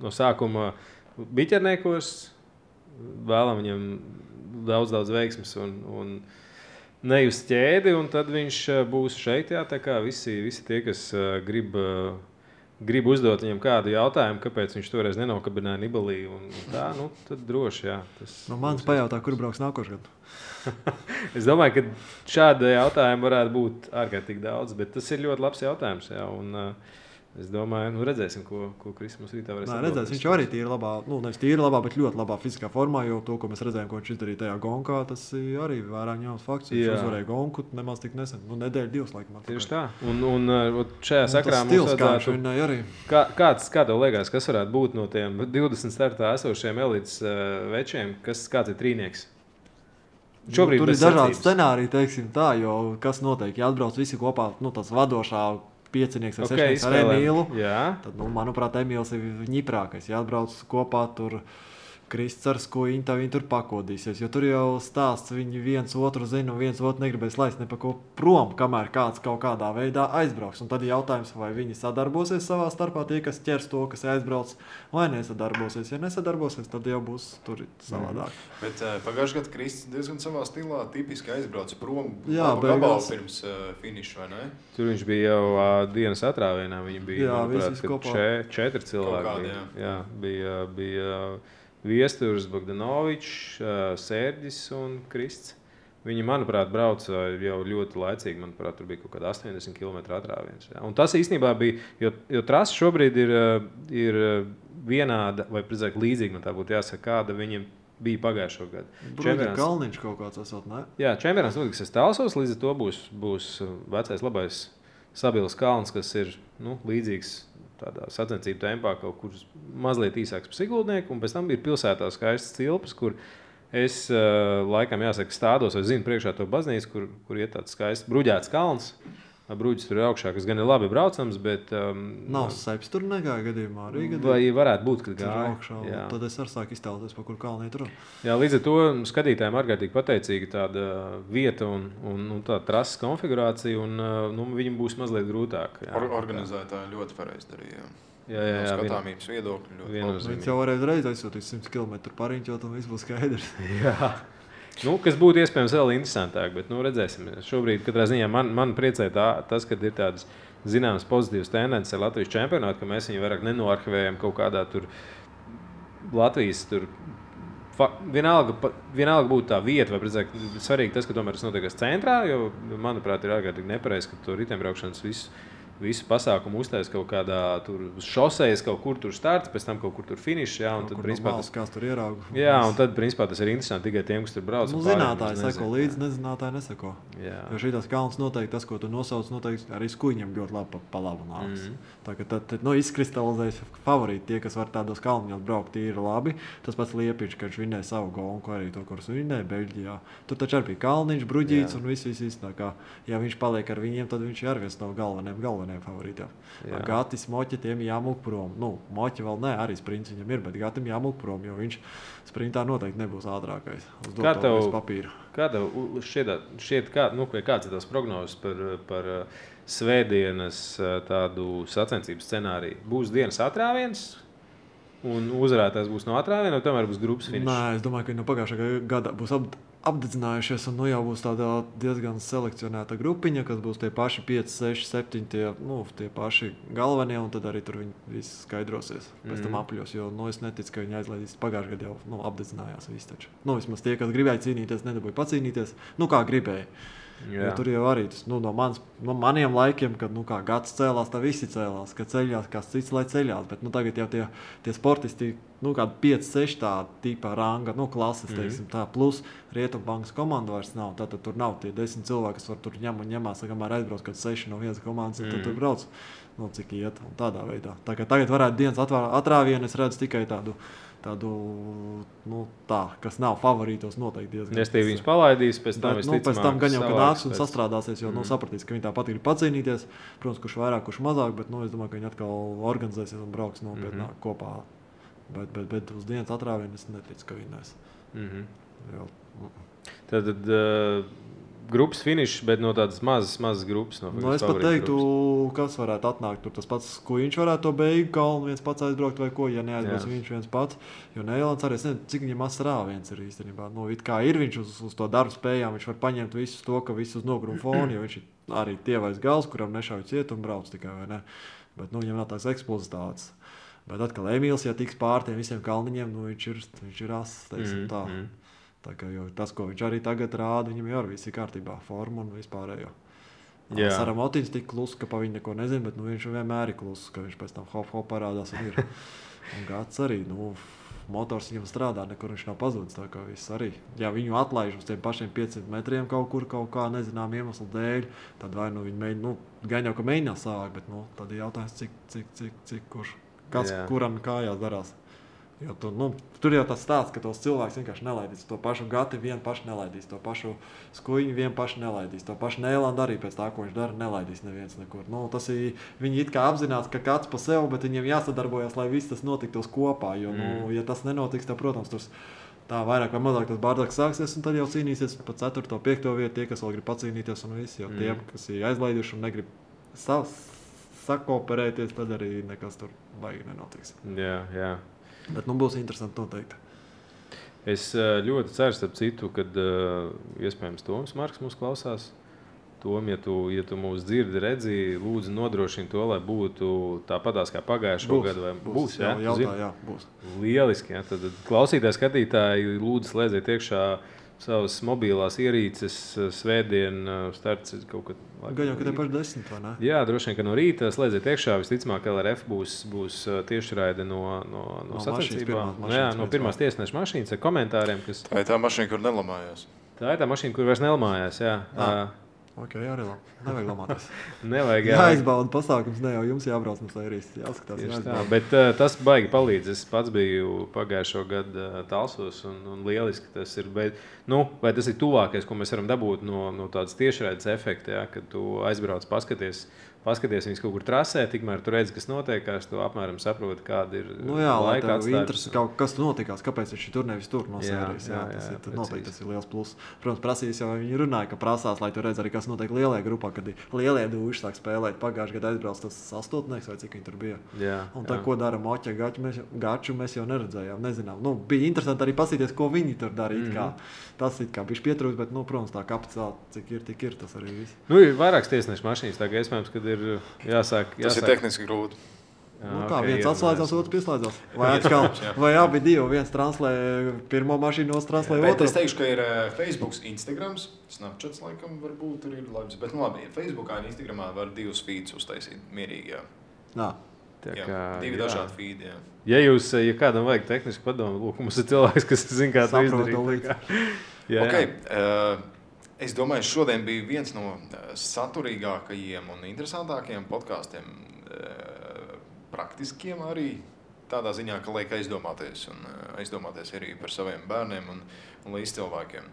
no sākuma biķerniekos, vēlam viņam daudz veiksmes un nejust ķēdi, un tad viņš būs šeit, jā, tā kā visi tie, kas grib uzdot viņam kādu jautājumu, kāpēc viņš toreiz nenokabināja Nibalī, un tā, tad droši, jā. Mans pajautā, kur brauks nākošgad? Es domāju, ka šāda jautājuma varētu būt ārkārtīgi daudz, bet tas ir ļoti labs jautājums. Jā, un, es domāju, redzēsim, ko Kristis mums rītā varēs atbildēt. Redzēsim, viņš arī tīri labā, nevis tīri labā, bet ļoti labā fiziskā formā, jo to, ko mēs redzējām, ko viņš izdarīja tajā gonkā, tas arī vērā ņemams fakts. Viņš uzvarēja gonku nemaz tik nesen, nedēļu, 2 laikam. Tieši tā. Un šajā sakrā mums vajadzētu... Kā tev liekas, kas varētu būt no tiem 20 startā esošiem elites večiem, kāds ir trīnieks? Tur ir dažādi scenāriji, teiksim tā, jo kas notiek, ja atbrauc visi kopā, tas vadošā piecinieks vai sešnieks ar Emīlu, tad, manuprāt, Emīls ir ņiprākais. Ja atbrauc kopā tur Krists ar Skuiņu, tad viņi tur pakodīsies, jo tur jau stāsts, viņi viens otru zina un viens otru negribēs laist ne pa ko prom, kamēr kāds kaut kādā veidā aizbrauks. Un tad ir jautājums, vai viņi sadarbosies savā starpā, tie, kas ķers to, kas aizbrauc, vai nesadarbosies. Ja nesadarbosies, tad jau būs tur savādāk. Bet pagājušajā gadā Kristis diezgan savā stilā tipiski aizbrauca prom gabalu pirms finiša, vai ne? Tur viņš bija jau dienas atrāvienā, viņi bija, manuprāt, 4 cilvēki. Jā, bija Viesturs, Bogdanovičs, Sērģis un Krists. Viņi, manuprāt, brauca jau ļoti laicīgi. Manuprāt, tur bija kaut kāda 80 km atrāviens. Jā. Un tas īstenībā bija, jo trasa šobrīd ir vienāda, vai precīzāk līdzīga, tā būtu jāsaka, kāda viņiem bija pagājušo gadu. Bruģi Kalniņš kaut kāds esot, ne? Jā, čempionāts notiks Talsos, līdz ar to būs vecais labais Sabils kalns, kas ir līdzīgs tādā sacensību tempā, kaut kur mazliet īsāks par Sigultnieku, un pēc tam ir pilsētā skaistas cilpas, kur es laikam jāsaka stādos vai zinu priekšā to baznīcu, kur iet tāds skaists bruģēts kalns, Bruģis tur ir augšā, kas gan ir labi braucams, bet... Nav seps tur negāja gadījumā arī gadījumā. Vai varētu būt, kad gāja. Augšā, tad es arī sāku iztēloties, pa kur kalnī tur. Jā, līdz ar to skatītājiem ārkārtīgi pateicīga tāda vieta un tā trases konfigurācija, un viņam būs mazliet grūtāk. Organizētāji ļoti pareizi darīja. Jā, skatāmības viedokļi ļoti labi. Viņš jau varēja reiz aizsūtīt 100 km pariņķot, un viss būs skaidrs. Jā. Kas būtu iespējams vēl interesantāk, bet redzēsim. Šobrīd katrā ziņā man priecē tas, ka ir tādas zināmas pozitīvas tendences ar Latvijas čempionātu, ka mēs viņu vairāk nenoarhivējam kaut kādā tur Latvijas tur. Vienalga būtu tā vieta, vai precīzāk svarīgi tas, ka tomēr tas notiek centrā, jo, manuprāt, ir ārkārtīgi nepareizi, ka to riteņbraukšanas visu pasākumu uztais kaut kādā tur šosejas, kaut kur tur starts, pēc tam kaut kur tur finišs, jā, un tad principā tur ieraugu. Jā, un tad principā tas ir interesanti tikai tiem, kas tur brauc. Zinātāji seko līdzi, nezinātāji neseko. Jā. Jo šitās kalns noteikti tas, ko tu nosauc, noteikti arī skuiņam ļoti labi pa labu nāks. Tā ka tad izkristalizējas favorīti tie, kas var tādos kalniņos braukt, tie ir labi. Tas pats Liepiņš, ka viņš vinnēja savu golku, arī to, kurus vinnēja Beļģijā. Tur taču arī bija Kalniņš, Bruģīts un viss. Tā kā, ja viņš paliek ar viņiem, tad viņš ir viens no galvenajiem favorītiem. Gatis, Moķi, tiem jāmūk prom. Moķi vēl ne, arī sprints viņam ir, bet Gatim jāmūk prom, jo viņš sprintā noteikti nebūs ātrākais. Kā tev šķiet, kāds ir tās prognozes par svētdienas tādu sacensību scenāriju? Būs dienas atrāviens un uzvarētājs būs no atrāviena, vai tomēr būs grupas finišs? Nē, es domāju, ka no pagājušā gada būs apdedzinājušies, un jau būs tāda diezgan selekcionēta grupiņa, kas būs tie paši 5, 6, 7, tie paši galvenie, un tad arī tur viņi visi skaidrosies pēc tam apļos, jo es neticu, ka viņi aizlaidīs pagājušajā gadā jau apdedzinājās visi taču. Vismaz tie, kas gribēja cīnīties, nedabūja pacīnīties, kā gribēja. Jo tur jau arī tas, no maniem laikiem, kad kā gads cēlās, tā visi cēlās, ka ceļās, kāds cits, lai ceļās, bet tagad jau tie sportisti, kāda 5, 6 tā tīpā ranga, klases, teiksim, tā, plus Rietumbankas komanda vairs nav, tātad tur nav tie 10 cilvēki, kas var tur ņemās, kamēr aizbrauc, kad 6 no vienas komandas, tad tur brauc, cik iet, un tādā veidā. Tā kā tagad varētu dienas atrāvienu, es redzu tikai tādu kas nav favorītos noteikti diezgan. Nestīvi viņus palaidīs, pēc tam pēc tam gan jau, ka nāks un sastrādāsies, jo sapratīs, ka viņi tāpat grib pacīnīties. Protams, kurš vairāk, kurš mazāk, bet es domāju, ka viņi atkal organizēsies un brauks nopietnāk kopā. Bet uz dienas atrāvienu es neticu, ka vinnēs. Tad grupas finišs, bet no tādas mazas grupas. Es pat teiktu, kas varētu atnākt. Tur tas pats, ko viņš varētu to beigu kalnu viens pats aizbraukt vai ko, ja neaizbrauks viņš viens pats. Jo Neilands arī, es nezinu, cik viņam rāviens ir īstenībā. It kā ir viņš uz to darbu spējām, viņš var paņemt visus to, ka visus nogrum fonu, jo viņš ir arī tievais gals, kuram nešauj ciet un brauc tikai, vai ne? Bet viņam nav tās eksplozitātes. Bet atkal Emīls, ja tiks pār tiem visiem kalniņiem, viņš ir ass, teiksim tā. Tā kā tas, ko viņš arī tagad rāda, viņam jau viss ir kārtībā, forma un vispārējo. Saramotīns tik kluss, ka pa viņu neko nezinu, bet viņš vienmēr ir kluss, ka viņš pēc tam hop parādās un ir. Un Gats arī, motors viņam strādā, nekur viņš nav pazudis, tā kā viss arī. Ja viņu atlaiž uz tiem pašiem 500 metriem kaut kā nezinām iemeslu dēļ, tad vai viņi mēģina, gan jau, ka mēģinās savāk, bet tad ir jautājums, cik kurš, kuram kājās darās. Jo tur jau tas stāsts, ka tos cilvēks vienkārši nelaidīs. To pašu Gati vien paši nelaidīs, to pašu Skuiņu vien paši nelaidīs, to pašu Neilandu arī pēc tā, ko viņš dara, nelaidīs neviens nekur. Tas ir, viņi it kā apzinās, ka kāds pa sev, bet viņiem jāsadarbojas, lai viss tas notiktos kopā. Jo, ja tas nenotiks, tad, protams, tur tā vairāk vai mazāk tas bārdāks sāksies, un tad jau cīnīsies pa 4. 5. vietu, tie, kas vēl grib pacīnīties un visi, jo tiem, kas ir aizlaiduši un negrib sakooperēties, tad arī nekas tur baigi nenotiks. Jā. Bet būs interesanti noteikti. Es ļoti ceru, starp citu, kad iespējams Toms Marks mūs klausās. Tom, ja tu mūs dzirdi, redzi, lūdzu nodrošini to, lai būtu tāpatās kā pagājušo gadu. Būs, jā? Jā, būs. Lieliski, jā. Tad klausītāji, skatītāji, lūdzu slēdziet iekšā savas mobilās ierīces, svētdien starts kaut kad. Gan jau, ka te paši 10, vai ne? Jā, droši vien, ka no rīta slēdziet iekšā, visticamāk LRF būs tiešraide no sacensībām. No pirmās tiesneša mašīnas ar komentāriem, kas... Tā ir tā mašīna, kur nelamājās. Tā ir tā mašīna, kur vairs nelamājās, jā. Ok, arī labi. Nevajag lamāties. Nevajag Jāizbauda pasākums, ne jau jums jābrauc no sērijas. Jāskatās, tā, bet tas baigi palīdz. Es pats biju pagājušo gadu Talsos un lieliski tas ir. Bet, vai tas ir tuvākais, ko mēs varam dabūt no tādas tiešraides efekta, ja, kad tu aizbrauc paskaties viņus kaut kur trasē, tikmēr tu redzi, kas notiekās, tu apmēram saproti, kāda ir laika atstāja. Interesi kaut kas notikās, kāpēc viņš tur nevis tur no sērijas. Noteikti tas ir liels pluss. Protams, prasīs jau viņi runāja, ka prasās, lai tu redz arī, kas notiek lielajā grupā, kad lielie dūši sāk spēlēt. Pagājušajā gadā aizbrauc tas astotnieks vai cik viņi tur bija. Un tā, ko dara Moķa Gaču, mēs jau neredzējām, nezinām. Bija interesanti arī pasīties, ko viņi tur dara. Tas it kā bišķi pietrūkst, bet, protams, tā kapacitāte, cik ir, tik ir, tas arī viss. Ir vairākas tiesnešu mašīnas, tā kā iespējams, kad ir jāsāk. Tas ir tehniski grūti. Viens atslēdzās, otrs pieslēdzās. Vai abi divi, viens translē pirmo mašīnu, otrs translē otru. Es teikšu, ka ir Facebook, Instagrams, Snapchats laikam varbūt tur ir labs, bet labi, Facebookā un Instagramā var divus feeds uztaisīt mierīgi, divi dažādi feedi, Ja kādam vajag tehnisku padomu, lūk, mums ir cilvēks, kas zina, kā to izdarīt. Es domāju, šodien bija viens no saturīgākajiem un interesantākajiem podkāstiem, praktiskiem arī tādā ziņā, ka liek aizdomāties arī par saviem bērniem un līdzcilvēkiem.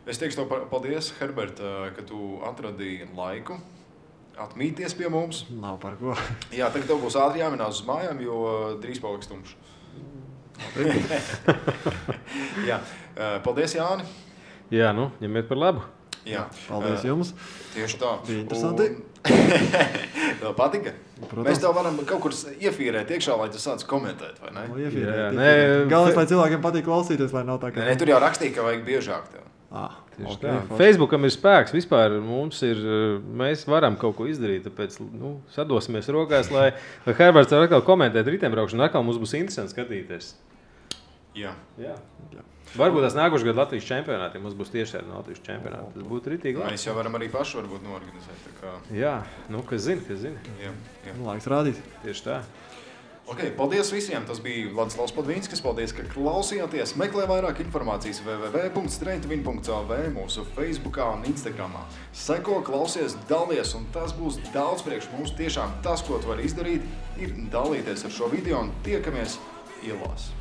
Es teikšu tev paldies, Herbert, ka tu atradīji laiku atmīties pie mums. Nav par ko. Jā, tagad tev būs ātri jāminās uz mājām, jo drīz paliks tumšs. Jā, paldies, Jāni. Jā, ņemiet par labu. Jā. Paldies jums. Tieši tā. Bija interesanti. Tev patika? Protams. Mēs tev varam kaut kur iefīrēt iekšā, lai tu sāc komentēt, vai ne? Galvenais, lai cilvēkiem patīk klausīties, lai nav tā, ka... Nē, tur jau rakstīja, ka vajag biežāk tev. Facebookam ir spēks, vispār mēs varam kaut ko izdarīt, tāpēc sadosimies rokās, lai Herberts var atkal komentēt riteņbraukšanu, atkal mums būs interesanti skatīties. Jā. Varbūt tās nākošais gadu Latvijas čempionātiem mums būs tieši tāda Latvijas čempionāta. Tas būtu ritīgi labi. Mēs jau varam arī paši varbūt noorganizēt. Jā, kas zina. Jā. Laiks rādīt. Tieši tā. Paldies visiem. Tas bija Vladislavs Podvīnskis. Paldies, ka klausījāties. Meklē vairāk informācijas www.strengthwin.lv mūsu Facebookā un Instagramā. Seko, klausies, dalies, un tas būs daudz priekš mums. Tiešām tas, ko tu vari izdarīt, ir dalīties ar šo video un tiekamies ielās.